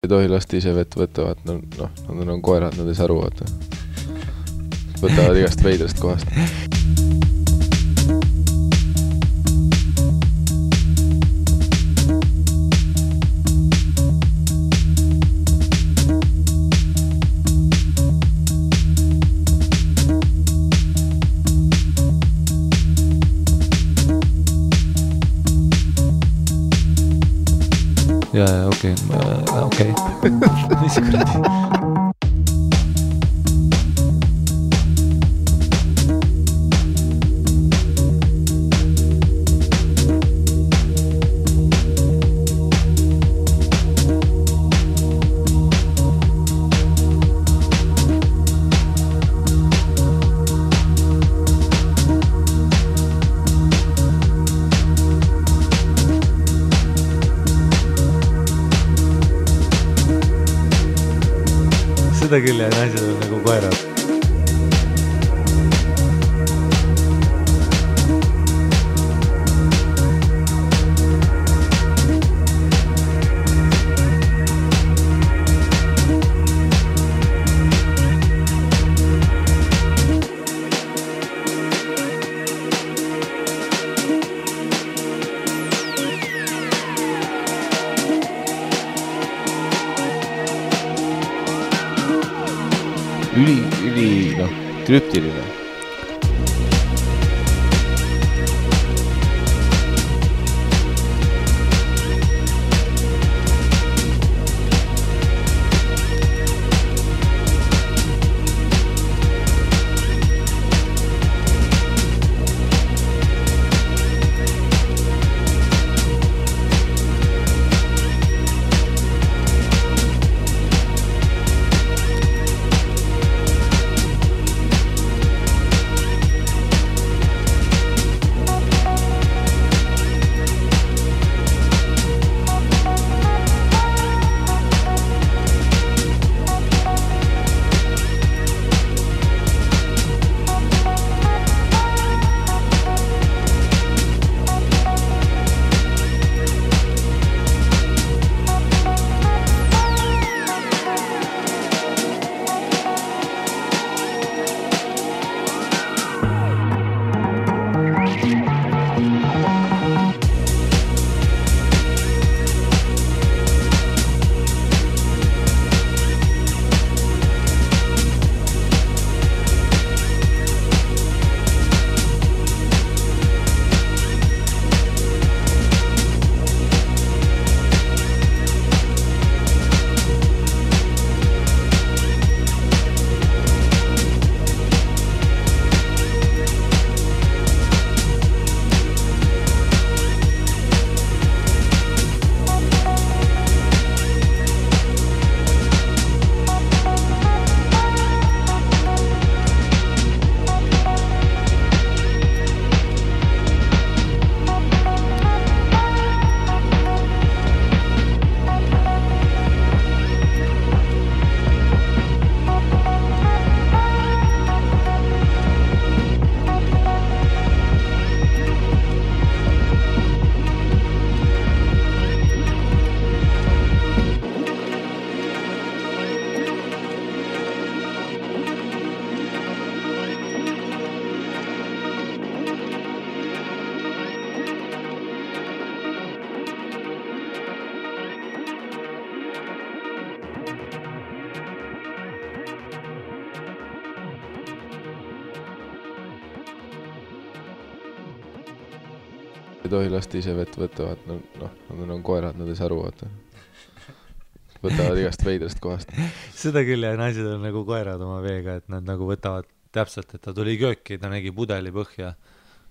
Ei tohi lasta ise vett võtavad, nad on koerad, nad ei saa aru, vaata. Võtavad igast veidrast kohast. Ja, okei. Mis kuradi? Seda küll ja naised on nagu koerad. Üli, krüptiline. Ei tohi lasta ise vett võtavad, nad on koerad, nad ei saa aru, vaata. Võtavad igast veidrast kohast. Seda küll ja naised on nagu koerad oma veega, et nad nagu võtavad täpselt, et ta tuli kööki, ta nägi pudeli põhja.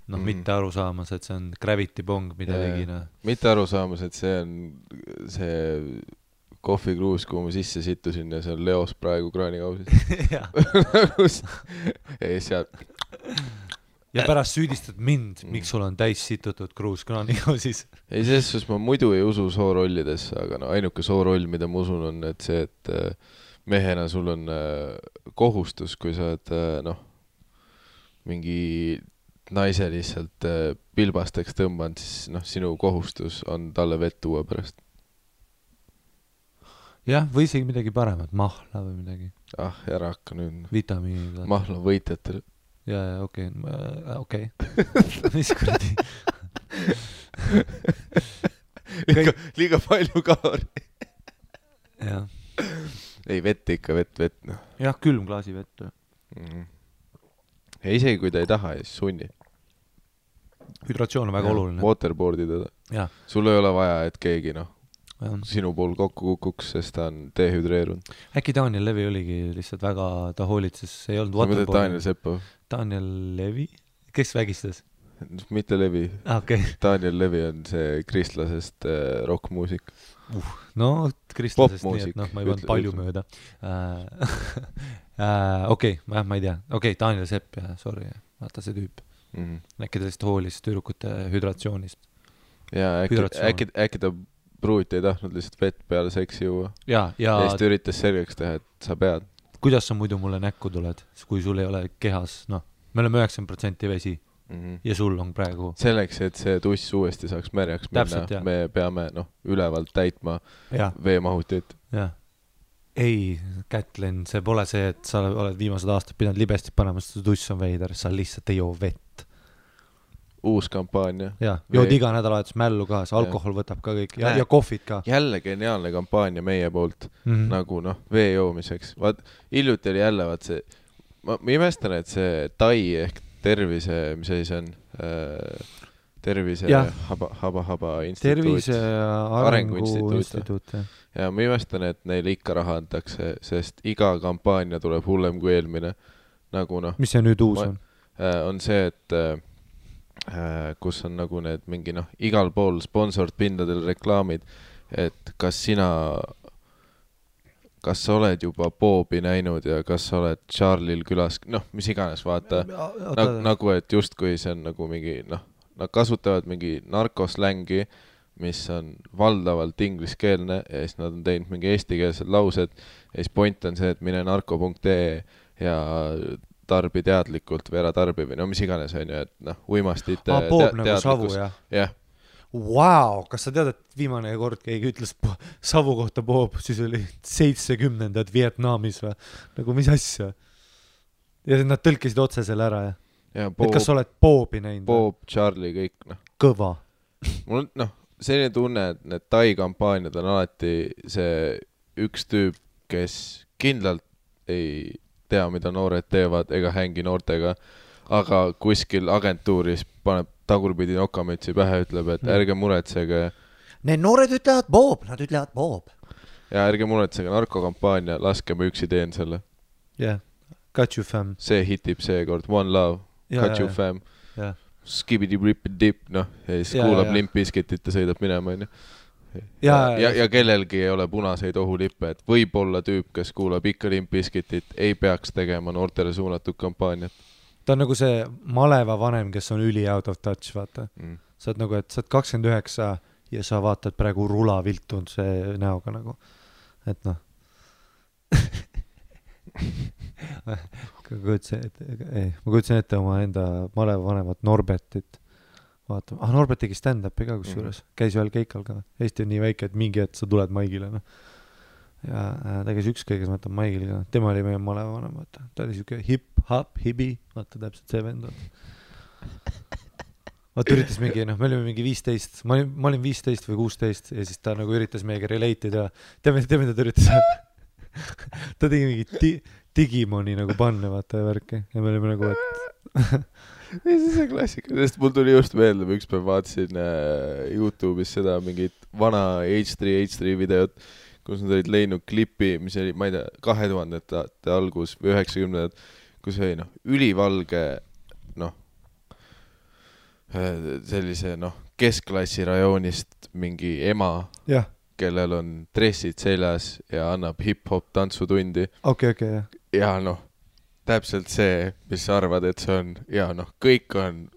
Mitte aru saamas, et see on gravity bong, mida tegina. Mitte aru saamas, et see on see kohvikruus, kuhu ma sisse sittusin ja see on Leos praegu kraanikausis. Ei, seal... Ja pärast süüdistad mind, miks sul on täis situtud kruus kraanikausis. Ei, selles ma muidu ei usu soorollidesse, aga ainuke sooroll, mida ma usun, on et see, et mehena sul on kohustus, kui sa oled mingi naise lihtsalt pilbasteks tõmbanud, siis sinu kohustus on talle vett tuua pärast. jah, või isegi midagi paremat, mahla või midagi. Ära hakka nüüd. Vitamiinid. Mahla võitjatel. Ja, okei. Mis kuradi? liiga palju kalori. Jah. Ei, vett ikka, vett. No. Jah, külm klaasi vett. Ja isegi kui ta ei taha, siis sunni. Hüdratsioon on väga oluline. Waterboardi teda. Ja. Sul ei ole vaja, et keegi sinu pool kokku kukuks, sest ta on dehüdreerunud. Äkki Daniel Levi oligi lihtsalt väga, ta hoolitses, ei olnud waterboardi. Sa mõtled Daniel Seppo? Daniel Levi? Kes vägistas? Mitte Levi. Okay. Daniel Levi on see kristlasest rockmuusik. No, kristlasest nii, et ma ei pannud palju ütle. mööda. Okei, ma ei tea. Okei, Daniel Sepp, sorry. Vaata see tüüp. Äkki ta lihtsalt hoolis tüdrukute hüdratsioonist. Ja äkki ta pruuti ei tahtnud lihtsalt vett peale seksi juua. Ja siis ta üritas selgeks teha, et sa pead. Kuidas sa muidu mulle näkku tuled, kui sul ei ole kehas, me oleme 90% vesi ja sul on praegu. Selleks, et see tuss uuesti saaks märjaks minna, me peame ülevalt täitma veemahutit. Ja. Ei, Kätlin, see pole see, et sa oled viimased aastad pidanud libestit panema, sest tuss on veider, sa lihtsalt ei joo vett. Uus kampaania. Ja, jood iga nädalavahetus mällu ka, see alkohol võtab ka kõik ja kohvid ka. Jälle geniaalne kampaania meie poolt, nagu vee joomiseks. Vaat, hiljuti oli jälle, see, ma imestan, et see TAI ehk tervise, mis asi see on? Tervise haba instituut. Tervise arengu instituut. Ja ma imestan, et neile ikka raha antakse, sest iga kampaania tuleb hullem kui eelmine. Nagu mis see nüüd uus on? On see, et kus on nagu need mingi igal pool sponsort pindadel reklaamid, et kas sa oled juba Boobi näinud ja kas sa oled Charlie'l külas, mis iganes, vaata, nagu et justkui see on nagu mingi, nad kasutavad mingi narkoslängi, mis on valdavalt ingliskeelne ja siis nad on teinud mingi eestikeelsed laused ja siis point on see, et mine narko.ee ja tarbi teadlikult või ära tarbi või mis iganes on ju, et uimastite Boob nagu savu, jah? Jah. Wow, kas sa tead, et viimane kord keegi ütles savu kohta Boob, siis oli 70ndad Vietnamis või? Nagu mis asja? Ja nad tõlkisid otse selle ära, jah? Et kas sa oled Boobi näinud? Boob, Charlie, kõik, Kõva. Mul selline tunne, et need TAI kampaaniad on alati see üks tüüp, kes kindlalt ei tea, mida noored teevad ega hängi noortega, aga kuskil agentuuris paneb tagurpidi nokamütsi pähe, ütleb, et ärge muretsege. Need noored ütlevad Boob, nad ütlevad Boob. Ja ärge muretsege narkokampaania, laske ma üksi teen selle. Yeah, got you fam. See hitib seekord, One Love, got you fam. Skibidi-ripid-dip, ja siis kuulab Limp Bizkitit ja sõidab minema, on ju. Ja kellelgi ei ole punaseid ohulippe, et võib-olla tüüp, kes kuulab ikka Limp Bizkitit, ei peaks tegema noortele suunatud kampaaniat. Ta on nagu see maleva vanem, kes on üli out of touch, vaata. Sa oled nagu, et sa oled 29 ja sa vaatad praegu rula viltunud see näoga nagu. Et ma kujutsen ette oma enda maleva vanemat Norbertit. Vaata, Norbert tegi stand-upi ka kusjuures, käis ühel keikal ka. Eesti on nii väike, et mingi hetk sa tuled Maigile. Ja ta käis ükskõige, kes ma võtan Maigile ka. Tema oli meie maleva vanem, vaata. Ta oli siuke hip-hop, hibi, vaata täpselt see vend. Vaata üritas mingi, me olime mingi 15, ma olin 15 või 16 ja siis ta nagu üritas meiega relatida. Teame, ta üritas. Ta tegi mingi Digimoni nagu panne, vaata ja värki. Ja me olime nagu, et... Ja see on klassika, sest mul tuli just meelde, ma ükspäev vaatasin YouTube'is seda mingit vana H3 videot, kus nad olid leidnud klipi, mis oli, ma ei tea, 2000-ndate algus või 90-ndad, kus oli ülivalge sellise keskklassi rajoonist mingi ema, kellel on dressid seljas ja annab hip-hop tantsutundi. Okay, ja täpselt see, mis sa arvad, et see on, ja kõik on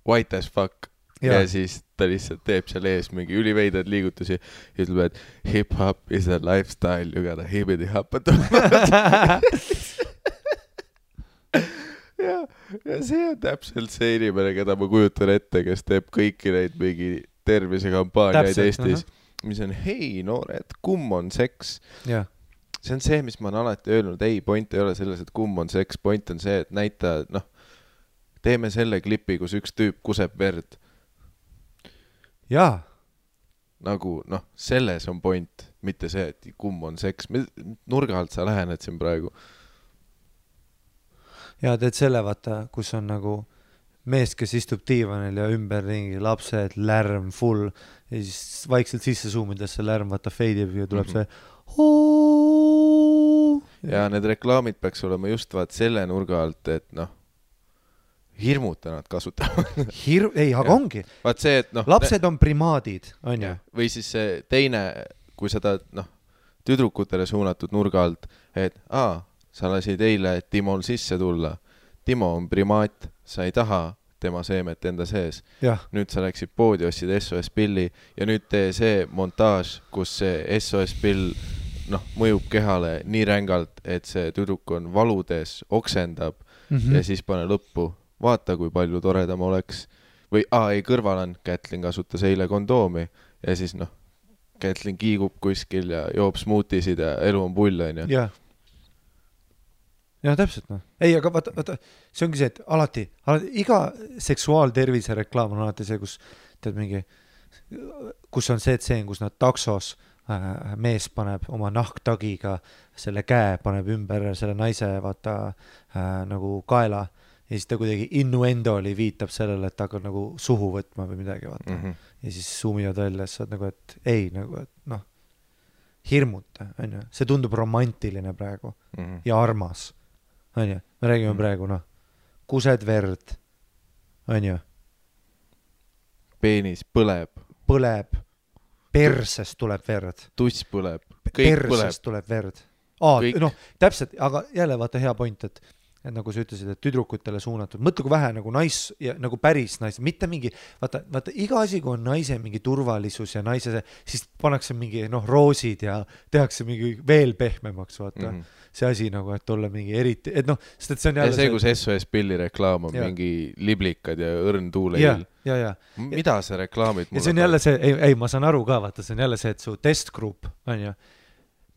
white as fuck ja siis ta lihtsalt teeb seal ees mingi üliveidad liigutusi ja ütleb, et hip-hop is a lifestyle, you gotta hibbidi-hoppa ja see on täpselt see inimene, keda ma kujutan ette, kes teeb kõiki neid mingi tervisekampaaniaid Eestis mis on hei noored, kumm on seks. jah, see on see, mis ma olen alati öelnud, ei, point ei ole selles, et kumm on seks, point on see, et näita, noh, teeme selle klipi, kus üks tüüp kuseb verd. jaa, Nagu, noh, selles on point, mitte see, et kumm on seks. Nurga alt sa lähened siin praegu. ja teed selle, vaata, kus on nagu mees, kes istub diivanil ja ümberringi lapsed, lärm full ja siis vaikselt sisse suumides see lärm, vaata, feidib ja tuleb see ja need reklaamid peaks olema just vaat selle nurga alt, et noh, hirmuta nad kasutavad. ei, aga ongi. Vaat see, et noh, lapsed on primaadid, on ju? või siis see teine, kui sa tahad, noh, tüdrukutele suunatud nurga alt, et sa lasid eile Timol sisse tulla. Timo on primaat, sa ei taha tema seemet enda sees. Nüüd sa läksid poodi, ostsid SOS pilli ja nüüd tee see montaaž, kus see SOS pill noh, mõjub kehale nii rängalt, et see tüdruk on valudes, oksendab ja siis pane lõppu. Vaata, kui palju toredam oleks. Või ei, kõrval on, Kätlin kasutas eile kondoomi ja siis noh, Kätlin kiigub kuskil ja joob smuutisid ja elu on pull, on ju. Ja täpselt, noh. Ei, aga vaata, see ongi see, et alati iga seksuaaltervise reklaam on alati see, kus tead mingi, kus on see tseen, kus nad taksos mees paneb oma nahktagiga selle käe, paneb ümber selle naise vaata nagu kaela ja siis ta kuidagi innuendoli viitab sellele, et ta hakkab nagu suhu võtma või midagi, vaata. Ja siis suumivad välja, sa oled nagu, et ei, nagu, et noh, hirmuta, on ju. See tundub romantiline praegu ja armas. On ju? Me räägime praegu, noh, kused verd, on ju? Peenis põleb. Põleb. Persest tuleb verd. Tuss põleb. Persest tuleb verd. Noh, täpselt, aga jälle vaata hea point, et nagu sa ütlesid, et tüdrukutele suunatud. Mõtle, kui vähe nagu ja nagu päris nais, mitte mingi, vaata, iga asi, kui on naise mingi turvalisus ja naise, siis pannakse mingi, noh, roosid ja tehakse mingi veel pehmemaks, vaata. See asi nagu, et olla mingi eriti, et noh, sest et see on jälle... Ja see, kus SOS pilli reklaam on mingi liblikad ja õrn tuuleil. Ja. Mida see reklaamid mulle... Ja see on jälle see, ei, ma saan aru ka, vaata, see on jälle see, et su testgrupp, on ju,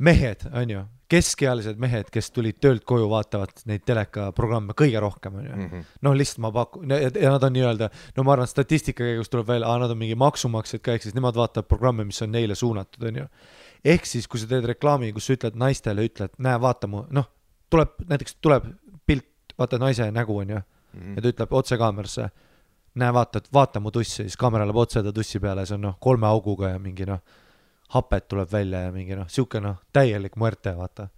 mehed, on ju, keskealised mehed, kes tulid töölt koju, vaatavad neid telekaprogramme kõige rohkem, on ju. Noh, lihtsalt ma pakun, ja nad on nii-öelda, no ma arvan, statistika käigus tuleb välja, nad on mingi maksumaksjad ka, ehk siis nemad vaatavad programme, mis on neile suunatud, on ju. Ehk siis, kui sa teed reklaami, kus sa ütled naistele, ütled, näe, vaata mu, noh, näiteks tuleb pilt, vaata naise nägu, on ju, ja ta ütleb otse kaamerasse, näe, vaata mu tussi, siis kaamera läheb otse ta tussi peale, see on noh, 3 auguga ja mingi noh, hapet tuleb välja ja mingi noh, siuke noh, täielik muerte, vaata.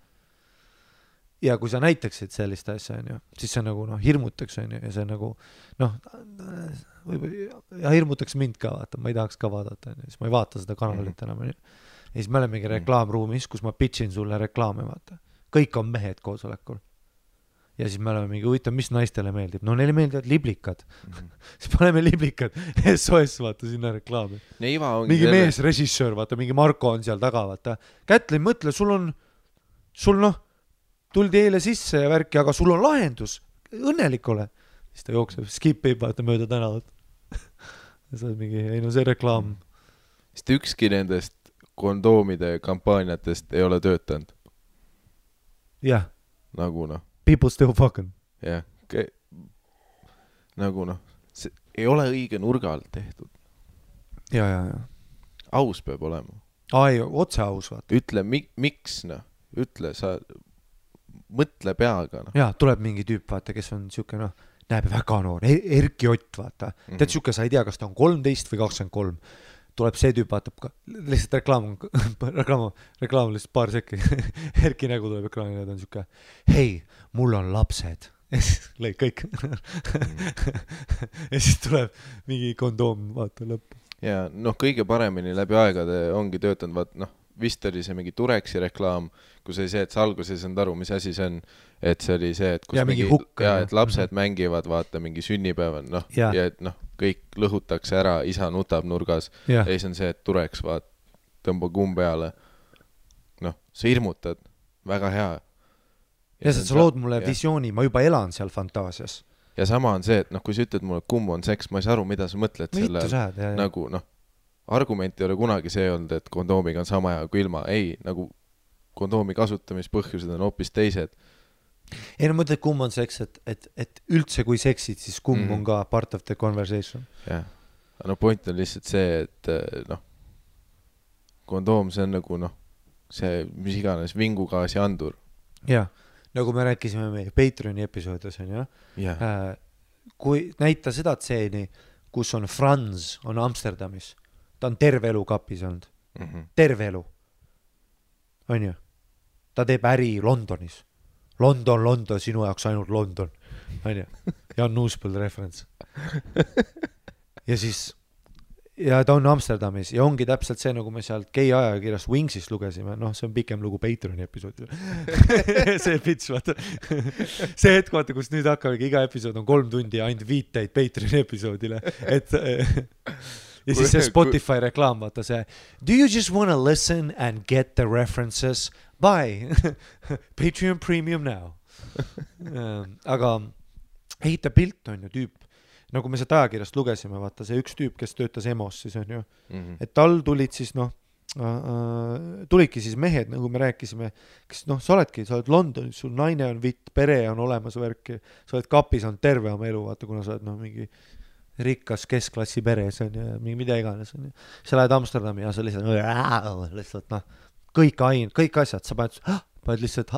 Ja kui sa näitaksid sellist asja, on ju, siis see nagu noh, hirmutaks, on ju, ja see nagu noh, ja hirmutaks mind ka, vaata, ma ei tahaks ka vaadata, on ju, siis ma ei vaata seda kanalit enam, on ju. Ja siis me oleme mingi reklaamruumis, kus ma pitchin sulle reklaame, vaata. Kõik on mehed koosolekul. Ja siis me oleme mingi huvitav, mis naistele meeldib. No neile meeldivad liblikad. Siis paneme liblikad. SOS, vaata, sinna reklaami. Mingi mees, režissöör, vaata, mingi Marko on seal taga, vaata. Kätlin, mõtle, sul noh, tuldi eile sisse ja värki, aga sul on lahendus. Õnnelik ole. Siis ta jookseb, skipib, vaata, mööda tänavat. Ja see on mingi, ei no see reklaam. Sest ükski nendest kondoomide kampaaniatest ei ole töötanud. Jah. Nagu noh. People still fucking. Jah. Nagu noh. See ei ole õige nurga alt tehtud. Ja. Aus peab olema. Ei, otse aus, vaata. Ütle, miks noh. Ütle, sa mõtle peaga noh. Ja, tuleb mingi tüüp, vaata, kes on siuke noh, näeb väga noor. Erki Ott, vaata. Tead siuke, sa ei tea, kas ta on 13 või 23. Tuleb see tüüp, vaatab ka, lihtsalt reklaam lihtsalt paar sekki. Erki nägu tuleb ekraanile ja ta on siuke, hei, mul on lapsed. Ja siis lõi kõik. Ja siis tuleb mingi kondoom, vaata lõppu. Ja noh, kõige paremini läbi aegade ongi töötanud, vaat noh, vist oli see mingi Tureksi reklaam, kus oli see, et sa alguses ei saanud aru, mis asi see on, et see oli see, et kus ja mingi hukk. Ja, et lapsed mängivad, vaata, mingi sünnipäeval, noh, ja et noh, kõik lõhutakse ära, isa nutab nurgas, ja siis on see, et Tureks, vaat, tõmba kumm peale. Noh, sa hirmutad, väga hea. Ja sa lood mulle visiooni, ma juba elan seal fantaasias. Ja sama on see, et noh, kui sa ütled mulle, kumm on seks, ma ei saa aru, mida sa mõtled selle, nagu noh, argument ei ole kunagi see olnud, et kondoomiga on sama hea kui ilma. Ei, nagu kondoomi kasutamispõhjused on hoopis teised. Ei, no mõtled, kumb on seks, et üldse kui seksid, siis kumb on ka part of the conversation. Jah. No point on lihtsalt see, et noh, kondoom, see on nagu noh, see mis iganes vingugaasi andur. Jah, nagu me rääkisime meie Patreoni episoodis, on ju. Kui näita seda tseeni, kus on Franz, on Amsterdamis. Ta on terve elu kapis olnud. Terve elu. On ju? Ta teeb äri Londonis. London, sinu jaoks ainult London. On ju? Jan Nuuspõld reference. Ja siis, ja ta on Amsterdamis ja ongi täpselt see, nagu me sealt gei ajakirjast Wingsist lugesime. Noh, see on pikem lugu Patreoni episoodil. See pitch, vaata. See hetk, vaata, kus nüüd hakkabki iga episood on 3 tundi ja ainult viiteid Patreoni episoodile. Ja siis see Spotify reklaam, vaata see do you just want to listen and get the references? Buy Patreon Premium now. Aga ehita pilt on ju tüüp, nagu me seda ajakirjast lugesime, vaata see üks tüüp, kes töötas EMOs siis on ju, et tal tulid siis noh, tulidki siis mehed, nagu me rääkisime, kes noh, sa oled Londonis, sul naine on vitt, pere on olemas värki, sa oled kapis, on terve oma elu, vaata, kuna sa oled noh, mingi rikkas keskklassi peres on ja mida iganes on ju. Sa lähed Amsterdami ja sa lihtsalt noh, kõik asjad, sa paned lihtsalt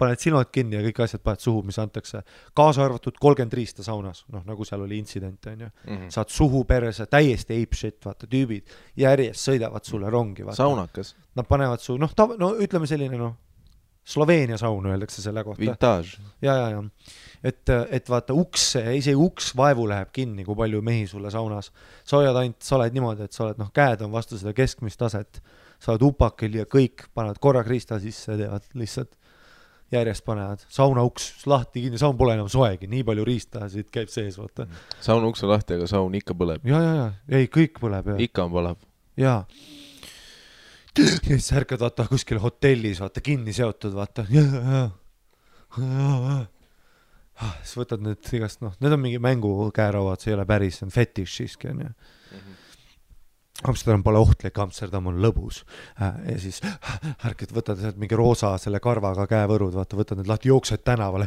paned silmad kinni ja kõik asjad paned suhu, mis antakse. Kaasa arvatud 30 riista saunas, noh nagu seal oli intsident on ju. Saad suhu perese, täiesti ape shit, vaata, tüübid järjest sõidavad sulle rongi. Vaata. Saunakas. Nad panevad su, noh, ütleme selline noh, Sloveenia saun öeldakse selle kohta. Vintage. Ja. Et vaata isegi uks vaevu läheb kinni, kui palju mehi sulle saunas. Sa oled niimoodi, et sa oled, noh, käed on vastu seda keskmist taset, sa oled upakil ja kõik panevad korra kriista sisse, teevad lihtsalt järjest panevad. Sauna uks lahti kinni, saun pole enam soegi, nii palju riista siit käib sees, vaata. Saun uks on lahti, aga saun ikka põleb. Ja, ei, kõik põleb. Ikka on põleb. Ja siis ärkad, vaata, kuskil hotellis, vaata, kinni seotud, vaata. Siis võtad need igast, noh, need on mingi mängukäärauad, see ei ole päris, see on fetish siiski, on ju. Amsterdam pole ohtlik, Amsterdam on lõbus. Ja siis ärkad, võtad mingi roosa selle karvaga käevõrud, vaata, võtad need lahti, jooksed tänavale,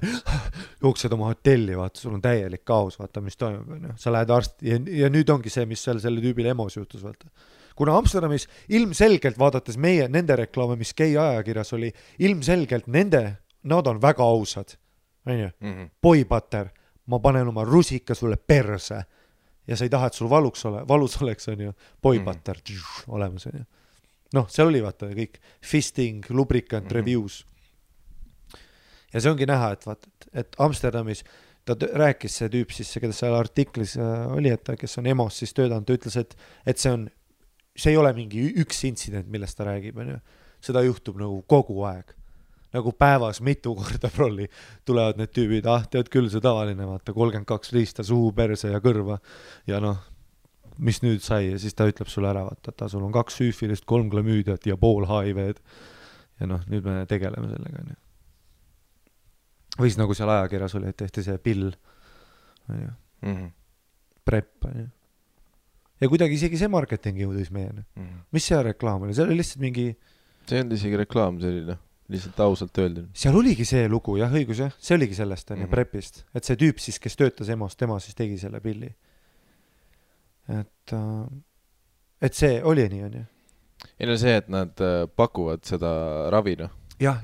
jooksed oma hotelli, vaata, sul on täielik kaos, vaata, mis toimub, on ju. Sa lähed arsti ja nüüd ongi see, mis selle tüübile EMOs juhtus, vaata. Kuna Amsterdamis ilmselgelt vaadates nende reklaame, mis gei ajakirjas oli, ilmselgelt nad on väga ausad. Boybutter, ma panen oma rusika sulle perse ja sa ei taha, et sul valus oleks, on ju, boybutter olemas, on ju. Noh, see oli vaata kõik fisting, lubricant, reviews. Ja see ongi näha, et Amsterdamis ta rääkis see tüüp siis, keda seal artiklis oli, et kes on EMOs siis töödanud, ta ütles, et see ei ole mingi üks intsident, millest ta räägib, on ju. Seda juhtub nagu kogu aeg. Nagu päevas mitu korda prolli tulevad need tüübid, tead küll see tavaline, vaata, 32 riista suhu, perse ja kõrva. Ja noh, mis nüüd sai, ja siis ta ütleb sulle ära, vaata, sul on 2 süüfilist, 3 klamüüdiat ja pool HIV-d. Ja noh, nüüd me tegeleme sellega, on ju. Või siis nagu seal ajakirjas oli, et tehti see pill, on ju. Prep, on ju. Ja kuidagi isegi see marketing jõudis meieni. Mis see reklaam oli? See oli lihtsalt mingi... See on isegi reklaam, see oli lihtsalt ausalt öeldud. Seal oligi see lugu, jah, õigus, jah. See oligi sellest, on ju, prepist. Et see tüüp siis, kes töötas EMOs, tema siis tegi selle pilli. Et see oli nii, on ju. Ei no see, et nad pakuvad seda ravi, noh. Jah.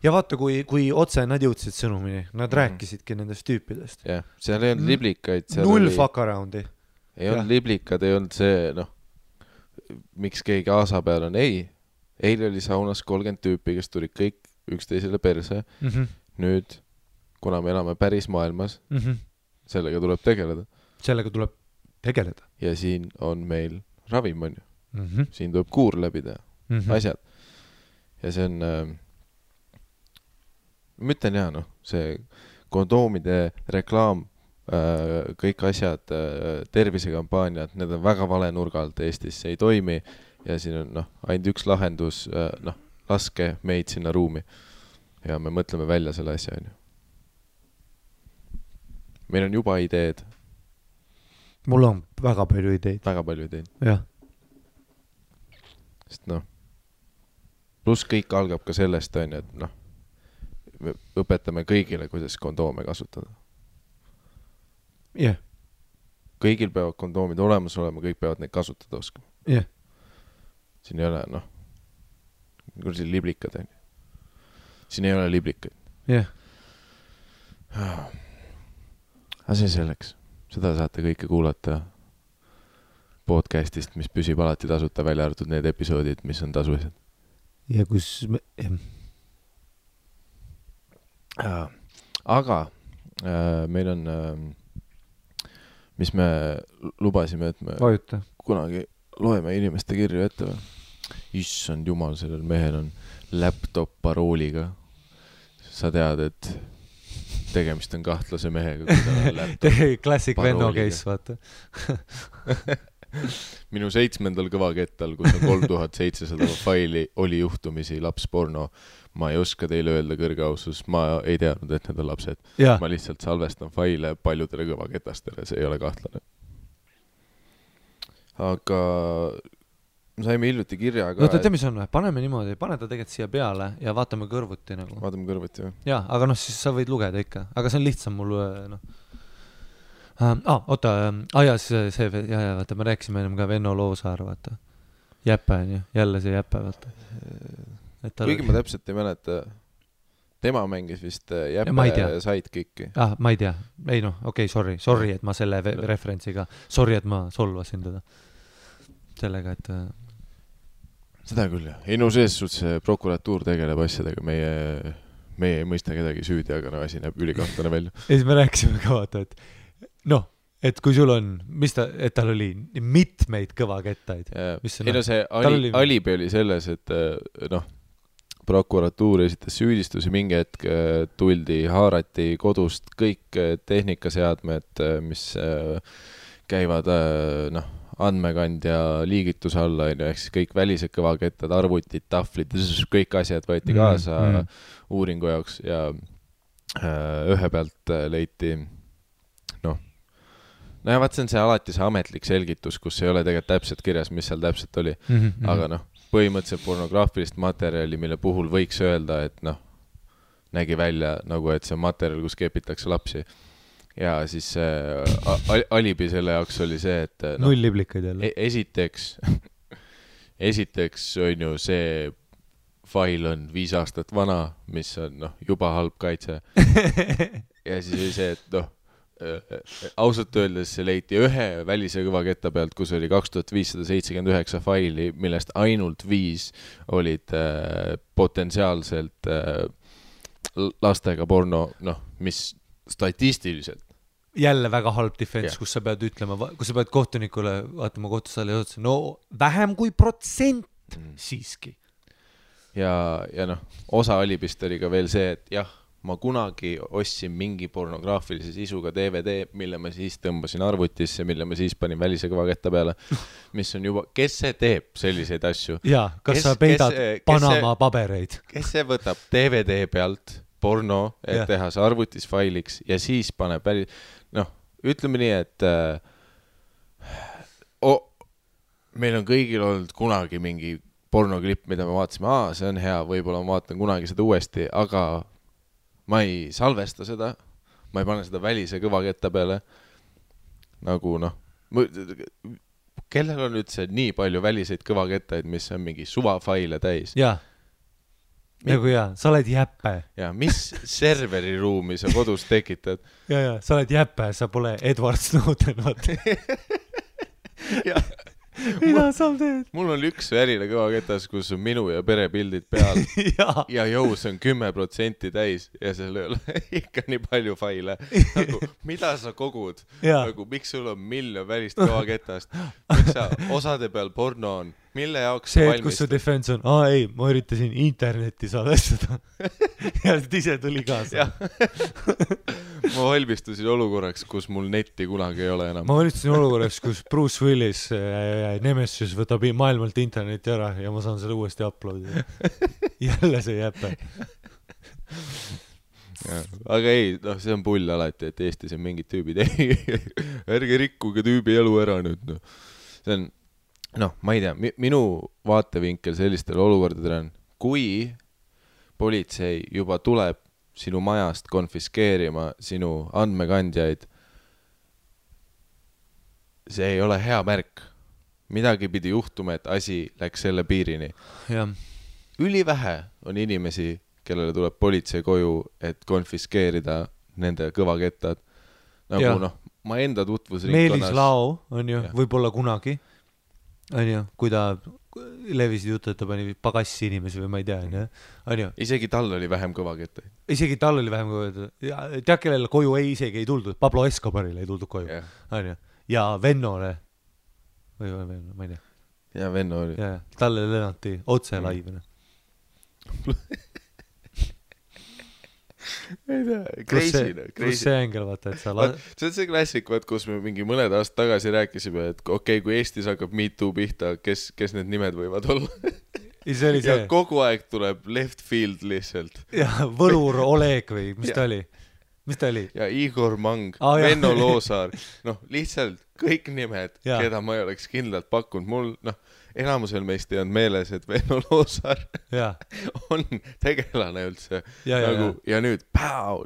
Ja vaata, kui otse nad jõudsid sõnumini, nad rääkisidki nendest tüüpidest. Jah, seal ei olnud liblikaid. Null fuck aroundi. Ei olnud liblikad, ei olnud see, noh, miks keegi aasa peal on. Ei, eile oli saunas 30 tüüpi, kes tulid kõik üksteisele perse. Nüüd, kuna me elame päris maailmas, sellega tuleb tegeleda. Ja siin on meil ravim, on ju. Siin tuleb kuur läbi teha. Asjad. Ja see on, ma ütlen jah, noh, see kondoomide reklaam, kõik asjad, tervisekampaaniad, need on väga vale nurga alt Eestis, see ei toimi ja siin on noh, ainult üks lahendus, noh, laske meid sinna ruumi ja me mõtleme välja selle asja, on ju. Meil on juba ideed. Mul on väga palju ideid. Väga palju ideid. Jah, sest noh, pluss kõik algab ka sellest, on ju, et noh, me õpetame kõigile, kuidas kondoome kasutada. Jah. Kõigil peavad kondoomid olemas olema, kõik peavad neid kasutada oskama. Jah. Siin ei ole, noh, kui siin liblikad, on ju. Siin ei ole liblikaid. Jah. Aga see selleks. Seda saate kõike kuulata podcastist, mis püsib alati tasuta, välja arvatud need episoodid, mis on tasulised. Ja kus me... Aga meil on, mis me lubasime, et me Vajuta. kunagi loeme inimeste kirju ette. Issand jumal, sellel mehel on laptop parooliga. Sa tead, et tegemist on kahtlase mehega. Classic Venno case, vaata. Minu 7. kõvakettal, kus on 3700 faili, oli juhtumisi lapsporno. Ma ei oska teile öelda kõrge ausus, ma ei teadnud, et need on lapsed. Ja. Ma lihtsalt salvestan faile paljudele kõvaketastele, see ei ole kahtlane. Aga saime hiljuti kirja ka... Oota, mis on? Paneme niimoodi, pane ta tegelikult siia peale ja vaatame kõrvuti nagu. Vaatame kõrvuti, või? Jaa, aga noh, siis sa võid lugeda ikka. Aga see on lihtsam mul, noh. Oota, vaata, me rääkisime ennem ka Venno Loosaar, vaata. Jäppe on ju, jälle see Jäppe, vaata. Kuigi ma täpselt ei mäleta, tema mängis vist Jäppe sidekicki. Ma ei tea. Ei noh, okei, sorry, et ma selle referentsiga, sorry, et ma solvasin teda. Sellega, et... Seda küll, jah. Ei no sees see prokuratuur tegeleb asjadega, meie ei mõista kedagi süüdi, aga no asi näeb ülikahtlane välja. Ja siis me rääkisime ka vaata, et noh, et kui sul on, et tal oli mitmeid kõvakettaid. Ei no see alibi oli selles, et noh, prokuratuur esitas süüdistusi, mingi hetk tuldi, haarati kodust kõik tehnikaseadmed, mis käivad noh, andmekandja liigituse alla, ehk siis kõik välised kõvakettad, arvutid, tahvlid, kõik asjad võeti kaasa uuringu jaoks ja ühe pealt leiti noh, ja vaat see on see alati see ametlik selgitus, kus ei ole tegelikult täpselt kirjas, mis seal täpselt oli, aga noh, põhimõtteliselt pornograafilist materjali, mille puhul võiks öelda, et noh, nägi välja nagu, et see materjal, kus kepitakse lapsi. Ja siis alibi selle jaoks oli see, et no, null liblikaid jälle. Esiteks on ju see fail on 5 aastat vana, mis on noh, juba halb kaitse. Ja siis oli see, et noh, ausalt öeldes see leiti ühe välise kõvaketta pealt, kus oli 2579 faili, millest ainult 5 olid potentsiaalselt lastega porno, noh, mis statistiliselt. Jälle väga halb defense, kus sa pead ütlema, kus sa pead kohtunikule vaatama kohtusaali ja otsa, no vähem kui % siiski. Ja noh, osa alibist oli ka veel see, et jah, ma kunagi ostsin mingi pornograafilise sisuga DVD, mille ma siis tõmbasin arvutisse, mille ma siis panin välise kõvaketta peale, mis on juba, kes see teeb selliseid asju? Jaa, kas sa peidad Panama pabereid? Kes see võtab DVD pealt porno, et teha see arvutis failiks ja siis paneb noh, ütleme nii, et meil on kõigil olnud kunagi mingi pornoklipp, mida me vaatasime, see on hea, võib-olla ma vaatan kunagi seda uuesti, aga ma ei salvesta seda, ma ei pane seda välise kõvaketta peale. Nagu noh, kellel on üldse nii palju väliseid kõvakettaid, mis on mingi suvafaile täis? Jaa, nagu jaa, sa oled Jäppe. Jaa, mis serveriruumi sa kodus tekitad? Jaa, sa oled Jäppe, sa pole Edward Snowden, vaata. Jaa. Mida sa teed? Mul on üks väline kõvaketas, kus on minu ja perepildid peal ja jõus on 10% täis ja seal ei ole ikka nii palju faile. Nagu, mida sa kogud? Nagu, miks sul on 1 miljon välist kõvaketast? Miks sa osade peal porno on? Mille jaoks see, et kus su defense on, ei, ma üritasin internetti salvestada. Ja ise tuli kaasa. Ma valmistusin olukorraks, kus mul netti kunagi ei ole enam. Ma valmistusin olukorraks, kus Bruce Willis Nemesis võtab maailmalt interneti ära ja ma saan selle uuesti uploadida. Jälle see Jäppe. Aga ei, noh, see on pull alati, et Eestis on mingid tüübid. Ärge rikkuge tüübi elu ära nüüd. No. See on noh, ma ei tea, minu vaatevinkel sellistel olukordadel on, kui politsei juba tuleb sinu majast konfiskeerima sinu andmekandjaid, see ei ole hea märk. Midagi pidi juhtuma, et asi läks selle piirini. Ja. Ülivähe on inimesi, kellele tuleb politsei koju, et konfiskeerida nende kõvakettad. Nagu ja. noh, ma enda tutvusringkonnas... Meelis Lao on ju, võib-olla kunagi, on ju, kui ta levisid jutu, et ta pani pagassi inimesi või ma ei tea, on ju. Isegi tal oli vähem kõvakettaid. Isegi tal oli vähem kõvakettaid. Tead, kellele koju isegi ei tuldud. Pablo Escobarile ei tuldud koju. On ju. Ja Vennole või ma ei tea. Ja Venno oli. Ja, talle lennati otse laivina. ei tea, crazy. Kus see ängel, vaata, et sa... See on see klassik, kus me mingi mõned aastad tagasi rääkisime, et okei, kui Eestis hakkab MeToo pihta, kes need nimed võivad olla? Ja kogu aeg tuleb left field lihtsalt. Ja Võlur Oleg või mis ta oli? Ja Igor Mang, Venno Loosaar, noh, lihtsalt kõik nimed, keda ma ei oleks kindlalt pakkunud. Mul, noh, enamusel meist ei olnud meeles, et Venno Loosaar on tegelane üldse. Ja nüüd,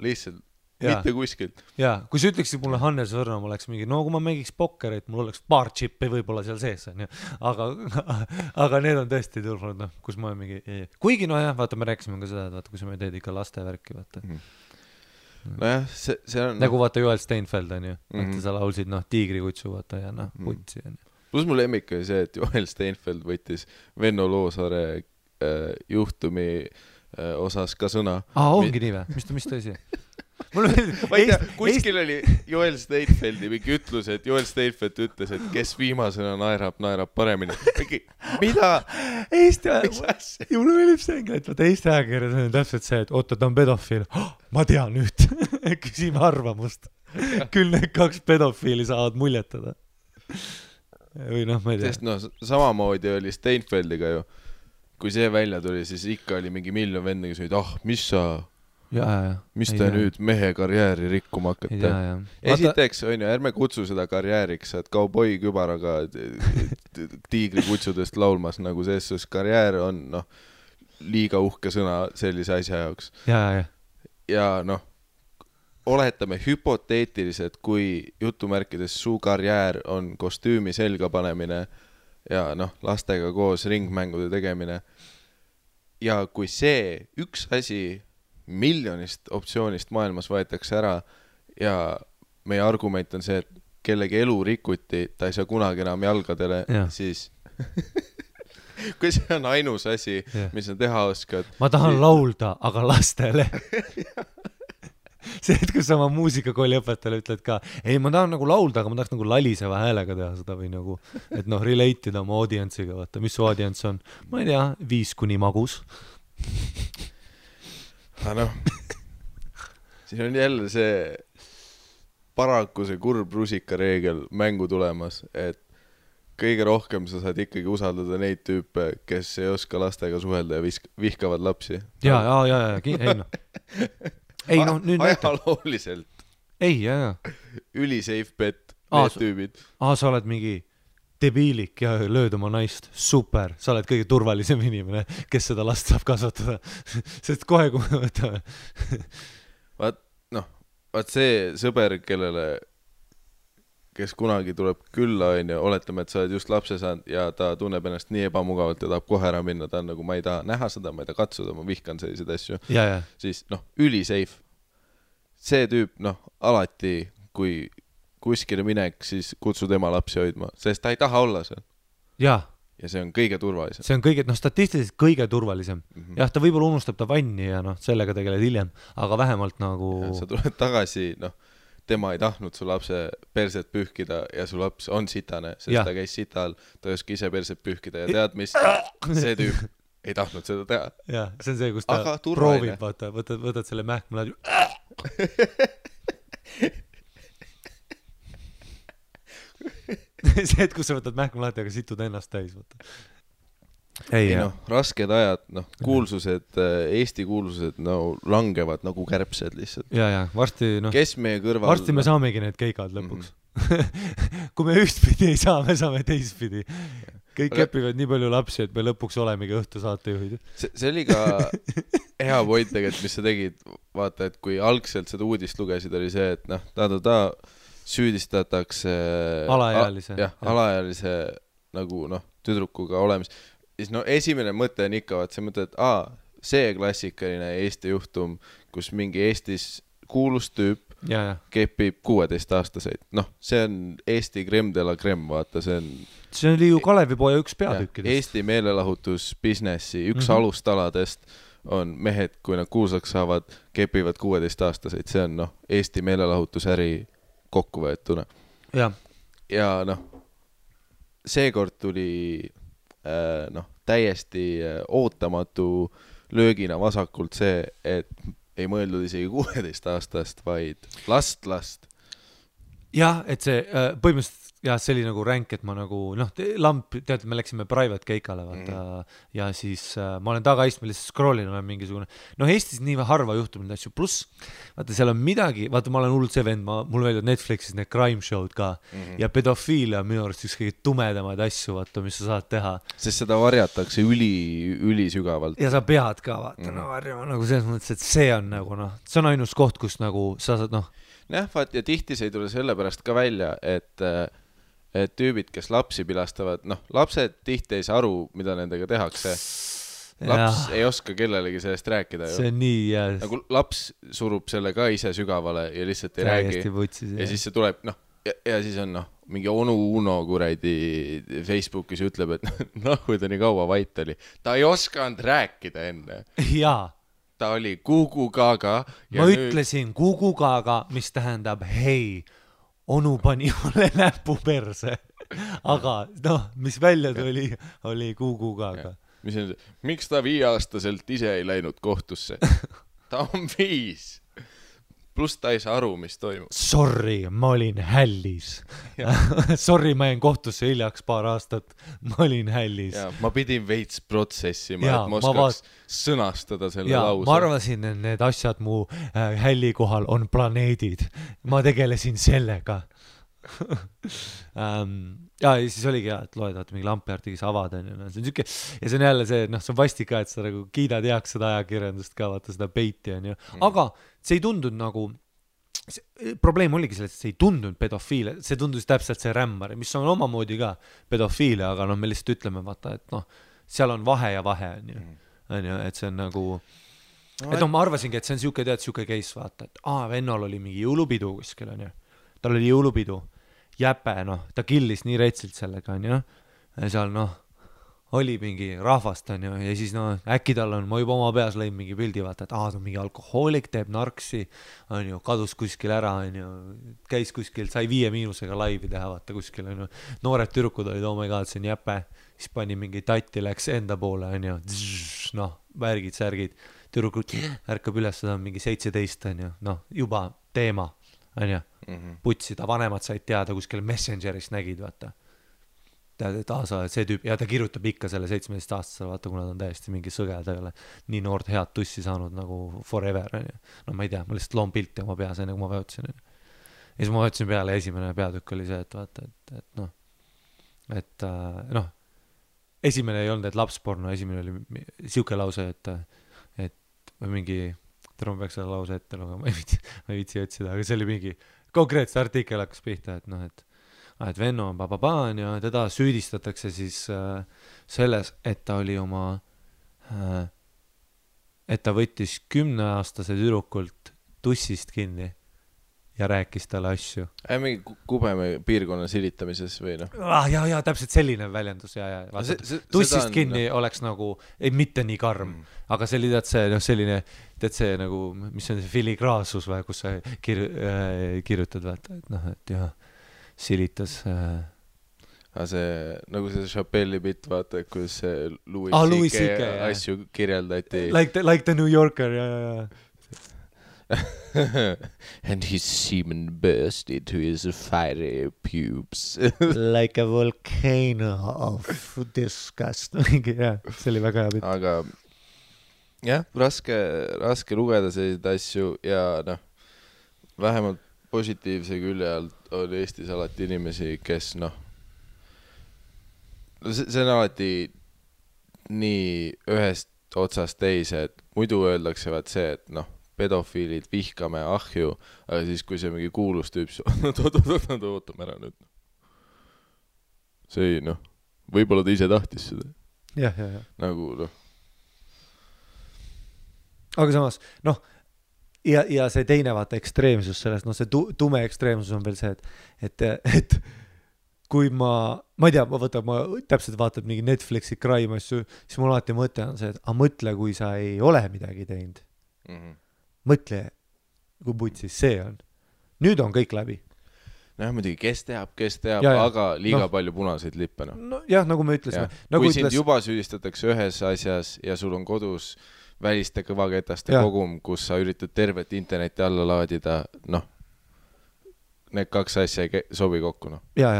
lihtsalt, mitte kuskilt. Ja, kui sa ütleksid mulle Hannes Võrnom oleks mingi, no kui ma mängiks pokkerit, mul oleks paar chippi võib-olla seal sees, aga need on tõesti tulnud, noh, kus ma mingi... Kuigi, no jah, vaata, me rääkisime ka seda, et vaata, kui sa me teed ikka lastevärki, vaata. Nojah, see on... Nagu vaata Joel Steinfeld on ju, vaata sa laulsid tiigrikutsu vaata ja putsi on ju. Plus mul lemmik oli see, et Joel Steinfeld võttis Venno Loosaare juhtumi osas ka sõna. Ongi nii või? Mis ta isi? Ma ei tea, kuskil oli Joel Steinfeldi mingi ütlus, et Joel Steinfeld ütles, et kes viimasena naerab paremini. Mida? Mulle meeldib see ängel, et vaata Eesti ajakirjas on täpselt see, et oota, ta on pedofiil. Ma tean nüüd. Küsime arvamust. Küll need 2 pedofiili saavad muljetada. Või noh, ma ei tea. Sest noh, samamoodi oli Steinfeldiga ju. Kui see välja tuli, siis ikka oli mingi miljon venda, kes olid, mis te nüüd mehe karjääri rikkuma hakkate. Esiteks, on ju, ärme kutsu seda karjääriks, et kauboi kübaraga tiigrikutsudest laulmas, nagu selles karjäär on, noh, liiga uhke sõna sellise asja jaoks. Ja noh, oletame hüpoteetiliselt, kui jutumärkides su karjäär on kostüümi selga panemine ja noh, lastega koos ringmängude tegemine. Ja kui see üks asi miljonist optsioonist maailmas võetakse ära ja meie argument on see, et kellegi elu rikuti, ta ei saa kunagi enam jalgadele, siis kui see on ainus asi, mis on teha oskad. Ma tahan laulda, aga lastele. See, et kus sama muusikakooli õpetajale ütled ka, ei, ma tahan nagu laulda, aga ma tahaks nagu laliseva häälega teha seda või nagu, et noh, relate'ida oma audientsiga, vaata, mis su audients on? Ma ei tea, 5 kuni magus. Noh, siin on jälle see paraku see kurb rusikareegel mängu tulemas, et kõige rohkem sa saad ikkagi usaldada neid tüüpe, kes ei oska lastega suhelda ja vihkavad lapsi. Ei noh. Ei noh, nüüd ajalooliselt. Ei, Üli safe bet, need tüübid. Sa oled mingi debiilik ja lööd oma naist. Super, sa oled kõige turvalisem inimene, kes seda last saab kasvatada. Sest kohe, kui me võtame. Vaat see sõber, kes kunagi tuleb külla, oletame, et sa oled just lapse saanud ja ta tunneb ennast nii ebamugavalt ja tahab kohe ära minna, ta on nagu, ma ei taha näha seda, ma ei taha katsuda, ma vihkan selliseid asju. Siis üli safe. See tüüp, alati, kui kuskile minek, siis kutsu tema lapsi hoidma, sest ta ei taha olla seal. Ja see on kõige turvalisem. See on statistiliselt kõige turvalisem. Jah, ta võib-olla unustab ta vanni ja sellega tegeled hiljem, aga vähemalt nagu... Ja sa tuled tagasi, tema ei tahtnud su lapse perset pühkida ja su laps on sitane, sest ta käis sital, ta ei oska ise perset pühkida ja tead, mis see tüüp ei tahtnud seda teha. Ja, see on see, kus ta proovib, vaata, võtad selle mähkma see, et kus sa võtad mähkma lahti, aga situd ennast täis, võtta. Rasked ajad, kuulsused, Eesti kuulsused langevad nagu kärbsed lihtsalt. Ja, varsti, kes meie kõrval... Varsti me saamegi need keikad lõpuks. Kui me ühtpidi ei saa, me saame teistpidi. kõik kepivad nii palju lapsi, et me lõpuks olemegi õhtusaatejuhid. See oli ka hea point tegelikult, mis sa tegid, vaata, et kui algselt seda uudist lugesid, oli see, et noh, süüdistatakse alaealise nagu noh, tüdrukuga olemis. Siis no esimene mõte on ikka, vaat see mõte, et see klassikaline Eesti juhtum, kus mingi Eestis kuulus tüüp kepib 16-aastaseid. Noh, see on Eesti crème de la crème, vaata, see oli ju Kalevipoja üks peatükkidest. Eesti meelelahutusbusinessi üks alustaladest on mehed, kui nad kuulsaks saavad, kepivad 16-aastaseid. See on noh, Eesti meelelahutusäri kokkuvõetuna. Ja noh, seekord tuli täiesti ootamatu löögina vasakult see, et ei mõeldud isegi 16-aastast, vaid last. Jah, et see põhimõtteliselt see oli nagu ränk, et ma nagu lamp, tead, me läksime private keikale vaata ja siis ma olen tagaistmel lihtsalt scrollin, olen mingisugune Eestis nii harva juhtub neid asju, pluss vaata seal on midagi, vaata ma olen hullult see vend, mul meeldivad Netflixis need crime show'd ka ja pedofiilia on minu arust üks kõige tumedamaid asju, vaata, mis sa saad teha. Sest seda varjatakse üli sügavalt. Ja sa pead ka vaata varjama nagu selles mõttes, et see on nagu see on ainus koht, kus nagu sa saad jah, vaat ja tihti see ei tule sellepärast ka välja, et tüübid, kes lapsi pilastavad, lapsed tihti ei saa aru, mida nendega tehakse. Laps ei oska kellelegi sellest rääkida ju. See on nii, nagu laps surub selle ka ise sügavale ja lihtsalt ei räägi. Ja siis see tuleb, ja siis on mingi onu Uno kuradi Facebookis ütleb, et kui ta nii kaua vait oli. Ta ei oskanud rääkida enne. Jaa. Ta oli Gugu Gaga. Ma ütlesin Gugu Gaga, mis tähendab hei, onu pani mulle näpu perse. Aga mis välja tuli, oli Gugu Gaga. Miks ta 5-aastaselt ise ei läinud kohtusse? Ta on 5. Pluss ta ei saa aru, mis toimub. Sorry, ma olin hällis. Sorry, ma jäin kohtusse hiljaks paar aastat. Ma olin hällis. Ma pidin veits protsessima, et ma oskaks sõnastada selle lause. Ma arvasin, et need asjad mu hälli kohal on planeedid. Ma tegelesin sellega. Ja siis oligi et loed mingi lampiartikis avad on ja see on siuke ja see on jälle see see on vastik ka et sa nagu kiidad heaks seda ajakirjandust ka vaata seda peiti on ju aga see ei tundunud nagu probleem oligi selles et see ei tundunud pedofiile see tundus täpselt see rämmar mis on omamoodi ka pedofiile aga me lihtsalt ütleme vaata et seal on vahe ja vahe on ju et see on nagu et ma arvasingi et see on siuke case vaata et vennal oli mingi jõulupidu kuskil on ju tal oli jõulupidu jäpe, ta killis nii retsilt sellega, on ju, ja seal, oli mingi rahvast, on ju, ja siis, äkki tal on, ma juba oma peas lõin mingi pildi, vaata, et ta on mingi alkohoolik, teeb narksi, on ju, kadus kuskil ära, on ju, käis kuskil, sai 5- laivi teha, vaata kuskil, on ju, noored tüdrukud olid, oh my god, see on jäpe, siis pani mingi tatti, läks enda poole, on ju, värgid, särgid, tüdrukud ärkab üles, seda on mingi 17, on ju, juba teema, on ju, putsi, ta vanemad said teada kuskil Messengeris nägid, vaata. Tead, et sa oled see tüüp, ja ta kirjutab ikka selle 17-aastasele, vaata, kuna ta on täiesti mingi sõge, ta ei ole nii noort head tussi saanud nagu forever, on ju. Ma ei tea, ma lihtsalt loon pilti oma peas, enne kui ma vajutasin. Ja siis ma vajutasin peale, esimene peatükk oli see, et vaata, et esimene ei olnud, et lapsporno, esimene oli siuke lause, et mingi ma peaks selle lause ette lugema, ma ei viitsi otsida, aga see oli mingi konkreetselt artikkel hakkas pihta, et venno on bababaan ja teda süüdistatakse siis selles, et ta oli et ta võttis 10-aastase tüdrukult tussist kinni ja rääkis talle asju. Mingi Kubeme piirkonna silitamises või Ja, täpselt selline väljendus. Tussist kinni oleks nagu, ei mitte nii karm, aga see oli selline, see nagu, mis on see filigraasus või, kus sa kirjutad, vaata, et jah, silitas. See, nagu see Chappelli bitt, vaata, kus Louis C.K. asju kirjeldati. Like the New Yorker, ja. And his semen burst into his fiery pubes. Like a volcano of disgust. Ja, see oli väga hea bitt. Aga jah, raske lugeda selliseid asju ja vähemalt positiivse külje alt oli Eestis alati inimesi, kes see on alati nii ühest otsast teise, et muidu öeldakse vaat see, et noh, pedofiilid vihkame ahju, aga siis kui see mingi kuulus tüüp, ootame ära nüüd. See ei, noh, võib-olla ta ise tahtis seda. Jah. Nagu, noh. Aga samas, noh, ja see teine vaata ekstreemsus sellest, noh, see tume ekstreemsus on veel see, et kui ma ei tea, ma täpselt vaatad mingi Netflixi crime asju, siis mul alati mõte on see, et mõtle, kui sa ei ole midagi teinud. Mõtle, kui putsis see on. Nüüd on kõik läbi. Noh, muidugi, kes teab, aga liiga palju punaseid lippe. No jah, nagu me ütlesime. Kui sind juba süüdistatakse ühes asjas ja sul on kodus väliste kõvaketaste kogum, kus sa üritad tervet interneti alla laadida, noh, need kaks asja ei sobi kokku, noh. Ja.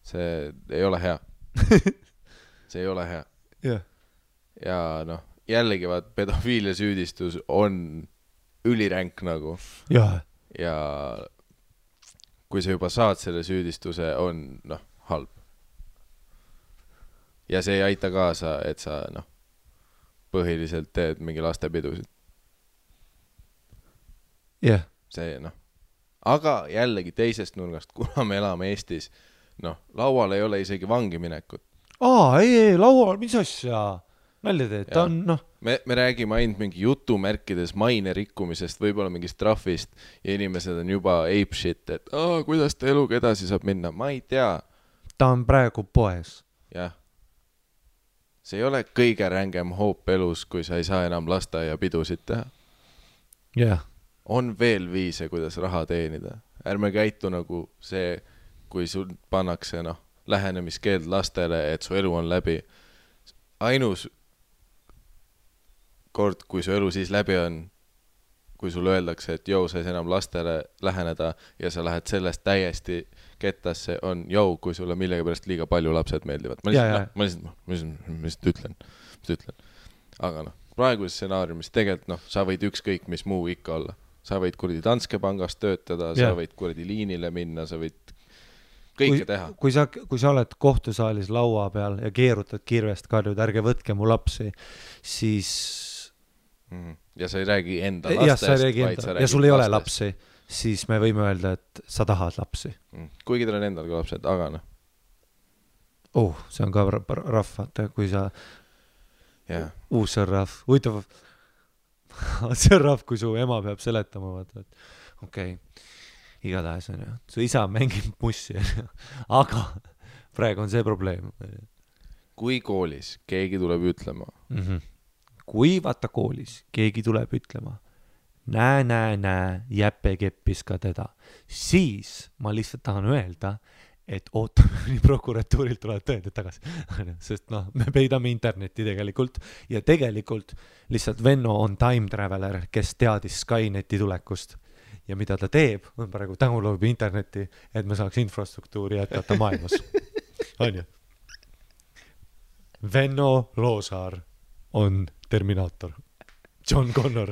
See ei ole hea. See ei ole hea. Ja noh, jällegi vaat pedofiilia süüdistus on üliränk nagu. Ja kui sa juba saad selle süüdistuse, on noh, halb. Ja see ei aita kaasa, et sa noh, põhiliselt teed mingi lastepidusid. See noh. Aga jällegi teisest nurgast, kuna me elame Eestis, noh, laual ei ole isegi vangi minekut. Ei, laual, mis asja? Nalja teed, ta on, noh. Me räägime ainult mingi jutumärkides maine rikkumisest, võib-olla mingist trahvist ja inimesed on juba ape shit, et kuidas ta eluga edasi saab minna, ma ei tea. Ta on praegu poes. Jah. See ei ole kõige rängem hoop elus, kui sa ei saa enam lasteaia pidusid teha. Jah. On veel viise, kuidas raha teenida. Ärme käitu nagu see, kui sul pannakse noh, lähenemiskeeld lastele, et su elu on läbi. Ainus kord, kui su elu siis läbi on, kui sul öeldakse, et sa ei enam lastele läheneda ja sa lähed sellest täiesti kettasse, on kui sulle millegipärast liiga palju lapsed meeldivad. Ma lihtsalt ütlen. Aga noh, praeguses stsenaariumis tegelikult noh, sa võid ükskõik mis muu ikka olla. Sa võid kuradi Danske pangast töötada, sa võid kuradi liinile minna, sa võid kõike teha. Kui sa oled kohtusaalis laua peal ja keerutad kirvest karjud, ärge võtke mu lapsi, siis... Ja sa ei räägi enda lastest, vaid sa räägi ja sul ei ole lapsi, siis me võime öelda, et sa tahad lapsi. Kuigi tal on endal ka lapsed, aga noh. See on ka rahv, vaata, kui sa... see on rahv. Huvitav, see on rahv, kui su ema peab seletama, vaata, et okei. Igatahes on ju, su isa mängib mussi, aga praegu on see probleem. Kui koolis keegi tuleb ütlema. Kui vaata koolis keegi tuleb ütlema, näe, jäppe keppis ka teda, siis ma lihtsalt tahan öelda, et ootame nii prokuratuurilt tulevad tõendid tagasi. Sest noh, me peidame internetti tegelikult ja tegelikult lihtsalt Venno on time traveler, kes teadis Skyneti tulekust. Ja mida ta teeb, on praegu download internetti, et me saaks infrastruktuuri jätkata maailmas. On ju? Venno Loosaar on Terminaator. John Connor.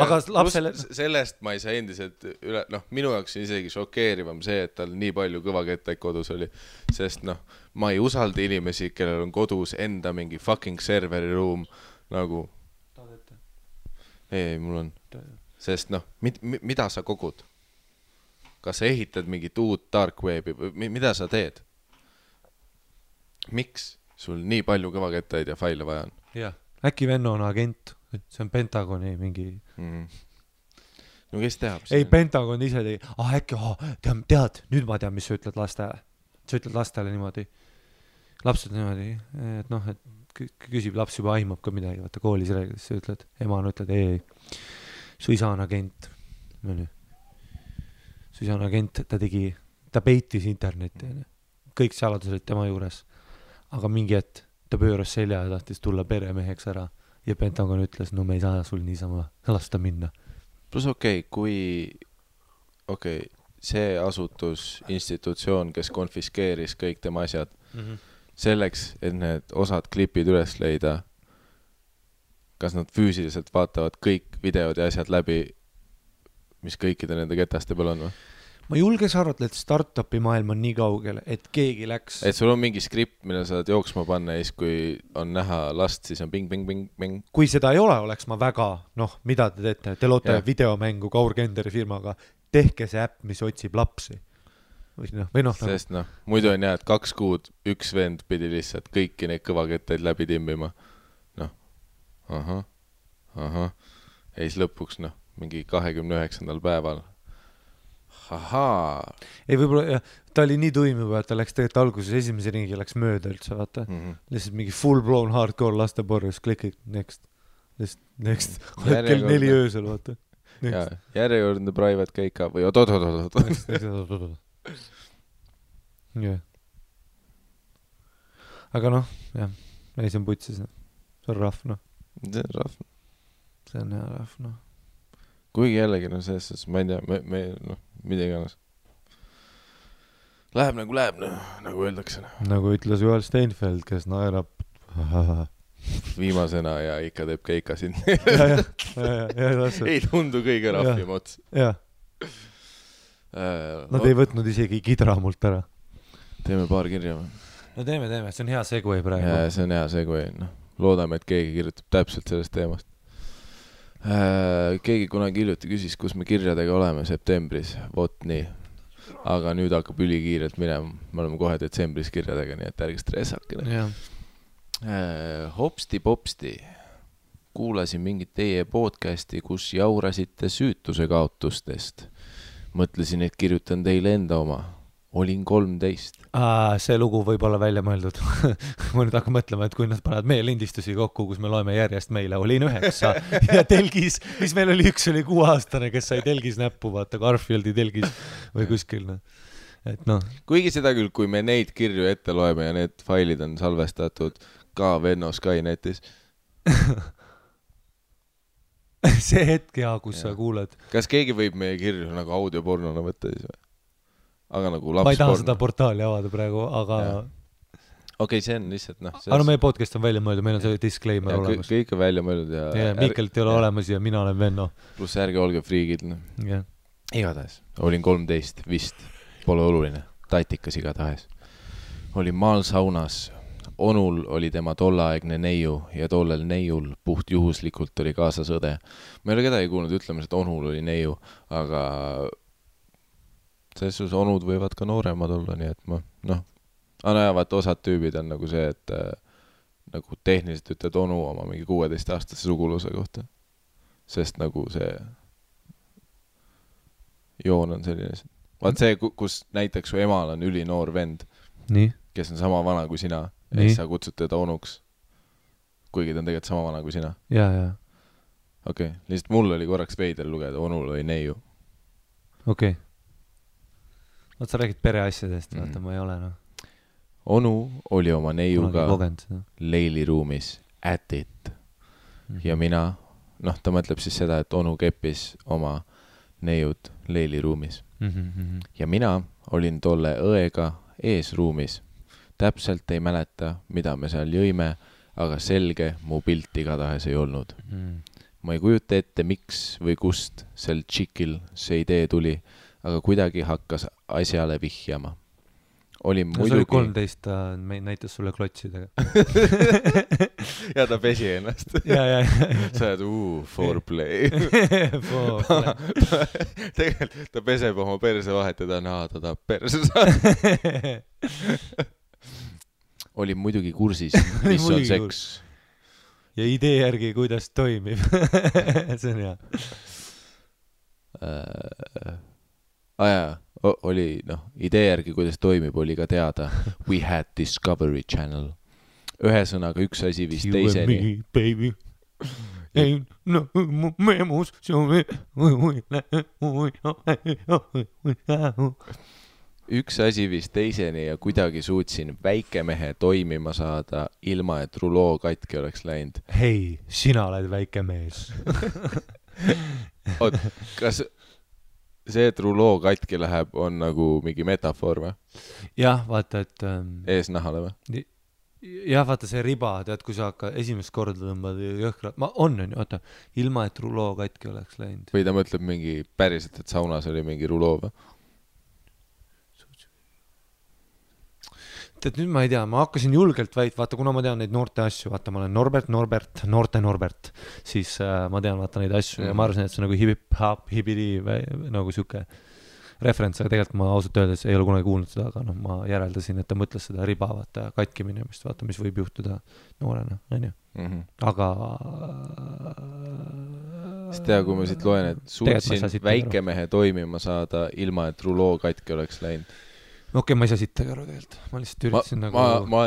Aga lapsele... Sellest ma ei saa endiselt üle... Noh, minu jaoks on isegi šokeerivam see, et tal nii palju kõvakettaid kodus oli. Sest noh, ma ei usalda inimesi, kellel on kodus enda mingi fucking serveri ruum nagu... Ei, mul on... Sest noh, mida sa kogud? Kas sa ehitad mingit uut dark webi või mida sa teed? Miks sul nii palju kõvakettaid ja faile vaja on? Jah, äkki Venno on agent, see on Pentagoni mingi... No kes teab? Ei, Pentagon ise tegi, äkki, tead, nüüd ma tean, mis sa ütled lastele. Sa ütled lastele niimoodi, lapsed niimoodi, et noh, et küsib, laps juba aimab ka midagi, vaata koolis räägides, sa ütled, emana ütled, ei, su isa on agent. Su isa on agent, ta peitis internetti. Kõik saladused tema juures. Aga mingi hetk ta pööras selja ja tahtis tulla peremeheks ära. Ja Pentagon ütles, no me ei saa sul niisama lasta minna. Plus kui see asutus, institutsioon, kes konfiskeeris kõik tema asjad, selleks, et need osad klipid üles leida, kas nad füüsiliselt vaatavad kõik videod ja asjad läbi, mis kõikide nende ketaste peal on või? ma julges arvata, et startupi maailm on nii kaugel, et keegi läks. Et sul on mingi skript, mille saad jooksma panna ja siis, kui on näha last, siis on bing. Kui seda ei ole, oleks ma väga, mida te teete? Te loote videomängu Kaur Kenderi firmaga, tehke see äpp, mis otsib lapsi. Sest muidu on et 2 kuud üks vend pidi lihtsalt kõiki neid kõvakettaid läbi timmima. Ahah. Ja siis lõpuks, mingi 29. päeval. Ahaa. Ei võib-olla, ta oli nii tuim juba, et ta läks tegelikult alguses esimese ringi läks mööda üldse, vaata. Lihtsalt mingi full blown hardcore lasteporjus, klikid, next. Kell 4 öösel, vaata. Järjekordne private keika või oot. Aga ei see on putsis, see on rahv, See on hea rahv, Kuigi jällegi, selles, ma ei tea, mida iganes. Läheb, nagu öeldakse. Nagu ütles Joel Steinfeld, kes naerab viimasena ja ikka teeb keika siin. Ei tundu kõige rahvim ots. Nad ei võtnud isegi kidra mult ära. Teeme paar kirja või? No teeme, see on hea segway praegu. Ja, see on hea segway. Loodame, et keegi kirjutab täpselt sellest teemast. Keegi kunagi hiljuti küsis, kus me kirjadega oleme septembris, vot nii. Aga nüüd hakkab ülikiirelt minema. Me oleme kohe detsembris kirjadega, nii et ärge stressakene. Hopsti-popsti. Kuulasin mingit teie podcasti, kus jaurasite süütuse kaotustest. Mõtlesin, et kirjutan teile enda oma. Olin 13. See lugu võib olla välja mõeldud. Ma nüüd hakkan mõtlema, et kui nad panevad meie lindistusi kokku, kus me loeme järjest meile, olin 9 ja telgis, mis meil oli, üks oli 6-aastane, kes sai telgis näppu, vaata Garfieldi telgis või kuskil. Et Kuigi seda küll, kui me neid kirju ette loeme ja need failid on salvestatud ka Venno Skynetis. See hetk, kus sa kuuled. Kas keegi võib meie kirju nagu audiopornona võtta siis või? Aga nagu lapsporn. Ma ei taha seda portaali avada praegu, aga... Okei, see on lihtsalt, Aga meie podcast on välja mõeldud, meil on see disclaimer olemas. Kõik on välja mõeldud ja... Miikelt ei ole olemas ja mina olen Venno. Plus ärge olge friigid. Igatahes. Olin 13, vist. Pole oluline. Tatikas igatahes. Olin maal saunas. Onul oli tema tollaaegne neiu ja tollel neiul puht juhuslikult oli kaasas õde. Ma ei ole kedagi kuulnud ütlemas, et Onul oli neiu, aga... Selles onud võivad ka nooremad olla, nii et vaata osad tüübid on nagu see, et nagu tehniliselt ütled onu oma mingi 16-aastase suguluse kohta. Sest nagu see joon on selline. Vaat see, kus näiteks su emal on ülinoor vend, kes on sama vana kui sina, ja siis sa kutsud teda onuks, kuigi ta on tegelikult sama vana kui sina. Okei, lihtsalt mul oli korraks veider lugeda, onul oli neiu. Okei. Sa räägid pereasjadest, vaata, ma ei ole, Onu oli oma neiuga leiliruumis at it. Ja mina, ta mõtleb siis seda, et onu keppis oma neiud leiliruumis. Ja mina olin tolle õega eesruumis. Täpselt ei mäleta, mida me seal jõime, aga selge mu pilt igatahes ei olnud. Ma ei kujuta ette, miks või kust sel tšikil see idee tuli, aga kuidagi hakkas asjale vihjama. Oli muidugi... See oli 13, ta näitas sulle klotsidega. Ja ta pesi ennast. Sa oled, foreplay. Tegelikult ta peseb oma perse vahet ja ta tahab perse saada. Oli muidugi kursis, mis on seks. Ja idee järgi, kuidas toimib. See on hea. Oli, idee järgi, kuidas toimib, oli ka teada. We had Discovery Channel. Ühesõnaga üks asi vist teiseni. You and me, baby. Ain't no memus. Üks asi vist teiseni ja kuidagi suutsin väikemehe toimima saada, ilma et ruloo katki oleks läinud. Hei, sina oled väike mees. Oot, kas... See, et ruloo katki läheb, on nagu mingi metafoor või? Jah, vaata, et... Eesnahale või? Jah, vaata see riba, tead, kui sa hakka esimest korda tõmbad jõhkra... vaata, ilma et ruloo katki oleks läinud. Või ta mõtleb mingi päriselt, et saunas oli mingi ruloo või? et nüüd ma ei tea, ma hakkasin julgelt vaata, kuna ma tean neid noorte asju, vaata, ma olen Norbert, siis ma tean vaata neid asju ja ma arvasin, et see on nagu hip-hop, hibidi nagu siuke referents, aga tegelikult ma ausalt öeldes ei ole kunagi kuulnud seda, aga noh, ma järeldasin, et ta mõtles seda riba, vaata, katki minemist, vaata, mis võib juhtuda noorena, on ju. Aga sest tea, kui ma siit loen, et suutsin väikemehe toimima saada ilma, et ruloo katki oleks läinud. Okei, ma ei saa sittagi aru tegelikult. Ma lihtsalt üritasin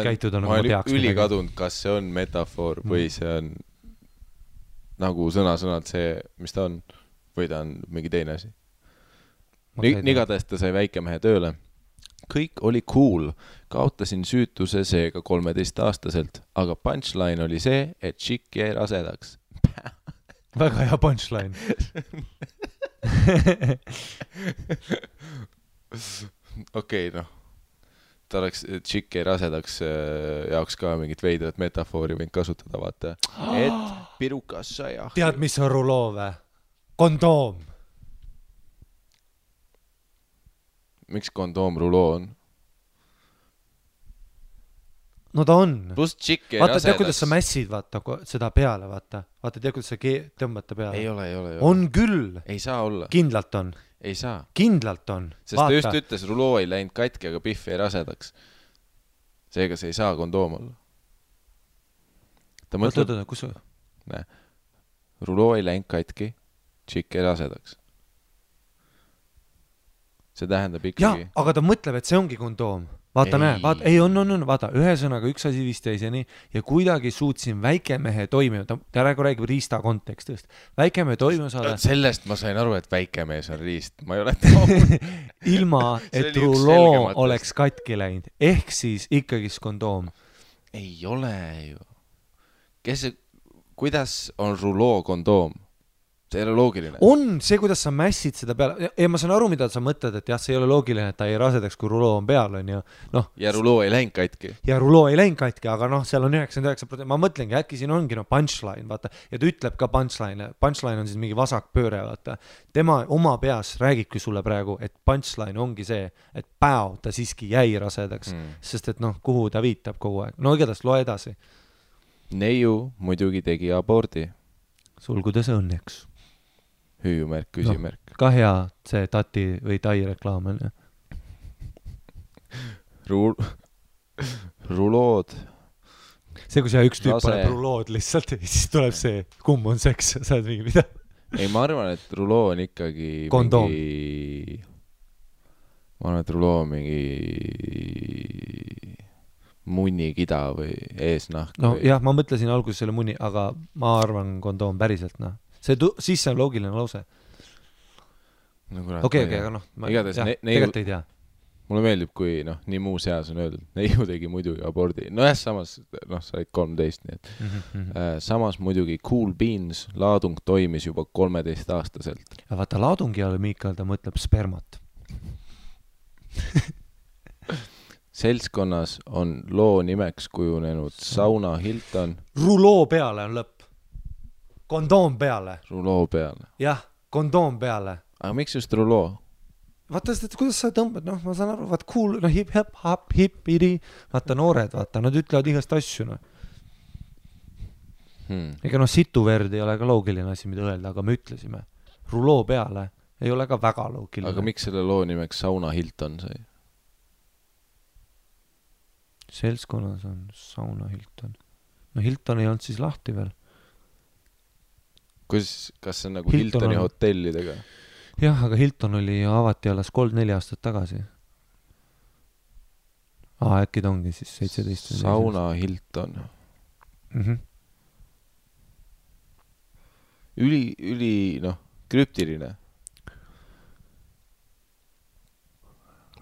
käituda nagu ma teaks. Ma olen ülikadunud, kas see on metafoor või see on nagu sõna-sõnalt see, mis ta on, või ta on mingi teine asi. Igatahes ta sai väikemehe tööle. Kõik oli cool. Kaotasin süütuse seega 13-aastaselt, aga punchline oli see, et chick jäi rasedaks. Väga hea punchline. Okei, noh. Ta oleks chick jäi rasedaks jaoks ka mingit veidrat metafoori võin kasutada, vaata. Et pirukas sai ahju. Tead, mis on ruloo või? Kondoom. Miks kondoom ruloo on? No ta on. Plus chick jäi vaata, rasedaks. Tead, kuidas sa mässid, vaata, seda peale, vaata. Vaata, tead, kuidas sa tõmbad ta peale. Ei ole. On küll. Ei saa olla. Kindlalt on. Ei saa. Kindlalt on. Sest vaata. Ta just ütles, ruloo ei läinud katki, aga pihv jäi rasedaks. Seega see ei saa kondoom olla. Ta mõtleb... kus sa? Ruloo ei läinud katki, chick jäi rasedaks. See tähendab ikkagi... Jah, aga ta mõtleb, et see ongi kondoom. Vaata, näe, vaata, ühesõnaga üks asi vist teiseni ja kuidagi suutsin väikemehe toimima, ta räägib riista kontekstist. Väikemehe toimima saada... Sellest ma sain aru, et väikemees on riist. Ma ei ole taud. Ilma, et ruloo oleks katki läinud. Ehk siis ikkagi kondoom. Ei ole ju. Kuidas on ruloo kondoom? See ei ole loogiline. On see, kuidas sa mässid seda peale. Ja ma saan aru, mida sa mõtled, et jah, see ei ole loogiline, et ta ei rasedaks, kui ruloo on peal, on ju. Ja ruloo ei läinud katki. Ja ruloo ei läinud katki, aga seal on 99%. Ma mõtlengi, äkki siin ongi punchline, vaata. Ja ta ütleb ka punchline. Punchline on siis mingi vasakpööre, vaata. Tema oma peas räägibki sulle praegu, et punchline ongi see, et päev ta siiski jäi rasedaks. Sest et kuhu ta viitab kogu aeg. No igatahes loe edasi. Neiu muidugi tegi abordi. Sulgudes õnneks. Hüüumärk, küsimärk. Ka hea see tati või tai reklaam on. Rulood. See, kui see üks tüüp paneb rulood lihtsalt, siis tuleb see, kumb on seks, sa oled mingi mida? Ei, ma arvan, et ruloo on ikkagi kondoom. Ma arvan, et ruloo on mingi munnikida või eesnahk. No jah, ma mõtlesin alguses selle munni, aga ma arvan kondoom päriselt, siis see on loogiline lause. Okei, aga tegelikult ei tea. Mulle meeldib, kui nii muu seas on öeldud. Neiu tegi muidugi abordi. No jah, samas, sa olid 13, nii et samas muidugi Cool Beans laadung toimis juba 13-aastaselt. Ja vaata, laadungi all Miikal ta mõtleb spermat. Seltskonnas on loo nimeks kujunenud Sauna Hilton. Ruloo peale on lõpp. Kondoom peale. Ruloo peale. Jah, kondoom peale. Aga miks just ruloo? Vaata, kuidas sa tõmbad, ma saan aru, vaata cool, hip-hip-hip-hip-hiri, vaata noored, vaata, nad ütlevad igast asju, Ega situverd ei ole ka loogiline asi, mida öelda, aga me ütlesime. Ruloo peale ei ole ka väga loogiline. Aga miks selle loo nimeks Sauna Hilton sai? Seltskonnas on Sauna Hilton. No Hilton ei olnud siis lahti veel. Kas see on nagu Hiltoni hotellidega? Jah, aga Hilton oli avati alles 3-4 aastat tagasi. Äkki ta ongi siis 17. Sauna Hilton. Üli, krüptiline.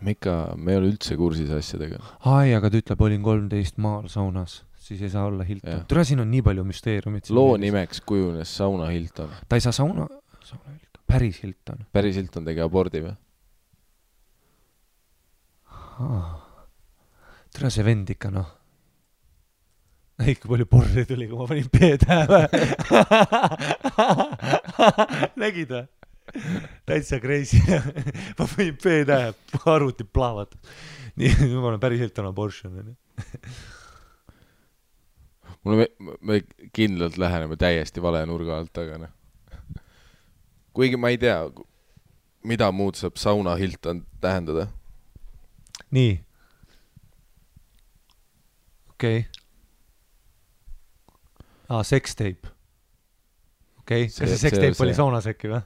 Me ei ole üldse kursis asjadega. Aga ta ütleb, olin 13 maal saunas. Siis ei saa olla Hilton. Tule, siin on nii palju müsteeriumid. Loo nimeks kujunes Sauna Hilton. Ta ei saa Sauna Hilton. Päris Hilton. Päris Hilton tegi abordi või? Tule see vend ikka, Ikka palju porri tuli, kui ma panin P-tähe. Nägid või? täitsa crazy. Ma võin P-tähe, arvuti plaavat. Nii, ma olen päris Hilton abortion. Me kindlalt läheneme täiesti vale nurga alt, aga noh. Kuigi ma ei tea, mida muud saab sauna Hilton tähendada. Nii. Okei. Sextape. Okei, kas see sextape oli saunas äkki või?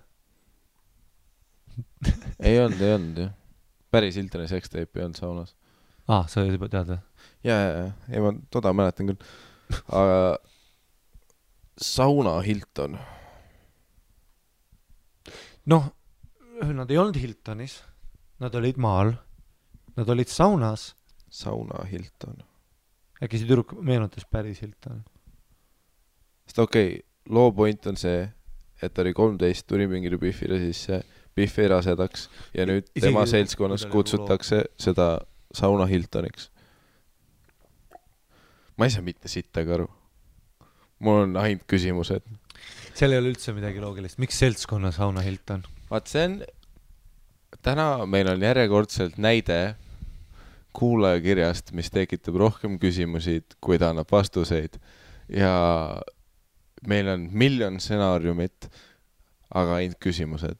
Ei olnud, jah. Päris Hiltoni sextape ei olnud saunas. Sa juba tead või? Ja, ma toda mäletan küll. Aga sauna Hilton. Noh, nad ei olnud Hiltonis. Nad olid maal. Nad olid saunas. Sauna Hilton. Äkki see tüdruk meenutas päris Hilton. Sest loo point on see, et ta oli 13, tuli mingile Biffile sisse, Biff ei rasedaks ja nüüd tema seltskonnas kutsutakse seda sauna Hiltoniks. Ma ei saa mitte sittagi aru. Mul on ainult küsimused. Seal ei ole üldse midagi loogilist. Miks seltskonna sauna Hilton? Vaat see on... Täna meil on järjekordselt näide kuulajakirjast, mis tekitab rohkem küsimusi, kui ta annab vastuseid. Ja meil on miljon stsenaariumit, aga ainult küsimused.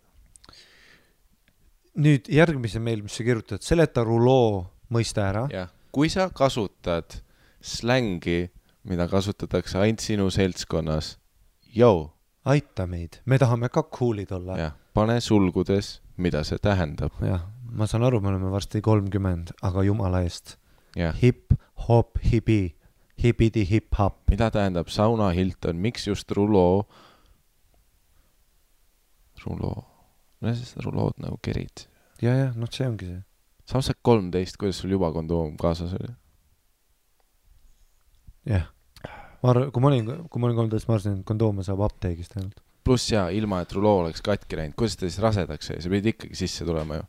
Nüüd järgmise meil, mis sa kirjutad, seleta ruloo mõiste ära. Ja. Kui sa kasutad slängi, mida kasutatakse ainult sinu seltskonnas, aita meid, me tahame ka coolid olla. Ja, pane sulgudes, mida see tähendab. Ja, ma saan aru, me oleme varsti 30, aga jumala eest. Ja. Hip, hop, hibi, hibidi, hip, hop. Mida tähendab sauna Hilton, miks just ruloo? No siis rulood nagu kerid. Ja, noh see ongi see. Samas 13, kuidas sul juba kondoom kaasas oli? Jah. Kui ma olin 13, ma arvasin, et kondoome saab apteegist ainult. Pluss ja ilma, et ruloo oleks katki läinud. Kuidas ta siis rasedaks jäi? See pidi ikkagi sisse tulema ju.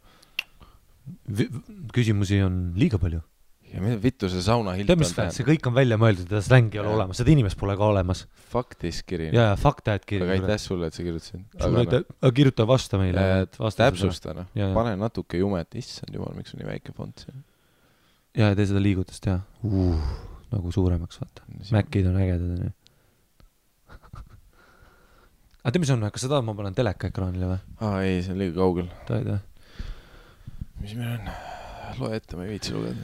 Küsimusi on liiga palju. Ja mida vittu see sauna Hilton tähendab? See kõik on välja mõeldud, et slängi ei ole olemas. Seda inimest pole ka olemas. Faktis kiri. Ja, faktajad kiri. Aga aitäh sulle, et sa kirjutasid. Aga kirjuta vasta meile. Täpsusta, noh. Pane natuke jumet. Issand jumal, miks on nii väike font siin? Ja, tee seda liigutust, jah. Nagu suuremaks, vaata. Mäkid on ägedad. Aga mis on, kas sa tahad, ma panen teleka ekraanile või? Ei, see on liiga kaugel. Taida. Mis meil on? Loe ette, ma ei viitsi lugeda.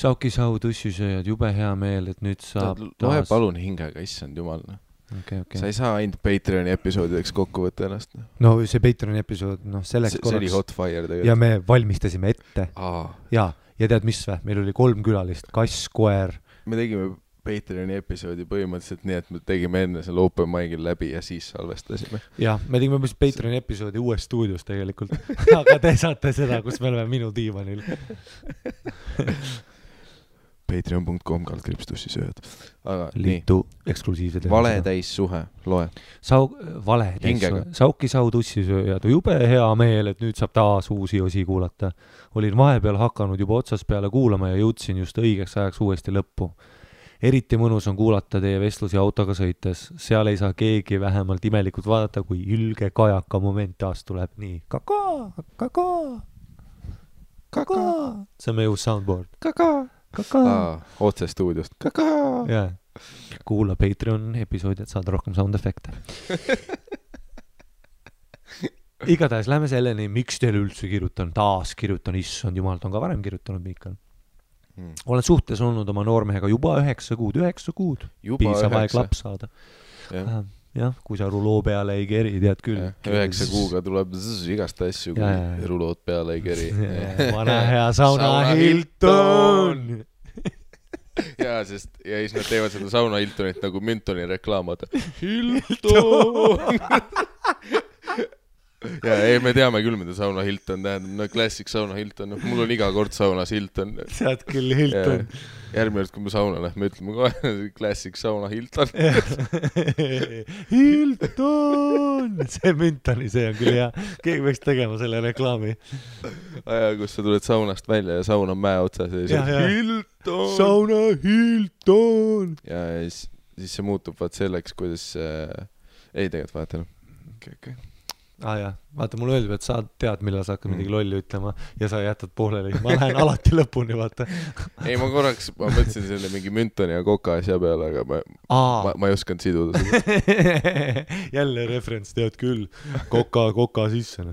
Sauki sau tussisööjad, jube hea meel, et nüüd saab Loe palun hingega, issand jumal. Okay. Sa ei saa ainult Patreoni episoodideks kokku võtta ennast. No see Patreoni episood, selleks korraks. See oli hot fire tegelikult. Ja me valmistasime ette. Ja tead mis või? Meil oli 3 külalist, kass, koer. Me tegime Patreoni episoodi põhimõtteliselt nii, et me tegime enne selle open mic'il läbi ja siis salvestasime. Jah, me tegime Patreoni episoodi uues stuudios tegelikult. Aga te saate seda, kus me oleme minu diivanil. Patreon.com/tussisööjad. Liitu eksklusiivsed. Valetäis suhe, loe. Valetäis suhe. Sauki sau tussisööjad. Jube hea meel, et nüüd saab taas uusi osi kuulata. Olin vahepeal hakanud juba otsas peale kuulama ja jõudsin just õigeks ajaks uuesti lõppu. Eriti mõnus on kuulata teie vestlusi autoga sõites. Seal ei saa keegi vähemalt imelikult vaadata, kui ülge kajaka moment taas tuleb nii. Kaka. See on meie uus soundboard. Kaka. Otse stuudiost. Yeah. Kuula Patreon episoodi, et saada rohkem sound efekte. Igatahes lähme selleni, miks teile üldse kirjutan, taas kirjutan, issand jumal, ta on ka varem kirjutanud, Miikal. Olen suhtes olnud oma noormehega juba 9 kuud. Piisav aeg laps saada. Jah, kui sa ruloo peale ei keri, tead küll. 9 kuuga tuleb igast asju, kui rulood peale ei keri. Vana hea sauna Hilton! Ja siis nad teevad seda sauna Hiltonit nagu Müntoni reklaamad. Hilton! Ja me teame küll, mida sauna Hilton tähendab. No klassik sauna Hilton. Mul on iga kord saunas Hilton. Sead küll Hilton. Järgmine kord, kui me sauna lähme, ütleme kohe klassik sauna Hilton. Hilton! See Müntoni, see on küll hea. Keegi võiks tegema selle reklaami. Kus sa tuled saunast välja ja saun on mäe otsas. Hilton! Sauna Hilton! Ja siis see muutub vaat selleks, kuidas... Ei, tegelikult vaata. Okay. jah, vaata, mulle öeldib, et sa tead, millal sa hakkad midagi lolli ütlema ja sa jätad pooleli. Ma lähen alati lõpuni, vaata. Ei, ma mõtlesin selle mingi Müntoni ja Koka asja peale, aga ma ei osanud siduda seda. Jälle referents, tead küll. Koka sisse.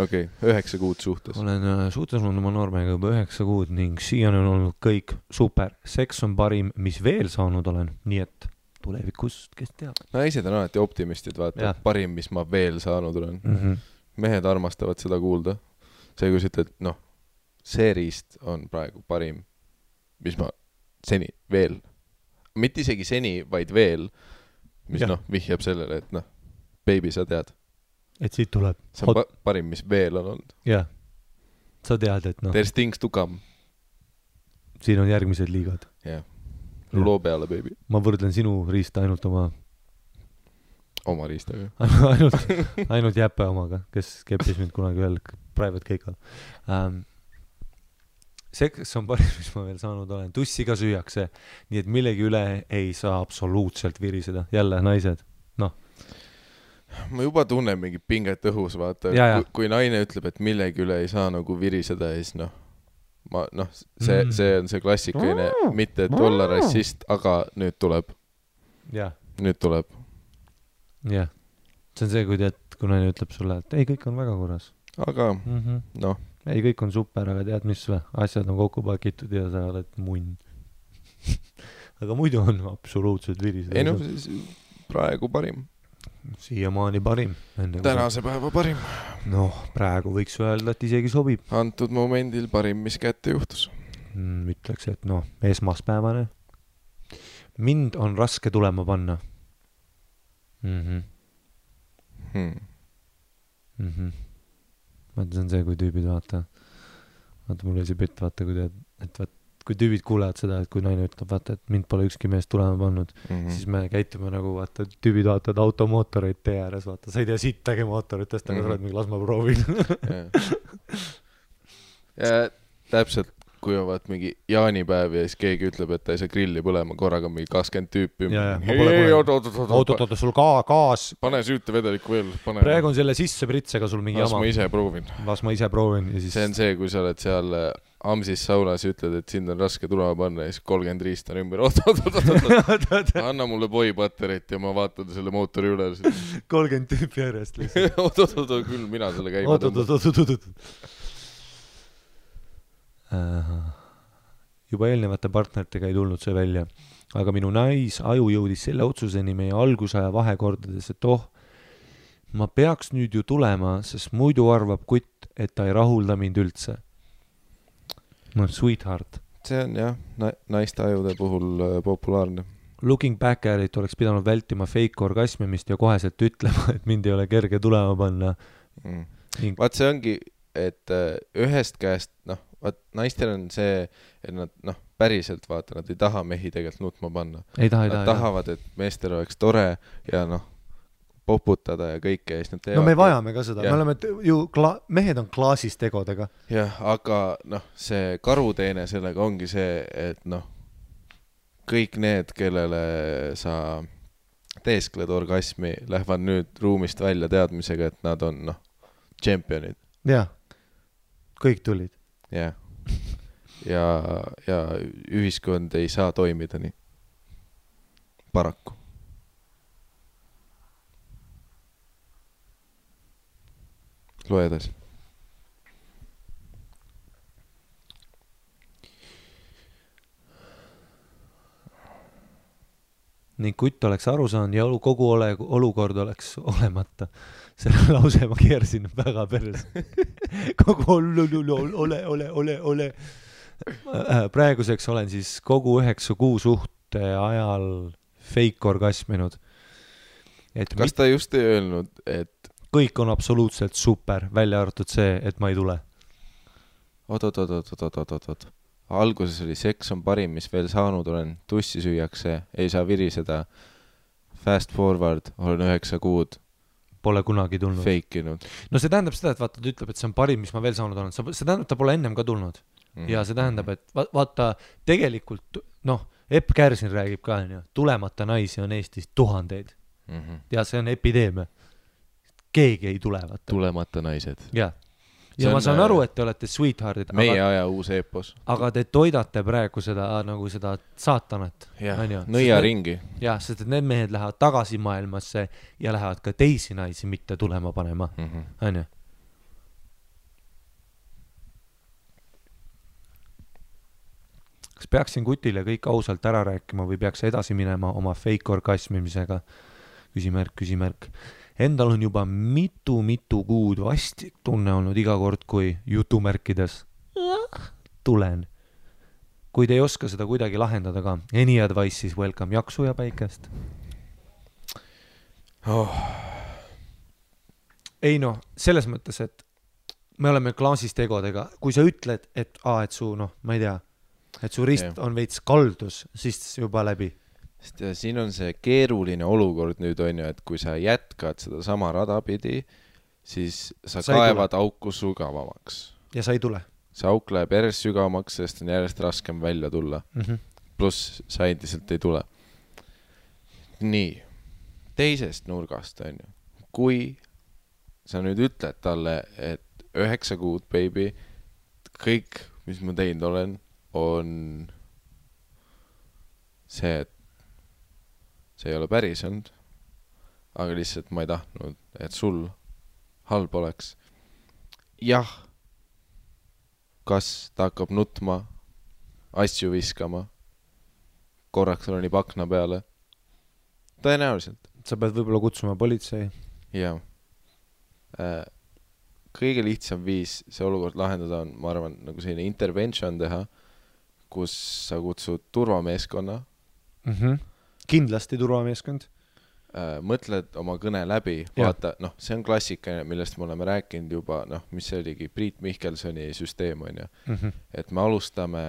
Okei, 9 kuud suhtes. Olen suhtes olnud oma noormega juba 9 kuud ning siiani on olnud kõik super. Seks on parim, mis veel saanud olen, nii et tulevikus, kes teab. Naised on alati optimistid, vaata, parim, mis ma veel saanud olen. Mehed armastavad seda kuulda. See, kui sa ütled, see riist on praegu parim, mis ma seni veel, mitte isegi seni, vaid veel, mis vihjab sellele, et baby, sa tead. Et siit tuleb. See on parim, mis veel on olnud. Jah, sa tead, et There's things to come. Siin on järgmised liigad. Jah. Loo peale, baby. Ma võrdlen sinu riista ainult oma riistaga. ainult jäppe omaga, kes keppis mind kunagi veel private keikal. Seks on parim, mis ma veel saanud olen. Tussi ka süüakse, nii et millegi üle ei saa absoluutselt viriseda. Jälle, naised. Ma juba tunnen mingi pinget õhus, vaata. Kui naine ütleb, et millegi üle ei saa nagu viriseda, siis see on see klassikaline, mitte et olla rassist, aga nüüd tuleb. Nüüd tuleb. Jah. See on see, kui naine ütleb sulle, et ei, kõik on väga korras. Aga, ei, kõik on super, aga tead mis või? Asjad on kokku pakitud ja sa oled munn. Aga muidu on absoluutselt virised. Ei siis praegu parim. Siiamaani parim. Tänase päeva parim. Praegu võiks öelda, et isegi sobib. Antud momendil parim, mis kätte juhtus. Ütleks, et esmaspäevane. Mind on raske tulema panna. Vaata, see on see, kui tüübid vaata, mul oli see pitt, vaata, kui tüübid kuulevad seda, et kui naine ütleb, vaata, et mind pole ükski mees tulema pannud, siis me käitume nagu, vaata, tüübid vaatavad automootoreid tee ääres, vaata, sa ei tea sittagi mootoritest, aga sa oled mingi, las ma proovin. Ja täpselt, kui on vaat mingi jaanipäev ja siis keegi ütleb, et ta ei saa grilli põlema, korraga mingi 20 tüüpi. Oot, sul gaas. Pane süüte vedelikku veel. Praegu on selle sisse pritsega sul mingi jama. Las ma ise proovin. See on see, kui sa oled seal Amsis saunas ja ütled, et sind on raske tulema panna ja siis 30 riist on ümber. Anna mulle boipaterit ja ma vaatan selle mootori üle. 30 tüüpi järjest lihtsalt. Oot, küll mina selle käima tõmba. Juba eelnevate partneritega ei tulnud see välja, aga minu aju jõudis selle otsuseni meie algusaja vahekordades, et ma peaks nüüd ju tulema, sest muidu arvab kutt, et ta ei rahulda mind üldse. Sweetheart. See on jah, naiste ajude puhul populaarne. Looking back at it oleks pidanud vältima fake orgasmimist ja koheselt ütlema, et mind ei ole kerge tulema panna. Vaat see ongi, et ühest käest, naistel on see, et nad päriselt vaata, nad ei taha mehi tegelikult nutma panna. Nad tahavad, et meestel oleks tore ja poputada ja kõike. Me vajame ka seda, me oleme ju, mehed on klaasist tegodega. Jah, aga see karuteene sellega ongi see, et kõik need, kellele sa teeskled orgasmi, lähevad nüüd ruumist välja teadmisega, et nad on tšempionid. Jah, kõik tulid. Jah, ja ühiskond ei saa toimida nii. Paraku. Loe edasi. Ning kutt oleks aru saanud ja kogu olukord oleks olemata. Selle lause ma keersin väga peres. Kogu ole. Praeguseks olen siis kogu 9 kuu suhte ajal fake orgasminud. Kas ta just ei öelnud, et kõik on absoluutselt super, välja arvatud see, et ma ei tule. Oot. Alguses oli seks on parim, mis veel saanud olen. Tussi süüakse, ei saa viriseda. Fast forward, olen 9 kuud. Pole kunagi tulnud. Feikinud. No see tähendab seda, et vaata, ta ütleb, et see on parim, mis ma veel saanud olen. See tähendab, ta pole ennem ka tulnud. Ja see tähendab, et vaata, tegelikult, Epp Kärsin räägib ka, tulemata naisi on Eestis tuhandeid. Ja see on epideemia. keegi ei tule, vaata. Tulemata naised. Jah. Ja ma saan aru, et te olete sweetheartid. Meie aja uus eepos. Aga te toidate praegu seda, nagu seda saatanat. Nõia ringi. Jah, sest et need mehed lähevad tagasi maailmasse ja lähevad ka teisi naisi mitte tulema panema. On ju? Kas peaksin Kutile kõik ausalt ära rääkima või peaks edasi minema oma fake orgasmimisega? Küsimärk. Endal on juba mitu kuud vastik tunne olnud iga kord, kui jutumärkides tulen. Kui te ei oska seda kuidagi lahendada ka, any advice siis welcome, jaksu ja päikest. Ei noh, selles mõttes, et me oleme klaasist egodega. Kui sa ütled, et su, ma ei tea, et su rist on veits kaldus, siis juba läbi. Siin on see keeruline olukord nüüd on ju, et kui sa jätkad seda sama rada pidi, siis sa kaevad auku sügavamaks. Ja sa ei tule. See auk läheb järjest sügavamaks, sest on järjest raskem välja tulla. Pluss sa endiselt ei tule. Nii, teisest nurgast on ju. Kui sa nüüd ütled talle, et 9 kuud, baby, kõik, mis ma teinud olen, on see, et see ei ole päris olnud, aga lihtsalt ma ei tahtnud, et sul halb oleks. Jah, kas ta hakkab nutma, asju viskama, korraks roni pakna peale? Tõenäoliselt. Sa pead võib-olla kutsuma politsei. Jah. Kõige lihtsam viis see olukord lahendada on, ma arvan, nagu selline intervention teha, kus sa kutsud turvameeskonna. Kindlasti turvameeskond. Mõtled oma kõne läbi, vaata, see on klassika, millest me oleme rääkinud juba, mis see oligi, Priit Mihkelsoni süsteem on ju. Et me alustame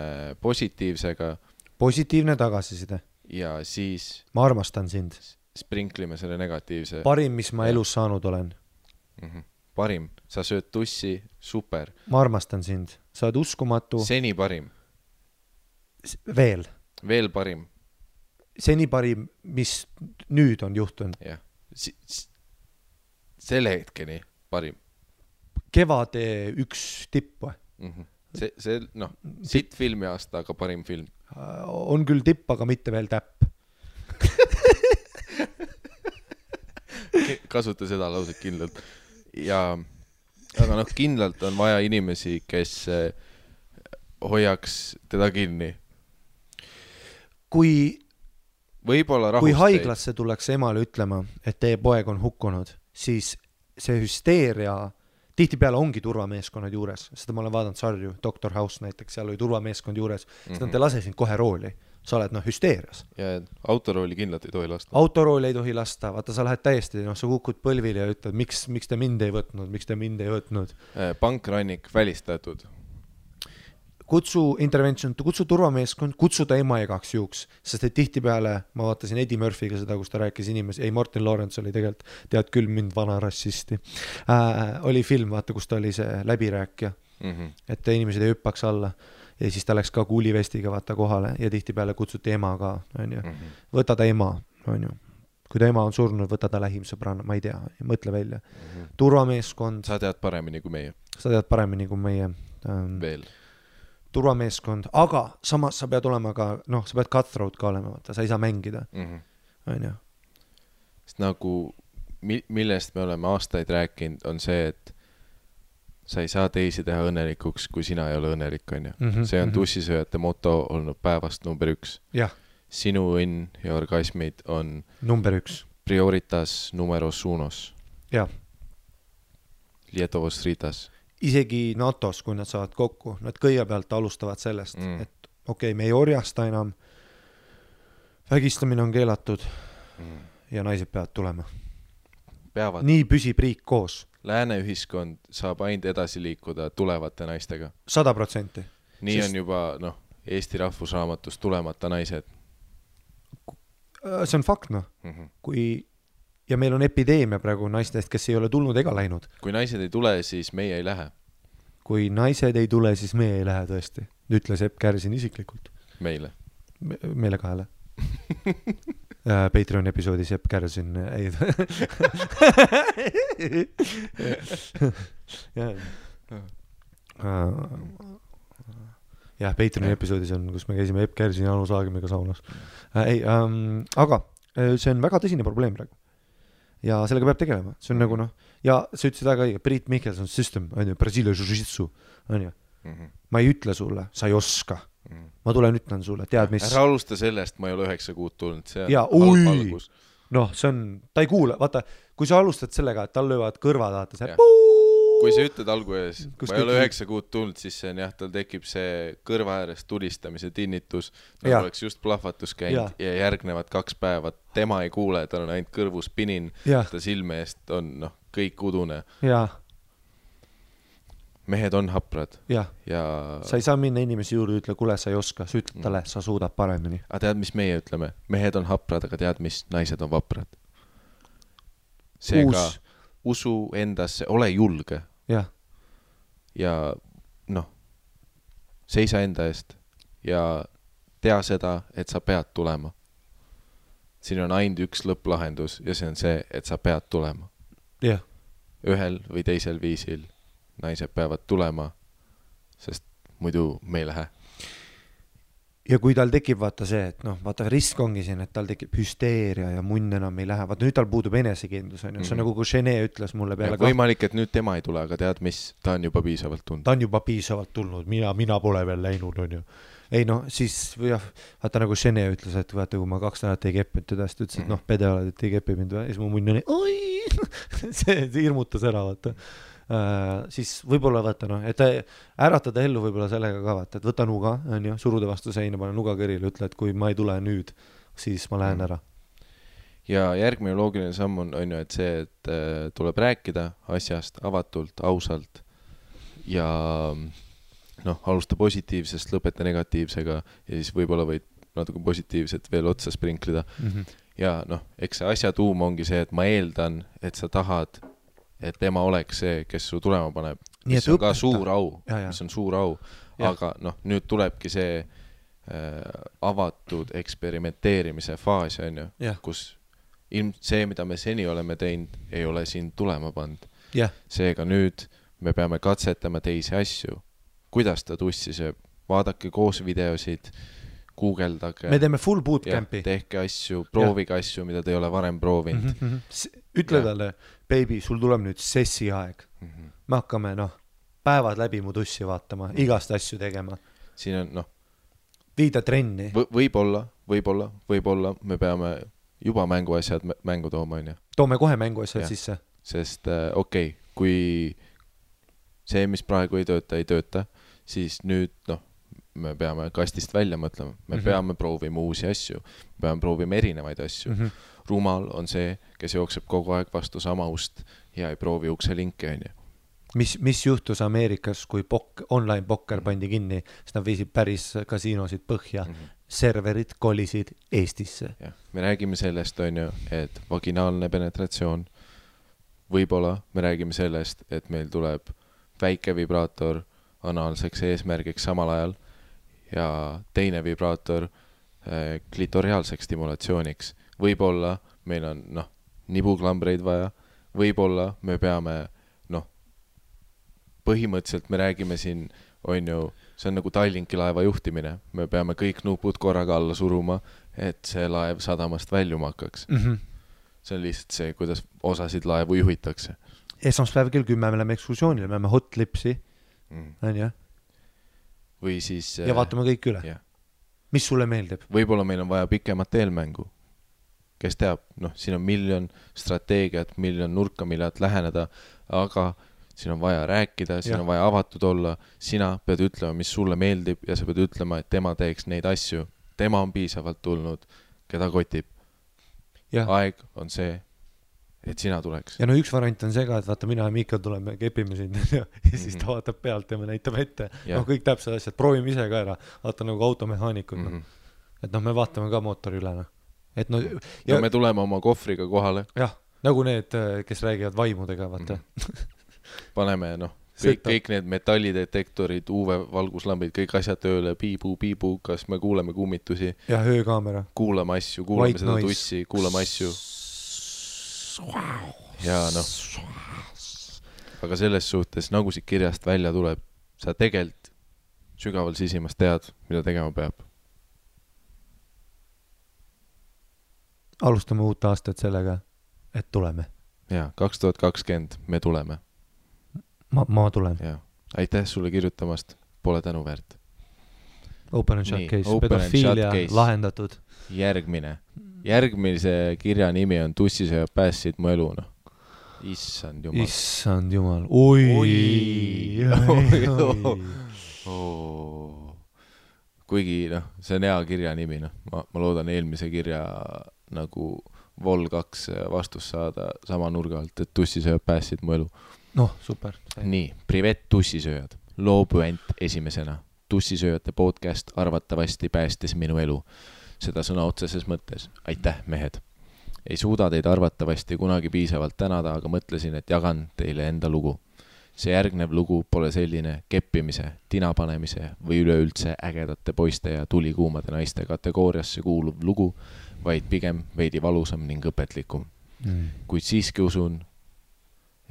positiivsega. Positiivne tagasiside. Ja siis ma armastan sind. Sprinklime selle negatiivse. Parim, mis ma elus saanud olen. Parim, sa sööd tussi, super. Ma armastan sind, sa oled uskumatu. Seni parim. Veel parim. Seni parim, mis nüüd on juhtunud. Jah, selle hetkeni parim. Kevade üks tipp või? See, sitt filmi aasta, aga parim film. On küll tipp, aga mitte veel täpp. Kasuta seda lauset kindlalt. Aga kindlalt on vaja inimesi, kes hoiaks teda kinni. Kui võib-olla kui haiglasse tuleks emale ütlema, et teie poeg on hukkunud, siis see hüsteeria tihtipeale ongi turvameeskonnad juures. Seda ma olen vaadanud sarju, Dr. House näiteks, seal oli turvameeskond juures, seda te lase sind kohe rooli. Sa oled hüsteerias. Ja autorooli kindlalt ei tohi lasta. Autorooli ei tohi lasta, vaata sa lähed täiesti, sa kukud põlvile ja ütled, miks te mind ei võtnud. Pankrannik välistatud. Kutsu intervention, kutsu turvameeskond, kutsu ta ema igaks juhuks, sest et tihtipeale, ma vaatasin Eddie Murphyga seda, kus ta rääkis inimesi, Martin Lawrence oli tegelikult, tead küll mind vana rassisti, oli film, vaata, kus ta oli see läbirääkja, et inimesed ei hüppaks alla ja siis ta läks ka kuulivestiga vaata kohale ja tihtipeale kutsuti ema ka, on ju. Võta ta ema, on ju. Kui ta ema on surnud, võta ta lähim sõbrana, ma ei tea, mõtle välja. Turvameeskond. Sa tead paremini kui meie. Veel. Turvameeskond, aga samas sa pead olema ka, sa pead cutthroat ka olema, vaata, sa ei saa mängida. On ju. Sest nagu, millest me oleme aastaid rääkinud, on see, et sa ei saa teisi teha õnnelikuks, kui sina ei ole õnnelik, on ju. See on tussisööjate moto olnud päevast number 1. Jah. Sinu õnn ja orgasmid on number 1. Prioritas numeros unos. Jah. Lietovos ritas. Isegi NATO-s, kui nad saavad kokku, nad kõigepealt alustavad sellest, et okei, me ei orjasta enam, vägistamine on keelatud ja naised peavad tulema. Nii püsib riik koos. Lääne ühiskond saab ainult edasi liikuda tulevate naistega. 100%. Nii on juba, Eesti rahvusraamatus tulemata naised. See on fakt, ja meil on epideemia praegu naistest, kes ei ole tulnud ega läinud. Kui naised ei tule, siis meie ei lähe. Kui naised ei tule, siis meie ei lähe tõesti. Ütles Epp Kärsin isiklikult. Meile kahele. Patreon episoodis Epp Kärsin ei jah, Patreoni episoodis on, kus me käisime Epp Kärsin ja Anu Saagimiga saunas. Aga see on väga tõsine probleem praegu. Ja sellega peab tegelema. See on nagu noh, ja sa ütlesid väga õige, Priit Michelson system, on ju, Brasilia jiu-jitsu, on ju. Ma ei ütle sulle, sa ei oska. Ma tulen ütlen sulle, tead mis... Ära alusta sellest, ma ei ole 9 kuud tulnud, see ja, halb algus. Noh, see on, ta ei kuule, vaata, kui sa alustad sellega, et tal löövad kõrvad, vaata see kui sa ütled alguses, ma ei ole 9 kuud tulnud, siis see on jah, tal tekib see kõrva äärest tulistamise tinnitus, nagu oleks just plahvatus käinud ja järgnevad 2 päeva, tema ei kuule, tal on ainult kõrvus pinin, ta silme eest on noh, kõik udune. Mehed on haprad. Ja sa ei saa minna inimesi juurde, ütle, kuule, sa ei oska, sa ütled talle, sa suudad paremini. Aga tead, mis meie ütleme? Mehed on haprad, aga tead, mis naised on vaprad? Seega usu endasse, ole julge. Ja noh, seisa enda eest ja tea seda, et sa pead tulema. Siin on ainult üks lõpplahendus ja see on see, et sa pead tulema. Ühel või teisel viisil naised peavad tulema, sest muidu me ei lähe. Ja kui tal tekib vaata see, et noh, vaata risk ongi siin, et tal tekib hüsteeria ja munn enam ei lähe. Vaata nüüd tal puudub enesekindlus, on ju. See on nagu kui Gene ütles mulle peale. Võimalik, et nüüd tema ei tule, aga tead mis, ta on juba piisavalt tulnud. Ta on juba piisavalt tulnud, mina pole veel läinud, on ju. Ei noh, siis jah, vaata nagu Gene ütles, et vaata kui ma 2 nädalat ei keppinud teda, siis ta ütles, et noh, pede oled, et ei kepi mind. Ja siis mu munn oli, oi, see hirmutas ära, vaata. Siis võib-olla vaata noh, et äratada ellu võib-olla sellega ka vaata, et võta nuga, on ju, suruda vastu seina, pane nuga kõrile, ütle, et kui ma ei tule nüüd, siis ma lähen ära. Ja järgmine loogiline samm on ju, et see, et tuleb rääkida asjast avatult, ausalt ja noh, alusta positiivsest, lõpeta negatiivsega ja siis võib-olla võid natuke positiivset veel otsa sprinklida. Ja noh, eks see asja tuum ongi see, et ma eeldan, et sa tahad et tema oleks see, kes su tulema paneb, mis on ka suur au, mis on suur au, aga noh, nüüd tulebki see avatud eksperimenteerimise faas, on ju, kus see, mida me seni oleme teinud, ei ole siin tulema pand. Seega nüüd me peame katsetama teisi asju. Kuidas ta tussi sööb? Vaadake koos videosid, guugeldage. Me teeme full bootcampi. Tehke asju, proovige asju, mida te ei ole varem proovinud. Ütle talle, baby, sul tuleb nüüd sessi aeg. Me hakkame, noh, päevad läbi mu tussi vaatama, igast asju tegema. Siin on, noh, viida trenni. Võib-olla me peame juba mänguasjad mängu tooma, on ju. Toome kohe mänguasjad sisse. Sest okei, kui see, mis praegu ei tööta, siis nüüd, noh, me peame kastist välja mõtlema. Me peame proovima uusi asju. Me peame proovima erinevaid asju. Rumal on see, kes jookseb kogu aeg vastu sama ust ja ei proovi ukse linke, on ju. Mis juhtus Ameerikas, kui online pokker pandi kinni, siis nad viisid päris kasiinosid põhja. Serverid kolisid Eestisse. Me räägime sellest, on ju, et vaginaalne penetratsioon. Võib-olla me räägime sellest, et meil tuleb väike vibraator anaalseks eesmärgiks samal ajal ja teine vibraator klitoriaalseks stimulatsiooniks. Võib-olla meil on, noh, nibuklambreid vaja. Võib-olla me peame, noh, põhimõtteliselt me räägime siin, on ju, see on nagu Tallinki laeva juhtimine. Me peame kõik nupud korraga alla suruma, et see laev sadamast väljuma hakkaks. See on lihtsalt see, kuidas osasid laevu juhitakse. Esmaspäev kell 10 me läheme ekskursioonile, me läheme hot lipsi. On ju? Või siis... Ja vaatame kõik üle. Mis sulle meeldib? Võib-olla meil on vaja pikemat eelmängu. Kes teab, noh, siin on miljon strateegiat, miljon nurka, millelt läheneda, aga siin on vaja rääkida, siin on vaja avatud olla. Sina pead ütlema, mis sulle meeldib ja sa pead ütlema, et tema teeks neid asju. Tema on piisavalt tulnud, keda kotib. Aeg on see, et sina tuleks. Ja no üks variant on see ka, et vaata, mina ja Miikal tuleme, kepime sind ja siis ta vaatab pealt ja me näitame ette. No kõik täpsed asjad, proovime ise ka ära. Vaata nagu automehaanikud. Et noh, me vaatame ka mootori üle. Et no, ja me tuleme oma kohvriga kohale. Jah, nagu need, kes räägivad vaimudega, vaata. Paneme, noh, kõik need metallidetektorid, UV-valguslambid, kõik asjad tööle, piibu, kas me kuuleme kummitusi. Ja öökaamera. Kuulame asju, kuulame seda tussi, kuulame asju. Ja noh. Aga selles suhtes, nagu siit kirjast välja tuleb, sa tegelikult sügaval sisimas tead, mida tegema peab. Alustame uut aastat sellega, et tuleme. Ja, 2020 me tuleme. Ma tulen. Ja. Aitäh sulle kirjutamast, pole tänu väärt. Open and shut case, pedofiilia lahendatud. Järgmise kirja nimi on Tussisööjad päästsid mu elu, noh. Issand jumal. Oi. Kuigi, noh, see on hea kirja nimi, noh. Ma loodan eelmise kirja nagu Vol 2 vastus saada sama nurga alt, et Tussisööjad päästsid mu elu. Noh, super. Nii, privet Tussisööjad. Loobuent esimesena. Tussisööjate podcast arvatavasti päästis minu elu. Seda sõna otseses mõttes. Aitäh, mehed. Ei suuda teid arvatavasti kunagi piisavalt tänada, aga mõtlesin, et jagan teile enda lugu. See järgnev lugu pole selline keppimise, tinapanemise või üleüldse ägedate poiste ja tulikuumade naiste kategooriasse kuuluv lugu, vaid pigem veidi valusam ning õpetlikum. Kuid siiski usun,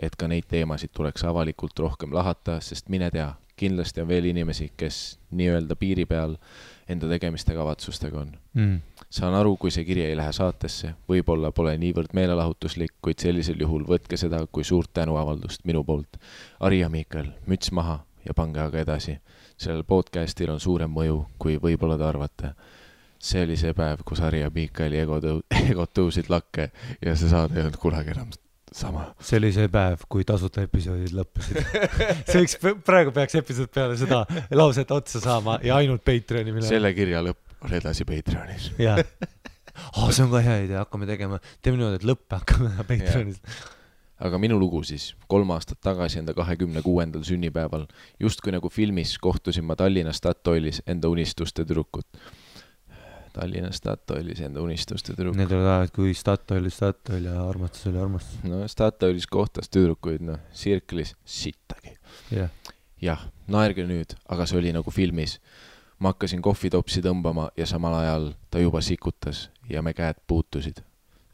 et ka neid teemasid tuleks avalikult rohkem lahata, sest mine tea, kindlasti on veel inimesi, kes nii-öelda piiri peal enda tegemiste kavatsustega on. Saan aru, kui see kiri ei lähe saatesse, võib-olla pole niivõrd meelelahutuslik, kuid sellisel juhul võtke seda kui suurt tänuavaldust minu poolt. Ari ja Miikael, müts maha ja pange aga edasi. Sellel podcastil on suurem mõju, kui võib-olla te arvate. See oli see päev, kus Ari ja Miikaeli egod tõusid lakke ja see saade ei olnud kunagi enam sama. See oli see päev, kui tasuta episoodid lõppesid. Praegu peaks episood peale seda lauset otsa saama ja ainult Patreoni minema. Selle kirja lõpp on edasi Patreonis. Jaa. See on ka hea idea, hakkame tegema. Teeme niimoodi, et lõppe hakkame Patreonis. Aga minu lugu siis, 3 aastat tagasi enda 26. sünnipäeval, just kui nagu filmis kohtusin ma Tallinna Statoilis enda unistuste tüdrukut. Tallinna Statoilis enda unistuste tüdruk. Need oli ajad, kui Statoil ja armastus oli armastus. No Statoilis kohtas tüdrukuid, sirklis sittagi. Jah, naerge nüüd, aga see oli nagu filmis. Ma hakkasin kohvitopsi tõmbama ja samal ajal ta juba sikutas ja me käed puutusid.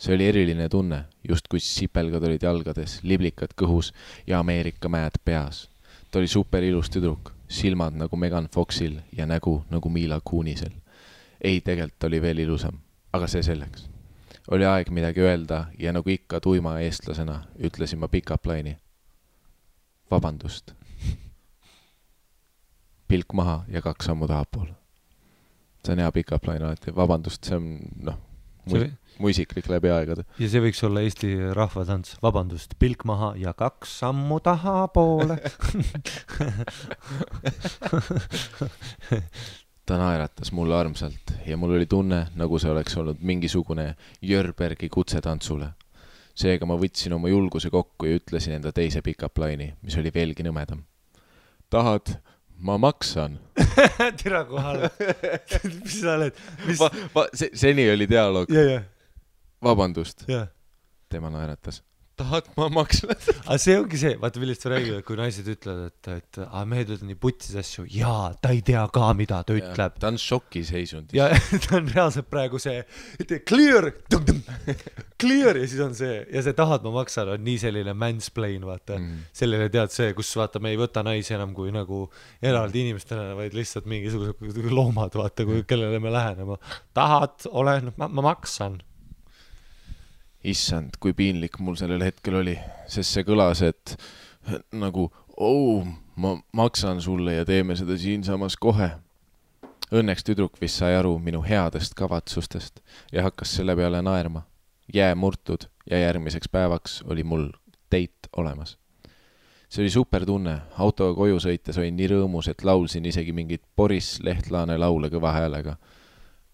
See oli eriline tunne, just kui sipelgad olid jalgades, liblikad kõhus ja Ameerika mäed peas. Ta oli super ilus tüdruk, silmad nagu Megan Foxil ja nägu nagu Mila Kunisel. Ei, tegelikult oli veel ilusam, aga see selleks. Oli aeg midagi öelda ja nagu ikka tuima eestlasena ütlesin ma pick-up line'i. Vabandust. Pilk maha ja 2 sammu tahapool. See on hea pick-up line alati. Vabandust, see on mu isiklik läbi aegade. Ja see võiks olla Eesti rahvatants. Vabandust, pilk maha ja 2 sammu tahapoole. Ta naeratas mulle armsalt ja mul oli tunne, nagu see oleks olnud mingisugune Jörbergi kutsetantsule. Seega ma võtsin oma julguse kokku ja ütlesin enda teise pick-up line'i, mis oli veelgi nõmedam. Tahad, ma maksan. Tira kohale. Mis sa oled? Seni oli dialoog. Vabandust. Tema naeratas. Tahad, ma maksan. Aga see ongi see, vaata millest sa räägid, kui naised ütlevad, et mehed ütlevad nii putsis asju, jaa, ta ei tea ka, mida ta ütleb. Ta on šoki seisund. Ja ta on reaalselt praegu see, clear ja siis on see, ja see tahad, ma maksan, on nii selline mansplain, vaata. Selline tead see, kus vaata, me ei võta naisi enam kui nagu eraldi inimestena, vaid lihtsalt mingisugused loomad, vaata, kellele me lähenema. Tahad, olen, ma maksan. Issand, kui piinlik mul sellel hetkel oli, sest see kõlas, et nagu, ma maksan sulle ja teeme seda siinsamas kohe. Õnneks tüdruk vist sai aru minu headest kavatsustest ja hakkas selle peale naerma. Jää murtud ja järgmiseks päevaks oli mul date olemas. See oli super tunne, autoga koju sõites olin nii rõõmus, et laulsin isegi mingit Boris Lehtlaane laule kõva häälega.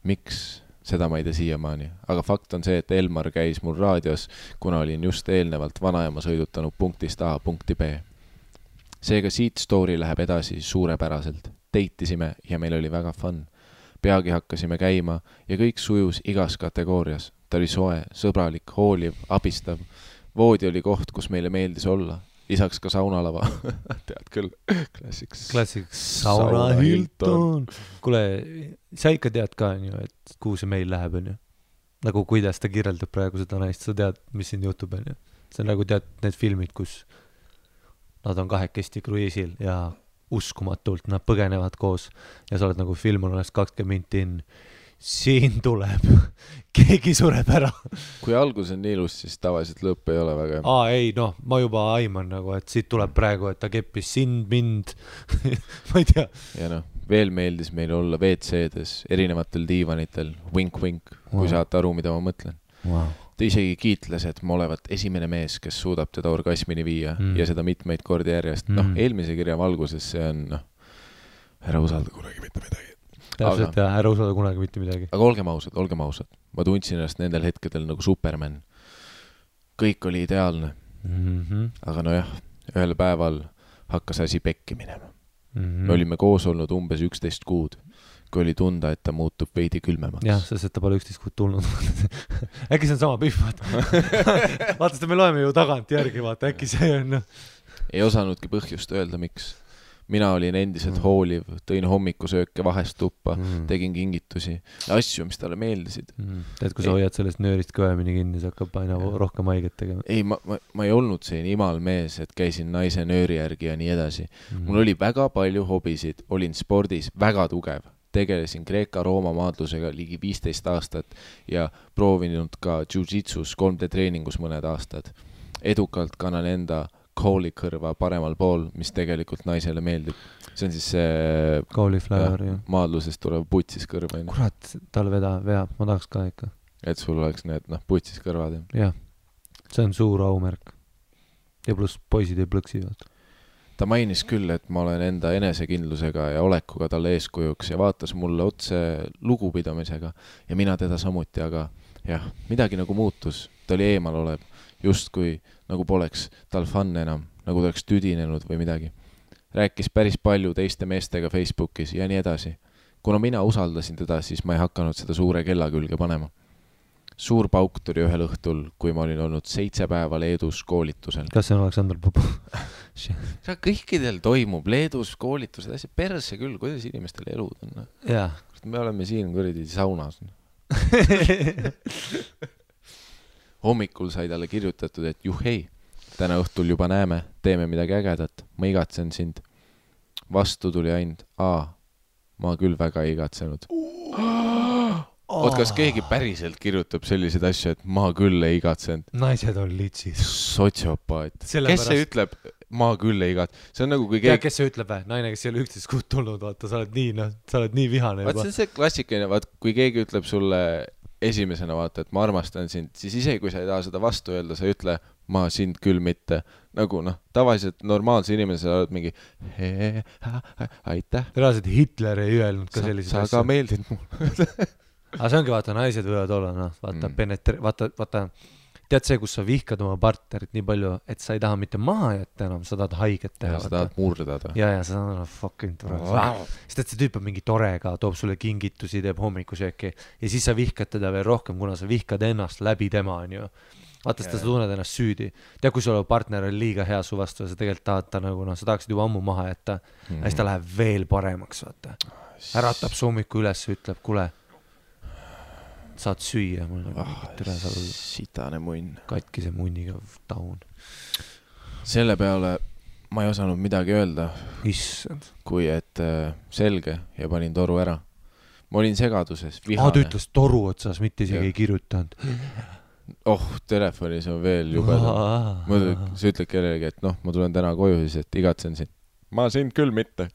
Miks? Seda ma ei tea siiamaani, aga fakt on see, et Elmar käis mul raadios, kuna olin just eelnevalt vanaema sõidutanud punktist A punkti B. Seega siit story läheb edasi suurepäraselt. Deitisime ja meil oli väga fun. Peagi hakkasime käima ja kõik sujus igas kategoorias. Ta oli soe, sõbralik, hooliv, abistav. Voodi oli koht, kus meile meeldis olla. lisaks ka saunalava. Tead küll, klassiks Sauna Hilton. Kuule, sa ikka tead ka, et kuhu see meil läheb, on ju? Nagu kuidas ta kirjeldab praegu seda naist, sa tead, mis siin jutub, on ju? See on nagu tead need filmid, kus nad on kahekesti kruiisil ja uskumatult nad põgenevad koos ja sa oled nagu film on 20 minti in. Siin tuleb, keegi sureb ära. Kui algus on nii ilus, siis tavaliselt lõpp ei ole väga. Ei, ma juba aiman nagu, et siit tuleb praegu, et ta keppis sind, mind, ma ei tea. Ja veel meeldis meil olla WC-des, erinevatel diivanitel, wink-wink, kui saate aru, mida ma mõtlen. Ta isegi kiitles, et ma olevat esimene mees, kes suudab teda orgasmini viia ja seda mitmeid kordi järjest. Eelmise kirja valguses see on, ära usalda kunagi mitte midagi. Täpselt, ära usalda kunagi mitte midagi. Aga olgem ausad. Ma tundsin ennast nendel hetkedel nagu Superman. Kõik oli ideaalne. Aga ühel päeval hakkas asi pekki minema. Me olime koos olnud umbes 11 kuud, kui oli tunda, et ta muutub veidi külmemaks. Jah, sest ta pole 11 kuud tulnud. Äkki see on sama pihv, vaata, seda me loeme ju tagant järgi, vaata, äkki see on. Ei osanudki põhjust öelda, miks. Mina olin endiselt hooliv, tõin hommikusööke vahest tuppa, tegin kingitusi ja asju, mis talle meeldisid. Tead, kui sa hoiad sellest nöörist kõvemini kinni, see hakkab aina rohkem haiget tegema. Ei, ma ei olnud siin imal mees, et käisin naise nööri järgi ja nii edasi. Mul oli väga palju hobisid, olin spordis väga tugev. Tegelesin Kreeka-Rooma maadlusega ligi 15 aastat ja proovinud ka jiu-jitsus 3D treeningus mõned aastad. Edukalt kannan enda koolikõrva paremal pool, mis tegelikult naisele meeldib. See on siis see maadlusest tulev putsis kõrva. Kurat, tal veab, ma tahaks ka ikka. Et sul oleks need putsis kõrvad. Jah, see on suur aumärk. Ja pluss poisid ei plõksi. Ta mainis küll, et ma olen enda enesekindlusega ja olekuga talle eeskujuks ja vaatas mulle otse lugupidamisega ja mina teda samuti, aga jah, midagi nagu muutus. Ta oli eemal olev. Justkui nagu poleks tal fun enam, nagu ta oleks tüdinenud või midagi. Rääkis päris palju teiste meestega Facebookis ja nii edasi. Kuna mina usaldasin teda, siis ma ei hakanud seda suure kella külge panema. Suur pauk tuli ühel õhtul, kui ma olin olnud 7 päeva Leedus koolitusel. Kas see on Aleksandr Popov? Kõikidel toimub Leedus koolitused, asja perse küll, kuidas inimestel elud on. Jaa. Me oleme siin kuradi saunas. Hommikul sai talle kirjutatud, et juhhei, täna õhtul juba näeme, teeme midagi ägedat, ma igatsen sind. Vastu tuli ainult, ma küll väga igatsenud. Kas keegi päriselt kirjutab selliseid asju, et ma küll ei igatsenud? Naised on litsid. Sotsiopaat. Kes see ütleb, ma küll ei igatsenud? See on nagu kui keegi... kes see ütleb, naine, kes ei ole 11 kuud tulnud, vaata, sa oled nii vihane. Vaat see on see klassikaline, kui keegi ütleb sulle esimesena, vaata, et ma armastan sind, siis isegi kui sa ei taha seda vastu öelda, sa ütle, ma sind küll mitte. Nagu tavaliselt normaalse inimese oled mingi aitäh. Reaalselt Hitler ei öelnud ka selliseid asju. Sa ka meeldid mul. Aga see ongi, vaata, naised võivad olla, vaata, tead see, kus sa vihkad oma partnerit nii palju, et sa ei taha mitte maha jätta enam, sa tahad haiget teha. Ja sa tahad murdada. Ja sa tahad fucking tore. Sest et see tüüp on mingi torega, toob sulle kingitusi, teeb hommikusööki ja siis sa vihkad teda veel rohkem, kuna sa vihkad ennast läbi tema, on ju. Vaata, sa tunned ennast süüdi. Tea, kui sul partner on liiga hea su vastu ja sa tegelikult tahad ta nagu, sa tahaksid juba ammu maha jätta ja siis ta läheb veel paremaks, vaata. Äratab su hommiku üles ja ütleb, kuule, saad süüa, mul on sitane munn. Katkise munniga taun. Selle peale ma ei osanud midagi öelda. Issand. Kui et selge ja panin toru ära. Ma olin segaduses, vihane. Ta ütles toru otsas, mitte isegi ei kirjutanud. Telefonis on veel jubedam. Sa ütled kellelegi, et ma tulen täna koju siis, et igatsen sind. Ma sind küll mitte.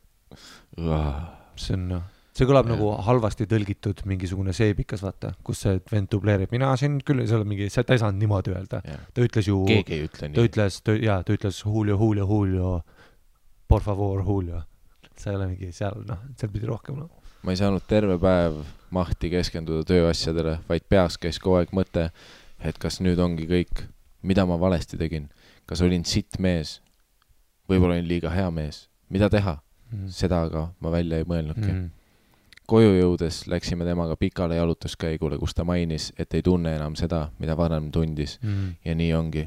See kõlab nagu halvasti tõlgitud mingisugune seebikas, vaata, kus see vend dubleerib. Mina sind küll, ta ei saanud niimoodi öelda. Ta ütles ju... Keegi ei ütle nii. Ta ütles Julio, por favor, Julio. See ei ole mingi seal pidi rohkem. Ma ei saanud terve päev mahti keskenduda tööasjadele, vaid peas käis kogu aeg mõte, et kas nüüd ongi kõik, mida ma valesti tegin. Kas olin sitt mees? Võib-olla olin liiga hea mees. Mida teha? Seda aga ma välja ei mõelnudki. Koju jõudes läksime temaga pikale jalutuskäigule, kus ta mainis, et ei tunne enam seda, mida varem tundis. Ja nii ongi.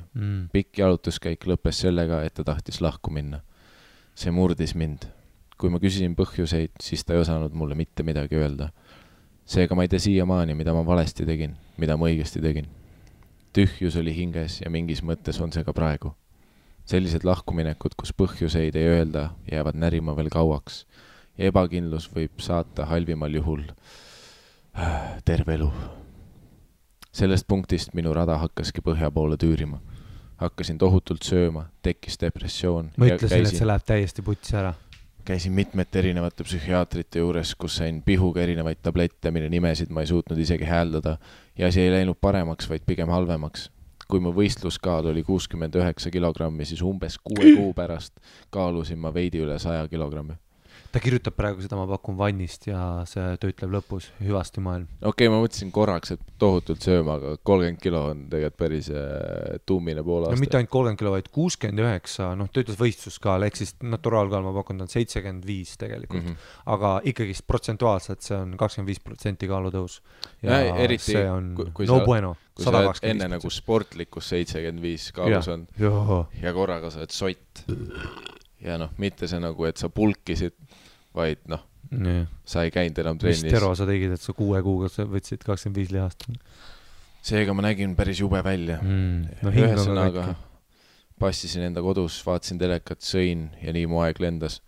Pikk jalutuskäik lõppes sellega, et ta tahtis lahku minna. See murdis mind. Kui ma küsisin põhjuseid, siis ta ei osanud mulle mitte midagi öelda. Seega ma ei tea siiamaani, mida ma valesti tegin, mida ma õigesti tegin. Tühjus oli hinges ja mingis mõttes on see ka praegu. Sellised lahkuminekud, kus põhjuseid ei öelda, jäävad närima veel kauaks ja ebakindlus võib saata halvimal juhul terve elu. Sellest punktist minu rada hakkaski põhja poole tüürima. Hakkasin tohutult sööma, tekkis depressioon. Ma ütlesin, et see läheb täiesti putsi ära. Käisin mitmete erinevate psühhiaatrite juures, kus sain pihuga erinevaid tablette, mille nimesid ma ei suutnud isegi hääldada ja see ei läinud paremaks, vaid pigem halvemaks. Kui mu võistluskaal oli 69 kilogrammi, siis umbes 6 kuu pärast kaalusin ma veidi üle 100 kilogrammi. Ta kirjutab praegu seda, ma pakun vannist ja see töötleb lõpus hüvasti maailm. Okei, ma mõtlesin korraks, et tohutult sööma, aga 30 kilo on tegelikult päris tummine pool aasta. No mitte ainult 30 kilo, vaid 69, töötles võistluskaal, ehk siis naturaalkaal ma pakun, ta on 75 tegelikult. Aga ikkagi protsentuaalselt see on 25% kaalutõus. Ja eriti, see on kui no bueno. Kui sa oled enne nagu sportlikus 75 kaalus on ja korraga sa oled sott. Ja mitte see nagu, et sa pulkisid, vaid sa ei käinud enam trennis. Mis tero sa tegid, et sa 6 kuuga võtsid 25 lihast? Seega ma nägin päris jube välja. Ühesõnaga passisin enda kodus, vaatasin telekat, sõin ja nii mu aeg lendas.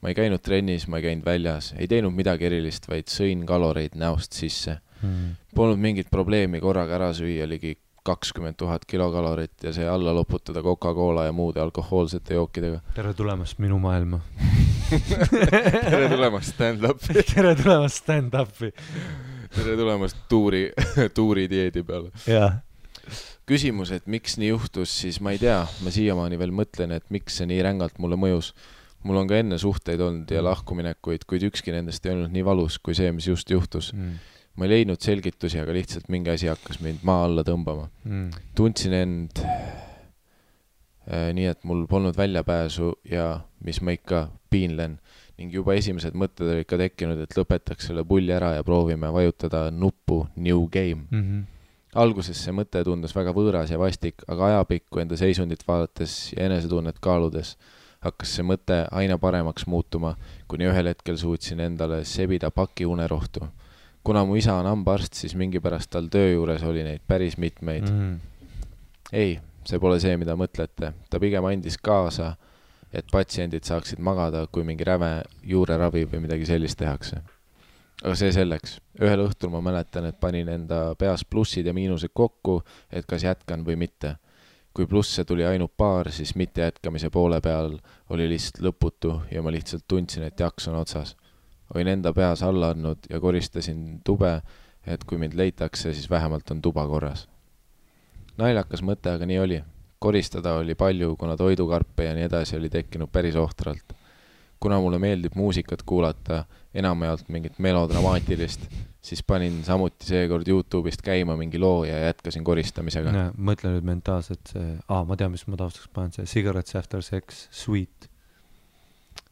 Ma ei käinud trennis, ma ei käinud väljas, ei teinud midagi erilist, vaid sõin kaloreid näost sisse. Polnud mingit probleemi korraga ära süüa ligi 20 000 kilokalorit ja see alla loputada Coca-Cola ja muude alkohoolsete jookidega. Tere tulemast minu maailma. Tere tulemast stand-upi. Tere tulemast stand-upi. Tere tulemast tuuri dieedi peale. Ja. Küsimus, et miks nii juhtus, siis ma ei tea. Ma siiamaani veel mõtlen, et miks see nii rängalt mulle mõjus. Mul on ka enne suhteid olnud ja lahkuminekuid, kuid ükski nendest ei olnud nii valus kui see, mis just juhtus. Ma ei leidnud selgitusi, aga lihtsalt mingi asi hakkas mind maa alla tõmbama. Tundsin end nii, et mul polnud väljapääsu ja mis ma ikka piinlen. Ning juba esimesed mõtted olid ka tekkinud, et lõpetaks selle pulli ära ja proovime vajutada nuppu New Game. Alguses see mõte tundus väga võõras ja vastik, aga ajapikku enda seisundit vaadates ja enesetunnet kaaludes hakkas see mõte aina paremaks muutuma, kuni ühel hetkel suutsin endale sebida paki unerohtu. Kuna mu isa on hambaarst, siis mingi pärast tal töö juures oli neid päris mitmeid. Ei, see pole see, mida mõtlete. Ta pigem andis kaasa, et patsiendid saaksid magada, kui mingi räve juureravi või midagi sellist tehakse. Aga see selleks. Ühel õhtul ma mäletan, et panin enda peas plussid ja miinused kokku, et kas jätkan või mitte. Kui plusse tuli ainult paar, siis mitte jätkamise poole peal oli lihtsalt lõputu ja ma lihtsalt tundsin, et jaks on otsas. Olin enda peas alla andnud ja koristasin tube, et kui mind leitakse, siis vähemalt on tuba korras. Naljakas mõte, aga nii oli. Koristada oli palju, kuna toidukarpe ja nii edasi oli tekkinud päris ohtralt. Kuna mulle meeldib muusikat kuulata, enamjaolt mingit melodramaatilist, siis panin samuti seekord YouTube'ist käima mingi loo ja jätkasin koristamisega. Mõtlen nüüd mentaalselt see, ma tean, mis ma taustaks panen, see Cigarettes After Sex, Sweet.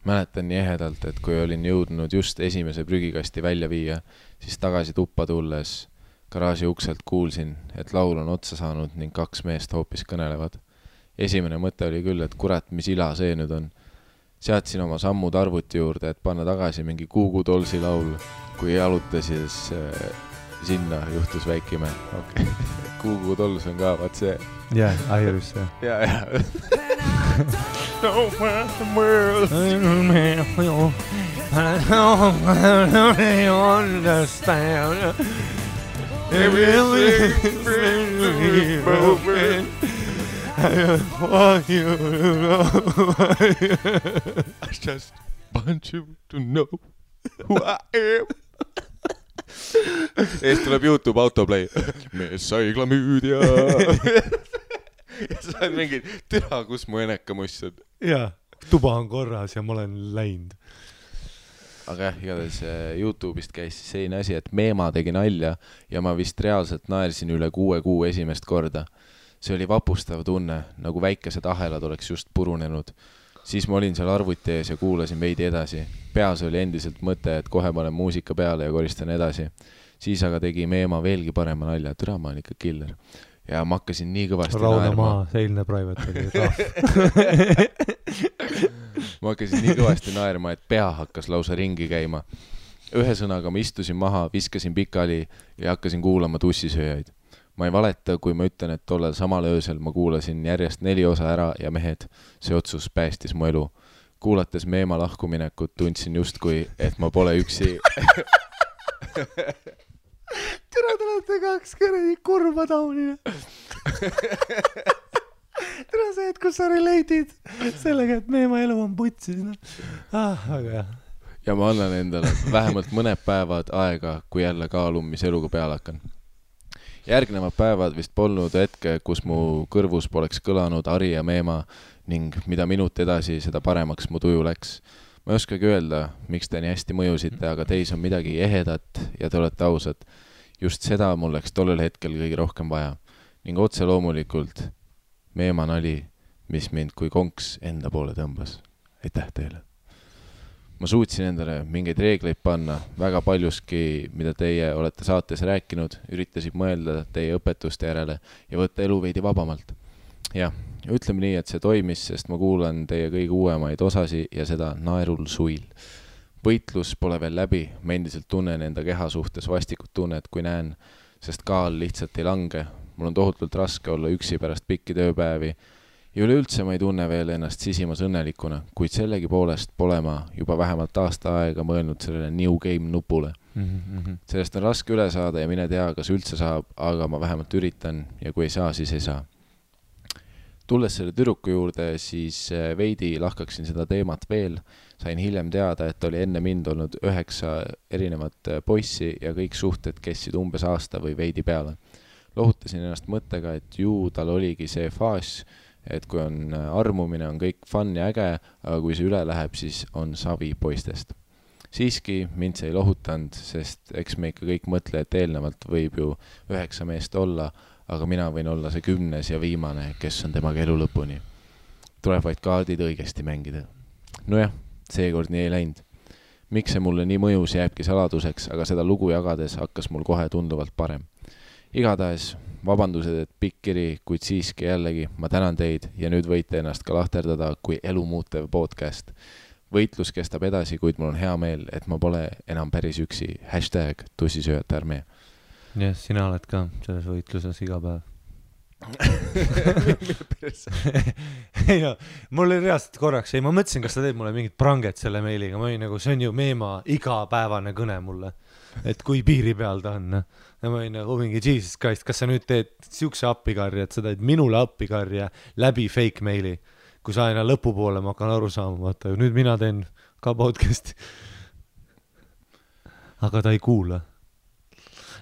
Mäletan nii ehedalt, et kui olin jõudnud just esimese prügikasti välja viia, siis tagasi tuppa tulles garaaži ukselt kuulsin, et laul on otsa saanud ning 2 meest hoopis kõnelevad. Esimene mõte oli küll, et kurat, mis ila see nüüd on. Seadsin oma sammud arvuti juurde, et panna tagasi mingi Kuugu Dolsi laul. Kui jaluta, siis sinna juhtus väikime. Okay. Kuugu Dols on ka, vaat see. Jah, Iris, jah. Ja. No man, the world. I understand. Everything's broken. I want you to know. I just want you to know who I am. Eest tuleb YouTube autoplay. Mees saigla müüdja. Ja sa oled mingi, türa, kus mu enekamuss on. Jaa, tuba on korras ja ma olen läinud. Aga igatahes YouTube'ist käis selline asi, et Meema tegi nalja ja ma vist reaalselt naersin üle 6 kuu esimest korda. See oli vapustav tunne, nagu väikesed ahelad oleks just purunenud. siis ma olin seal arvuti ees ja kuulasin veidi edasi. Peas oli endiselt mõte, et kohe panen muusika peale ja koristan edasi. Siis aga tegi Meema veelgi parema nalja, türa ma olen ikka killer. Ja ma hakkasin nii kõvasti naerma. Seilne private oli ma hakkasin nii kõvasti naerma, et pea hakkas lausa ringi käima. Ühe sõnaga ma istusin maha, viskasin pikali ja hakkasin kuulama tussisööjaid. Ma ei valeta, kui ma ütlen, et tollel samal öösel ma kuulasin järjest 4 osa ära ja mehed, see otsus päästis mu elu. Kuulates Meema lahkuminekut tundsin justkui, et ma pole üksi. Tere, te olete 2 kõredi kurva taunina. Tere see, et kus sa relate'id sellega, et Meema elu on putsis. Aga jah. Ja ma annan endale vähemalt mõned päevad aega, kui jälle kaalun, mis eluga peale hakkan. Järgnevad päevad vist polnud hetke, kus mu kõrvus poleks kõlanud Ari ja Meema ning mida minut edasi, seda paremaks mu tuju läks. Ma ei oskagi öelda, miks te nii hästi mõjusite, aga teis on midagi ehedat ja te olete ausad. Just seda mul läks tollel hetkel kõige rohkem vaja. Ning otse loomulikult Meema nali, mis mind kui konks enda poole tõmbas. Aitäh teile! Ma suutsin endale mingeid reegleid panna, väga paljuski, mida teie olete saates rääkinud, üritasid mõelda teie õpetuste järele ja võtta elu veidi vabamalt. Ja, ütleme nii, et see toimis, sest ma kuulan teie kõige uuemaid osasi ja seda naerul suil. Võitlus pole veel läbi, ma endiselt tunnen enda keha suhtes vastikut tunnet, kui näen, sest kaal lihtsalt ei lange. Mul on tohutult raske olla üksi pärast pikki tööpäevi ja üleüldse ma ei tunne veel ennast sisimas õnnelikuna, kuid sellegi poolest pole ma juba vähemalt aasta aega mõelnud sellele New Game nupule. Sellest on raske üle saada ja mine tea, kas üldse saab, aga ma vähemalt üritan ja kui ei saa, siis ei saa. Tulles selle tüdruku juurde, siis veidi lahkaksin seda teemat veel. Sain hiljem teada, et oli enne mind olnud 9 erinevat poissi ja kõik suhted kestsid umbes aasta või veidi peale. Lohutasin ennast mõttega, et ju tal oligi see faas, et kui on armumine, on kõik fun ja äge, aga kui see üle läheb, siis on savi poistest. Siiski mind see ei lohutanud, sest eks me ikka kõik mõtle, et eelnevalt võib ju 9 meest olla, aga mina võin olla see 10. ja viimane, kes on temaga elu lõpuni. Tuleb vaid kaardid õigesti mängida. Nojah, seekord nii ei läinud. Miks see mulle nii mõjus jääbki saladuseks, aga seda lugu jagades hakkas mul kohe tunduvalt parem. Igatahes, vabandused, et pikk kiri, kuid siiski jällegi ma tänan teid ja nüüd võite ennast ka lahterdada kui elu muutev podcast. Võitlus kestab edasi, kuid mul on hea meel, et ma pole enam päris üksi. #tussisööjate armee. Ja, sina oled ka selles võitluses iga päev. Ei no, mul oli reaalselt korraks, ma mõtlesin, kas sa teed mulle mingit pranget selle meiliga, ma olin nagu, see on ju Meema igapäevane kõne mulle, et kui piiri peal ta on. Ja ma olin nagu mingi Jesus Christ, kas sa nüüd teed siukse appikarja, et sa teed minule appikarja läbi fake meili, kui sa aina lõpupoole ma hakkan aru saama, vaata, nüüd mina teen ka podcasti. Aga ta ei kuula.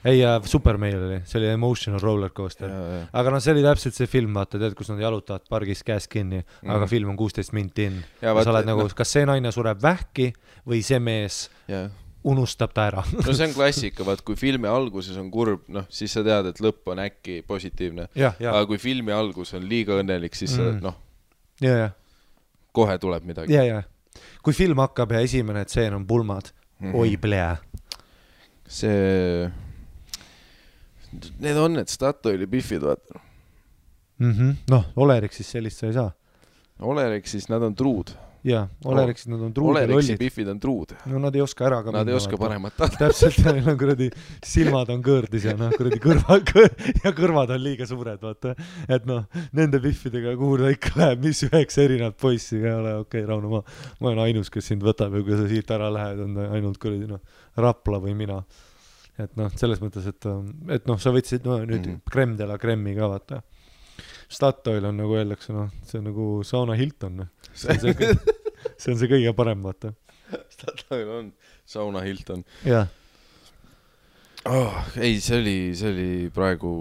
Ei, super meil oli, see oli emotional roller coaster. Aga no see oli täpselt see film, vaata, tead, kus nad jalutavad pargis käes kinni, aga film on 16 minti in. Ja sa oled nagu, kas see naine sureb vähki või see mees unustab ta ära? No see on klassika, vaat kui filmi alguses on kurb, noh, siis sa tead, et lõpp on äkki positiivne. Aga kui filmi algus on liiga õnnelik, siis noh, kohe tuleb midagi. Kui film hakkab ja esimene tseen on pulmad, oi plea. See... Need on need Statoili biffid, vaata. Noh, Oleriksis sellist sa ei saa. Oleriksis nad on truud. Jaa, Oleriksis nad on truud ja Oleriksi biffid on truud. No nad ei oska ära ka nad ei oska paremat tahta. Täpselt, neil on kuradi silmad on kõõrdis ja kuradi kõrvad on liiga suured, vaata. Et noh, nende biffidega kuhu ta ikka läheb, mis 9 erinevat poissi ei ole, okei, Rauno, ma olen ainus, kes sind võtab ja kui sa siit ära lähed, on ainult kuradi Rapla või mina. Et noh, selles mõttes, et noh, sa võtsid nüüd Krem de la Kremmi ka, vaata. Statoil on nagu öeldakse, noh, see on nagu Sauna Hilton. See on see kõige parem, vaata. Statoil on Sauna Hilton. Jah. Ei, see oli praegu...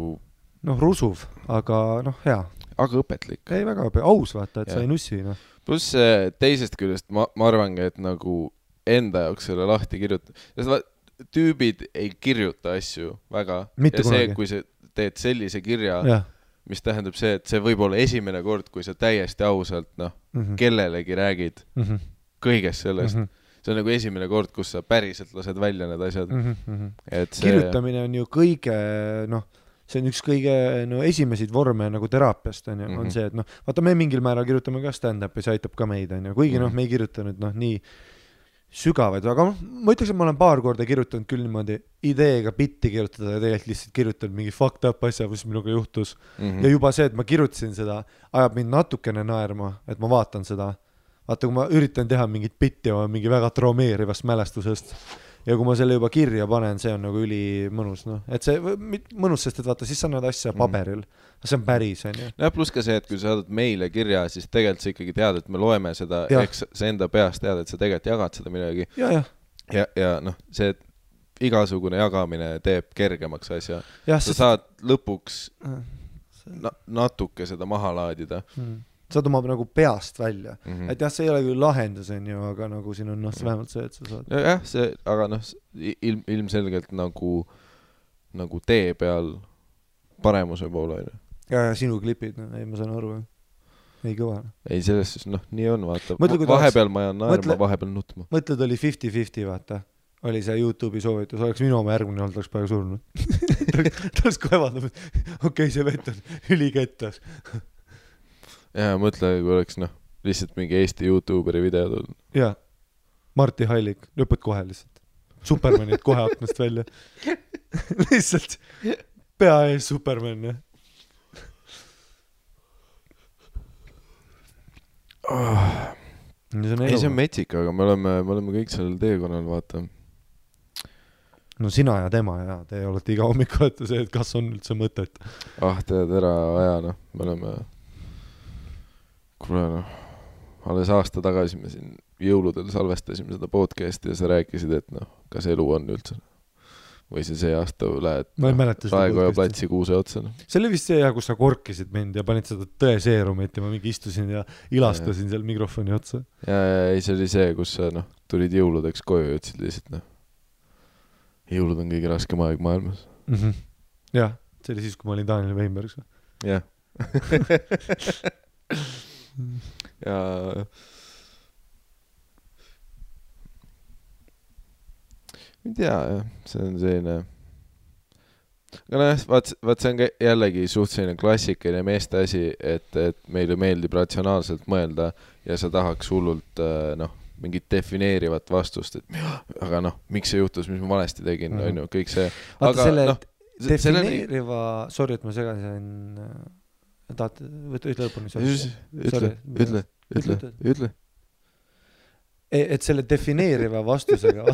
Noh, rusuv, aga noh, hea. Aga õpetlik. Ei, väga aus, vaata, et sa ei nussi, noh. Plus teisest küljest ma arvangi, et nagu enda jaoks selle lahti kirjuta. Sest tüübid ei kirjuta asju väga. Mitte ja see, kui sa teed sellise kirja, mis tähendab see, et see võib olla esimene kord, kui sa täiesti ausalt, kellelegi räägid kõigest sellest. See on nagu esimene kord, kus sa päriselt lased välja need asjad. Et see... Kirjutamine on ju kõige, see on üks kõige esimesed vorme nagu teraapiast on see, et vaata me mingil määral kirjutame ka stand-up ja see aitab ka meid, kuigi me ei kirjuta nüüd nii sügavaid, aga ma ütleks, et ma olen paar korda kirjutanud küll niimoodi ideega bitti kirjutada ja tegelikult lihtsalt kirjutanud mingi fucked up asja, mis minuga juhtus. Ja juba see, et ma kirjutasin seda, ajab mind natukene naerma, et ma vaatan seda. Vaata, kui ma üritan teha mingit bitti oma mingi väga traumeerivast mälestusest ja kui ma selle juba kirja panen, see on nagu üli mõnus. Et see mõnus, sest et vaata, siis sa näed asja paberil. See on päris, on ju. Ja pluss ka see, et kui sa saadad meile kirja, siis tegelikult sa ikkagi tead, et me loeme seda, eks sa enda peast tead, et sa tegelikult jagad seda midagi. Ja see, et igasugune jagamine teeb kergemaks asja. Sa saad lõpuks natuke seda maha laadida. Saad oma nagu peast välja. Et jah, see ei ole küll lahendus, aga nagu siin on vähemalt see, et sa saad. Jah, see, aga ilmselgelt nagu tee peal paremuse poole. Ja sinu klipid, ei ma saan aru. Ei kõva. Ei, selles siis, nii on, vaata. Vahepeal ma jään naerma, vahepeal nutma. Mõtled, oli 50-50, vaata. Oli see YouTube'i soovitus, oleks minu oma järgmine olnud, oleks praegu surnud. Ta oleks kohe vaadanud, okei, see vett on ülikettas. Ja mõtle, kui oleks lihtsalt mingi Eesti YouTuberi video tulnud. Jaa, Marti Hallik, lõpud kohe lihtsalt. Supermanid kohe aknast välja. Lihtsalt pea ees Superman, jah. Ei, see on metsik, aga me oleme kõik sellel teekonnal, vaata. No sina ja tema ja te olete iga hommik olete see, et kas on üldse mõtet. Tead ära aja, me oleme... Kuule, alles aasta tagasi me siin jõuludel salvestasime seda podcasti ja sa rääkisid, et kas elu on üldse. Või see aasta lähed Raekoja platsi kuuse otsa. See oli vist see, kus sa korkisid mind ja panid seda tõeseerumit ja ma mingi istusin ja ilastasin seal mikrofoni otsa. Ja ei, see oli see, kus sa tulid jõuludeks koju ja ütlesid lihtsalt, jõulud on kõige raskem aeg maailmas. Jah, see oli siis, kui ma olin Daniel Weinbergs. Jah. Ja ei tea, see on selline aga vaat see on jällegi suht selline klassikaline meeste asi, et meile meeldib ratsionaalselt mõelda ja sa tahaks hullult mingit defineerivat vastust, et aga miks see juhtus, mis ma valesti tegin, on ju, kõik see vaata selle defineeriva sorry, et ma segasin ütle lõpuni. Ütle. Et selle defineeriva vastusega,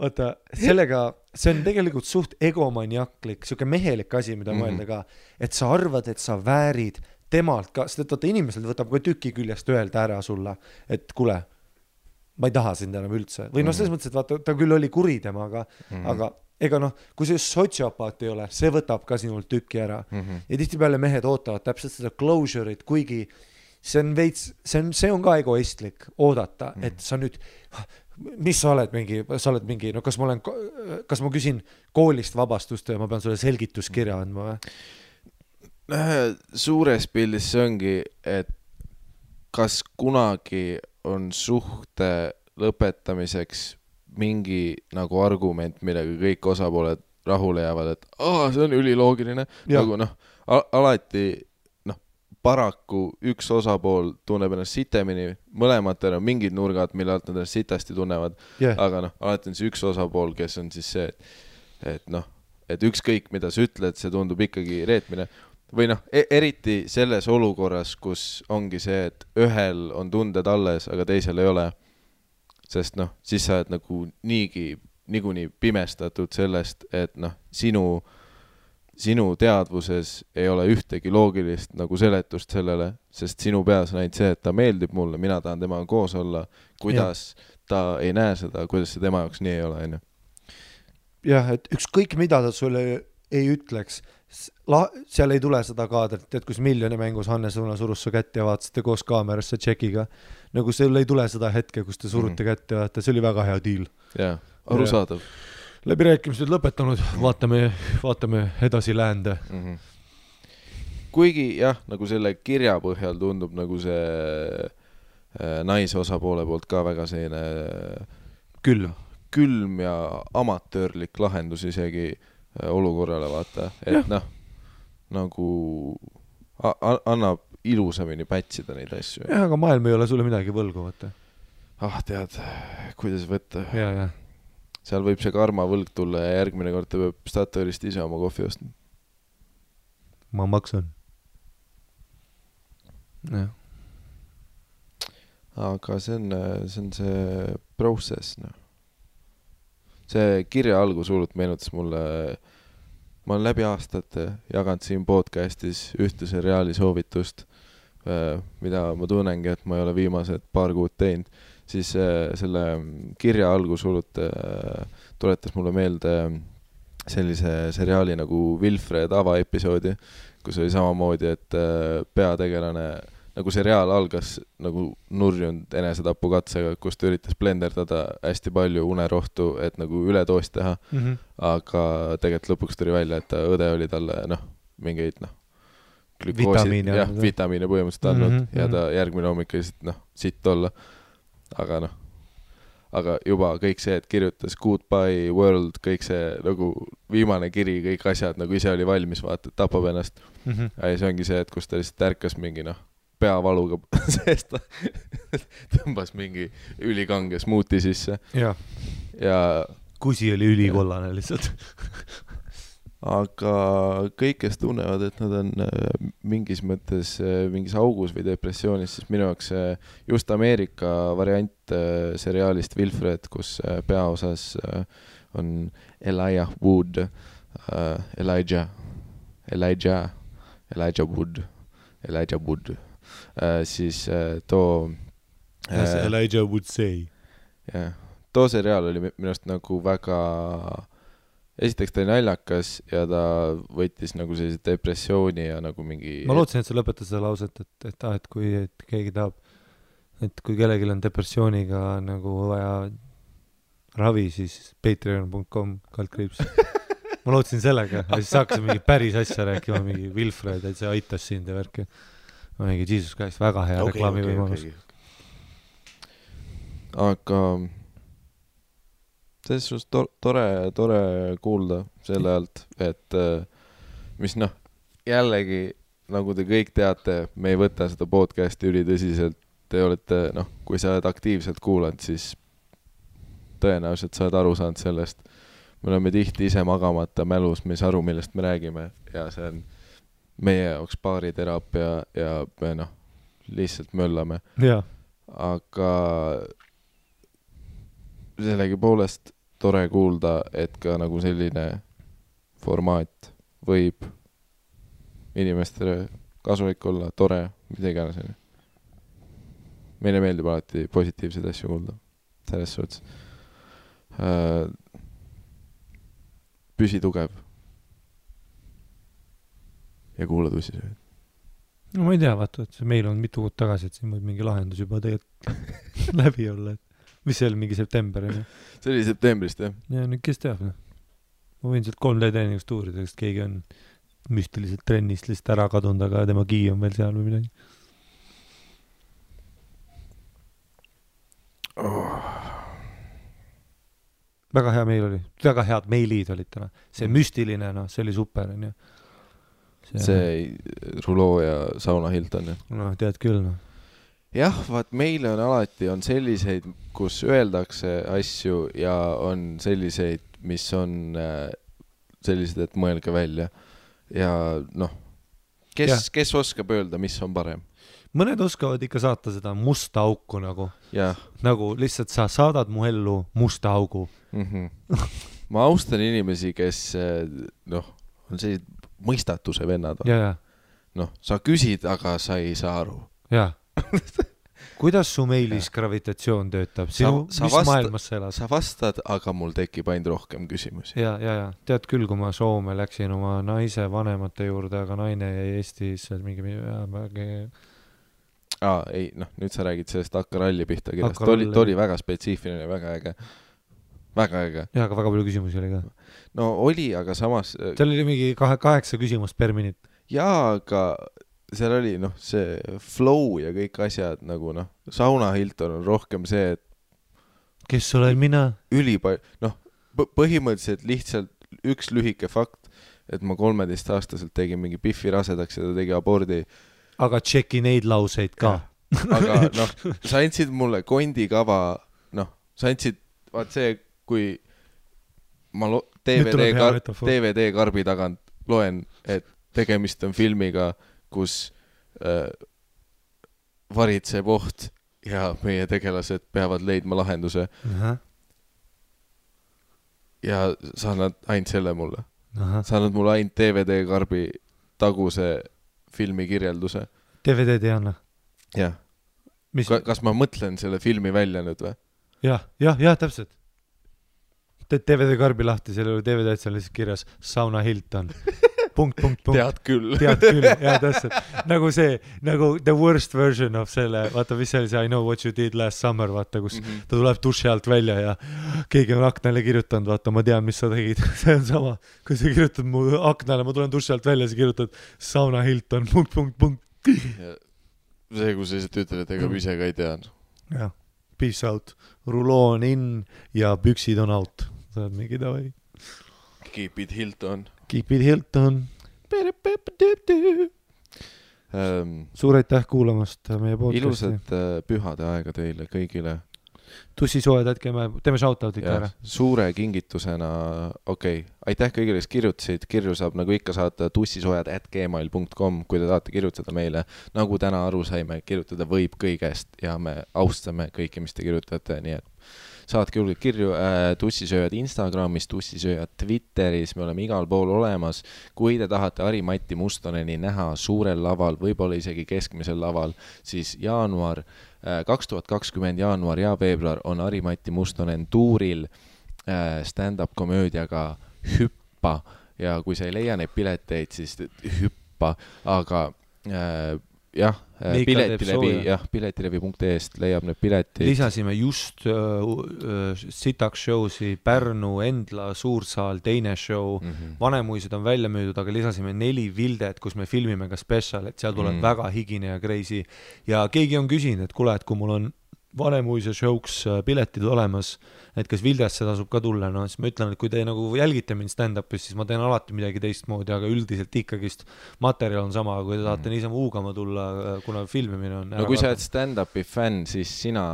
vaata, sellega, see on tegelikult suht egomaniaklik, siuke mehelik asi, mida mõelda ka, et sa arvad, et sa väärid temalt ka, sest et vaata inimesel võtab ka tüki küljest öelda ära sulle, et kuule, ma ei taha sind enam üldse. Või selles mõttes, et vaata, ta küll oli kuri temaga, aga ega kui see sotsiopaat ei ole, see võtab ka sinult tükki ära. Ja tihtipeale mehed ootavad täpselt seda closure'it, kuigi see on ka egoistlik oodata, et sa nüüd, mis sa oled mingi, kas ma küsin koolist vabastust ja ma pean sulle selgituskirja andma või? Suures pildis see ongi, et kas kunagi on suhte lõpetamiseks mingi nagu argument, millega kõik osapooled rahule jäävad, et see on üliloogiline. Nagu alati paraku üks osapool tunneb ennast sitemini, mõlematel on mingid nurgad, mille alt nad ennast sitasti tunnevad, aga alati on see üks osapool, kes on siis see, et ükskõik mida sa ütled, see tundub ikkagi reetmine. Või eriti selles olukorras, kus ongi see, et ühel on tunded alles, aga teisel ei ole. Sest siis sa oled nagu niikuinii pimestatud sellest, et sinu teadvuses ei ole ühtegi loogilist nagu seletust sellele, sest sinu peas on ainult see, et ta meeldib mulle, mina tahan temaga koos olla, kuidas ta ei näe seda, kuidas see tema jaoks nii ei ole, on ju. Jah, et ükskõik mida ta sulle ei ütleks, seal ei tule seda kaadrit, et kus Miljoni mängus Hannes Õuna surus su kätt ja vaatasite koos kaamerasse tšekiga. Nagu seal ei tule seda hetke, kus te surute kätt ja see oli väga hea deal. Jaa, arusaadav. Läbirääkimised lõpetanud, vaatame edasi läände. kuigi jah, nagu selle kirja põhjal tundub nagu see naise osapoole poolt ka väga selline külm ja amatöörlik lahendus isegi olukorrale, vaata, et noh, nagu annab ilusamini pätsida neid asju. Jah, aga maailm ei ole sulle midagi võlgu, vaata. Tead, kuidas võtta. Ja. Seal võib see karma võlg tulla ja järgmine kord ta peab Statoilist ise oma kohvi ostma. Ma maksan. Jah. Aga see on see process, noh. See kirja algus hullult meenutas mulle, ma olen läbi aastate jaganud siin podcastis ühte seriaali soovitust, mida ma tunnengi, et ma ei ole viimased paar kuud teinud, siis selle kirja algus hullult tuletas mulle meelde sellise seriaali nagu Wilfred avaepisoodi, kus oli samamoodi, et peategelane, nagu seriaal algas nagu nurjunud enesetapukatsega, kus ta üritas blenderdada hästi palju unerohtu, et nagu üledoost teha, aga tegelikult lõpuks tuli välja, et õde oli talle mingeid vitamiine põhimõtteliselt andnud ja ta järgmine hommik lihtsalt sitt olla. Aga juba kõik see, et kirjutas Goodbye World, kõik see nagu viimane kiri, kõik asjad nagu ise oli valmis, vaata, tapab ennast. Ja see ongi see, et kus ta lihtsalt ärkas mingi peavaluga seest tõmbas mingi ülikange smuuti sisse. Ja kusi oli ülikollane lihtsalt. Aga kõik, kes tunnevad, et nad on mingis mõttes mingis augus või depressioonis, siis minu jaoks just Ameerika variant seriaalist Wilfred, kus peaosas on Elijah Wood, siis too as Elijah would say. Too seriaal oli minu arust nagu väga esiteks ta oli naljakas ja ta võttis nagu sellise depressiooni ja nagu mingi ma lootsin, et sa lõpetas seda lauset, et kui keegi tahab, et kui kellelgi on depressiooniga nagu vaja ravi, siis patreon.com/. Ma lootsin sellega ja siis hakkasin mingi päris asja rääkima, mingi Wilfred, et see aitas sind ja värki. Mingi Jesus Christ, väga hea reklaamivõimalus. Aga selles suhtes tore kuulda selle alt, et mis jällegi, nagu te kõik teate, me ei võta seda podcasti ülitõsiselt. Te olete, kui sa oled aktiivselt kuulanud, siis tõenäoliselt sa oled aru saanud sellest. Me oleme tihti ise magamata mälus, me ei saa aru, millest me räägime ja see on meie jaoks baariteraapia ja me lihtsalt möllame. Aga sellegi poolest tore kuulda, et ka nagu selline formaat võib inimestele kasulik olla, tore, mida iganes. Meile meeldib alati positiivseid asju kuulda. Selles suhtes. Püsi tugev. Ja kuula tõsiselt. No ma ei tea, vaata, et meil on mitu kuud tagasi, et siin võib mingi lahendus juba tegelikult läbi olla, et mis see oli, mingi september? See oli septembrist, jah. Ja nüüd kes teab, Ma võin sealt 3D treeningust uurida, sest keegi on müstiliselt trennist lihtsalt ära kadunud, aga tema kii on veel seal või midagi. Väga hea meil oli. Väga head meilid olid täna. See müstiline, see oli super. See Ruloo ja Sauna Hilton. Tead küll, Jah, vaat meile on alati on selliseid, kus öeldakse asju ja on selliseid, mis on sellised, et mõelge välja. Ja kes oskab öelda, mis on parem? Mõned oskavad ikka saata seda musta auku nagu. Ja. Nagu lihtsalt sa saadad mu ellu musta augu. Ma austan inimesi, kes on sellised mõistatuse vennad. Sa küsid, aga sa ei saa aru. Jaa. Kuidas su meilis gravitatsioon töötab? Mis maailmas sa elad? Sa vastad, aga mul tekib ainult rohkem küsimusi. Ja. Tead küll, kui ma Soome läksin oma naise vanemate juurde, aga naine jäi Eestis mingi... ei, nüüd sa räägid sellest Akkaralli pihta kirjast. Ta oli väga spetsiifiline, väga äge. Väga äge. Ja, aga väga palju küsimusi oli ka. No oli, aga samas... Seal oli mingi 8 küsimust per minut. jaa, aga seal oli see flow ja kõik asjad nagu Sauna Hilton on rohkem see, et kes olen mina? Põhimõtteliselt lihtsalt üks lühike fakt, et ma 13-aastaselt tegin mingi Biffi rasedaks ja ta tegi abordi. Aga tšeki neid lauseid ka. Aga sa andsid mulle kondikava, sa andsid, vaat see, kui ma DVD karbi tagant loen, et tegemist on filmiga, kus varitseb oht ja meie tegelased peavad leidma lahenduse. Ja sa annad ainult selle mulle. Sa annad mulle ainult DVD karbi taguse filmi kirjelduse. DVD-d ei anna? Jah. Kas ma mõtlen selle filmi välja nüüd või? Jah, täpselt. Teed DVD karbi lahti, selle oli DVD-d seal lihtsalt kirjas Sauna Hilton. Punkt. Tead küll, jah, täpselt. Nagu see, nagu the worst version of selle, vaata, mis see oli see I know what you did last summer, vaata, kus ta tuleb duši alt välja ja keegi on aknale kirjutanud, vaata, ma tean, mis sa tegid. See on sama, kui sa kirjutad mu aknale, ma tulen duši alt välja, sa kirjutad Sauna Hilton, punkt. See, kus sa lihtsalt ütled, et ega ise ka ei tean. Jah, peace out, ruloon in ja püksid on out. Sa oled mingi davai. Keep it Hilton. Suur aitäh kuulamast meie podcasti. Ilusat pühade aega teile kõigile. Tussisoojad, teeme shoutoutit ära. Suure kingitusena, aitäh kõigile, kes kirjutasid. Kirju saab nagu ikka saata tussisoojad@gmail.com, kui te tahate kirjutada meile. Nagu täna aru saime, kirjutada võib kõigest ja me austame kõiki, mis te kirjutate, nii et saatke julgelt kirju. Tussisööjad Instagramis, tussisööjad Twitteris, me oleme igal pool olemas. Kui te tahate Ari-Matti Mustoneni näha suurel laval, võib-olla isegi keskmisel laval, siis 2020 jaanuar ja veebruar on Ari-Matti Mustonen tuuril stand-up komöödiaga Hüppa ja kui sa ei leia neid pileteid, siis hüppa, aga piletilevi.ee-st leiab need piletid. Lisasime just sitaks showsi Pärnu, Endla, Suursaal, teine show. Vanemuised on välja müüdud, aga lisasime 4 Vildet, kus me filmime ka special, et seal tuleb väga higine ja crazy. Ja keegi on küsinud, et kuule, et kui mul on Vanemuise showks piletid olemas, et kas Vildesse tasub ka tulla, siis ma ütlen, et kui te nagu jälgite mind stand-upis, siis ma teen alati midagi teistmoodi, aga üldiselt ikkagist materjal on sama, kui te tahate niisama uugama tulla, kuna filmimine on kui sa oled stand-upi fänn, siis sina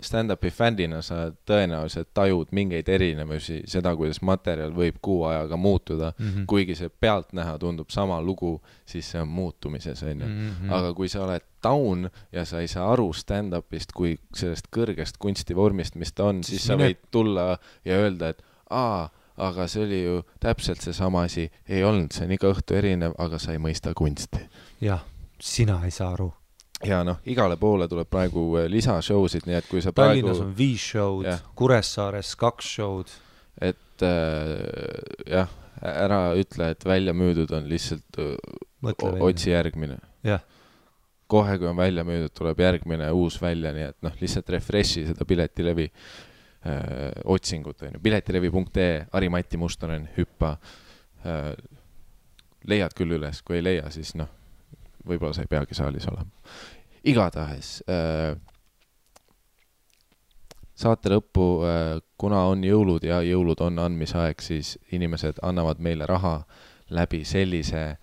stand-upi fännina sa tõenäoliselt tajud mingeid erinevusi, seda, kuidas materjal võib kuu ajaga muutuda, kuigi see pealtnäha tundub sama lugu, siis see on muutumises, aga kui sa oled down ja sa ei saa aru stand-upist kui sellest kõrgest kunstivormist, mis ta on, siis sa võid tulla ja öelda, et aga see oli ju täpselt see sama asi, ei olnud, see on iga õhtu erinev, aga sa ei mõista kunsti. Jah, sina ei saa aru. Ja igale poole tuleb praegu lisashowsid, nii et kui sa Tallinnas on 5 show'd, Kuressaares 2 show'd. Et ära ütle, et välja müüdud on lihtsalt otsi järgmine. Jah. Kohe, kui on välja müüdud, tuleb järgmine uus välja, nii et lihtsalt refreshi seda piletilevi otsingut. Piletilevi.ee, Ari-Matti Mustonen, Hüppa. Leiad küll üles, kui ei leia, siis võib-olla sa ei peagi saalis olema. Igatahes saate lõppu, kuna on jõulud ja jõulud on andmisaeg, siis inimesed annavad meile raha läbi sellise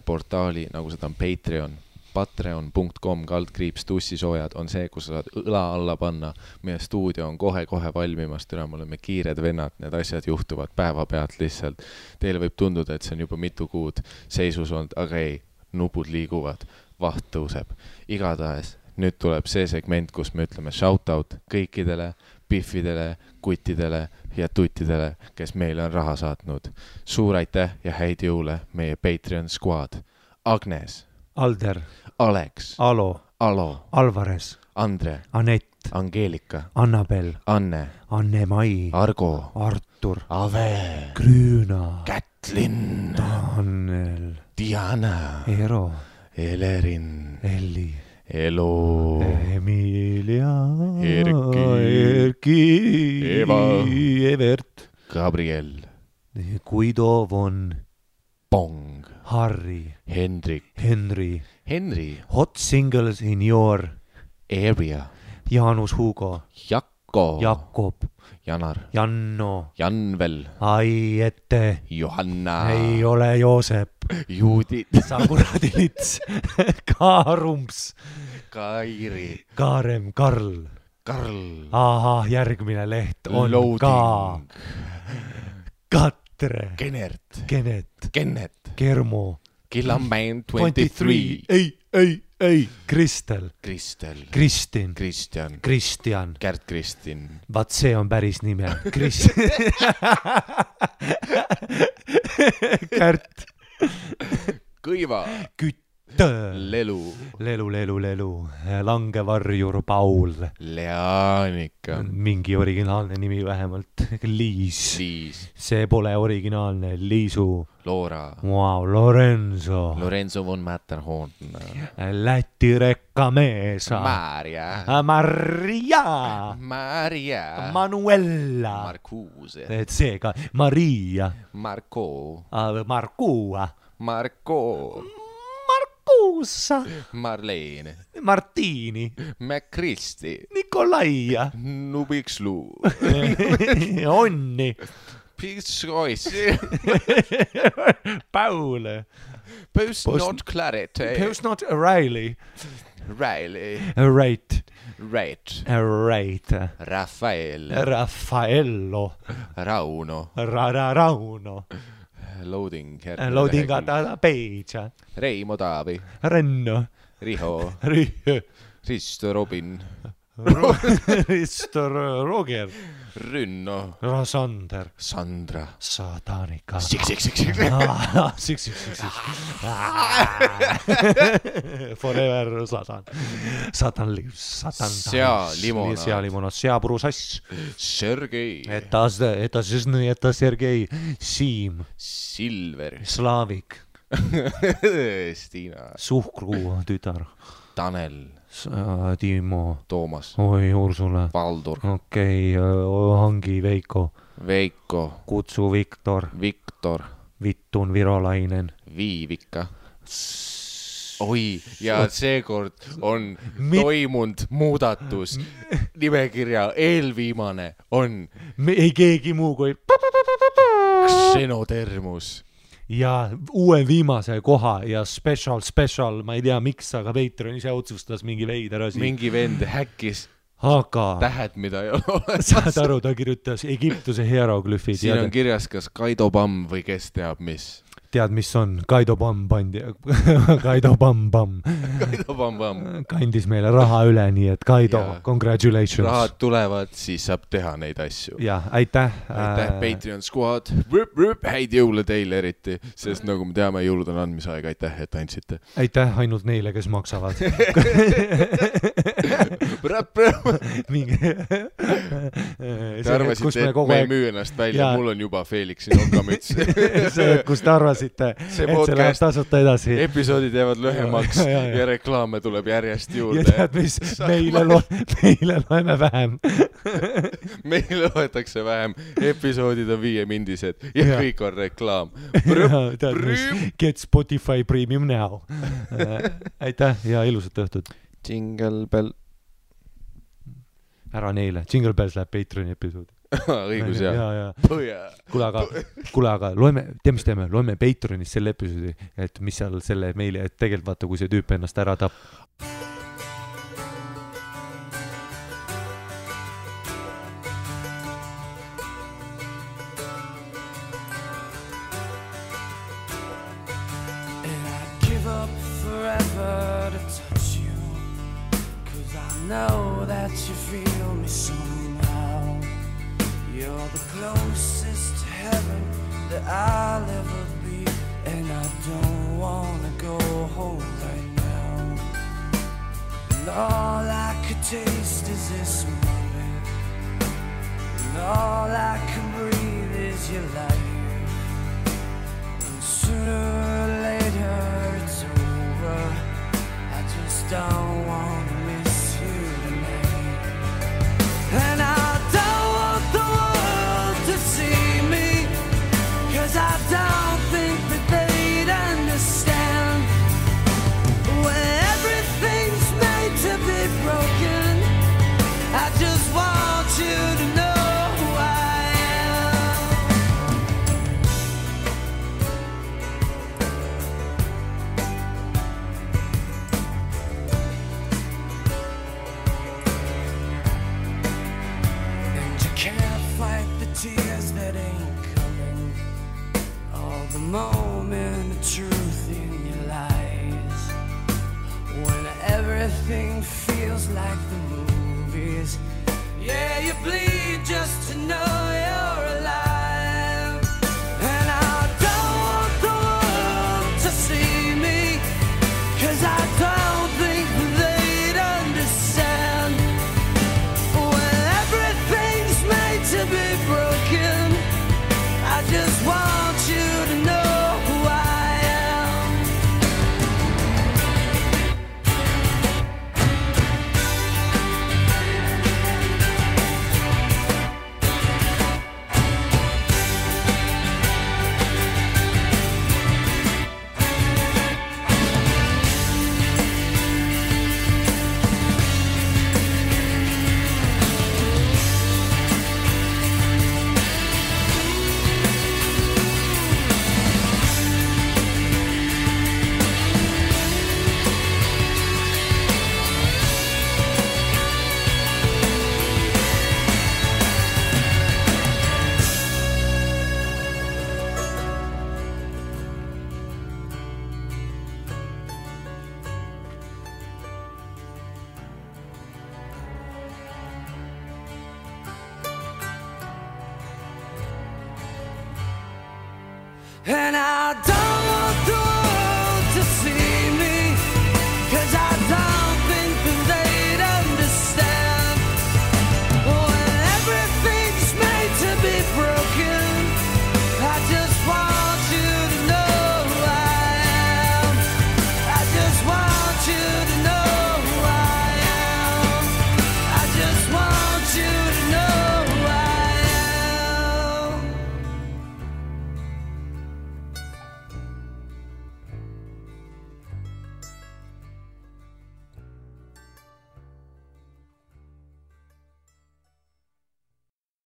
portaali, nagu seda on Patreon. patreon.com/tussisoojad on see, kus sa saad õla alla panna. Meie stuudio on kohe valmimast, me oleme kiired vennad, need asjad juhtuvad päevapealt lihtsalt. Teile võib tunduda, et see on juba mitu kuud seisus olnud, aga ei, nupud liiguvad, vaht tõuseb. Igatahes, nüüd tuleb see segment, kus me ütleme shoutout kõikidele Biffidele, kuttidele ja tuttidele, kes meile on raha saatnud. Suur aitäh ja häid jõule meie Patreon squad. Agnes, Alder, Alex, Alo, Alvarez, Andre, Anett, Angeelika, Annabel, Anne, Anne-Mai, Argo, Artur, Ave, Grüüna, Kätlin, Tanel, Diana, Ero, Elerin, Elli, Elo, Emilia, Erki, Eva, Evert, Gabriel, Guido von Pong. Harry, Hendrik, Henry, Henry, hot singles in your Area, Jaanus Hugo, Jakko, Jakob, Janar, Janno, Janvel, Aiette, Johanna, ei ole Joosep, Judit, sa kuradi lits, Kaarumps, Kairi, Kaarem, Karl. Karl, ahah, järgmine leht on Loading, ka Katre, Kenert, Kenet, Kennet, Kermo, Killamäen 23, ei, Kristel, Kristel, Kristin, Kristjan, Kristjan, Kärt Kristin, vaat see on päris nime, Kärt, Kõiva, Kütt, Lelu, Lelu, Langevarjur Paul, Leanika, mingi originaalne nimi vähemalt, Liis, see pole originaalne, Liisu, Loora, wow, Lorenzo, Lorenzo von Matterhorn, Läti rekkameesa, Maria, Manuela, Marcuse, et seega Maria, Marco, Markuusa, Marlene, Martiini, McChristi, Nikolaia, Nubikslu, Onni, Piscoisi, Paul, Post not Clarity, Post not Riley, Riley, Right, Raffaele, Raffaello, Rauno, Rauno, Loading, Loadingata Peitsa, Reimo Taavi, Renno, Riho, Risto Robin, Risto Roger, Rünno, Sander, Sandra, Satanika, Six. Forever Satan lives, Sealimonas, seapruusass, Sergei, eta Sergei, Siim, Silver, Slaavik, Stiina, Suhkru tütar, Tanel, Timo, Toomas, oi Ursula, Valdur, okei, Hangi, Veiko, Kutsu Viktor, Vittun Virolainen, Viivika. Oi, ja seekord on toimunud muudatus. Nimekirja eelviimane on ei keegi muu kui Xenotermus. Ja uue viimase koha ja special, ma ei tea miks, aga Patreon ise otsustas mingi veider asi. Mingi vend häkkis tähed, mida ei ole olemas. Saad aru, ta kirjutas Egiptuse hieroglüfid. Siin on kirjas kas Kaido Pamm või kes teab mis. Tead, mis on? Kaido Pamm pandi. Kaido Pamm. Kandis meile raha üle, nii et Kaido, congratulations. Rahad tulevad, siis saab teha neid asju. Ja, aitäh. Aitäh, Patreon squad. Häid jõule teile eriti, sest nagu me teame, jõulud on andmisaeg. Aitäh, et andsite. Aitäh ainult neile, kes maksavad. Te arvasite, et me ei müü ennast välja. Mul on juba Felixi nokamüts. See, kus te arvasite, et see läheb tasuta edasi. Episoodid jäävad lühemaks ja reklaame tuleb järjest juurde. Ja tead, mis? Meile loeme vähem. Meile loetakse vähem. Episoodid on 5-mindised ja kõik on reklaam. Tead, mis? Get Spotify Premium now. Aitäh ja ilusat õhtut. Jingle Bell. Ära neile. Jingle Bells läheb Patreoni episoodi. Õigus, jah. Kuule, aga loeme, mis teeme? Loeme Patreonis selle episoodi, et mis seal selle meili, et tegelikult vaata, kui see tüüp ennast ära tapp. And I'd give up forever to touch you, 'cause I know that you feel me somehow. You're the closest to heaven that I'll ever be, and I don't wanna go home right now. And all I could taste is this moment, and all I can breathe is your life. And sooner or later it's over. I just don't wanna miss you tonight. And I don't want the world to see me, 'cause I don't think that they'd understand. moment of truth in your lies. When everything feels like the movies, yeah, you bleed just to know you're alive. And I don't want the world to see me, 'cause I don't think they'd understand. When everything's made to be broken, I just want you to know who I am. And I don't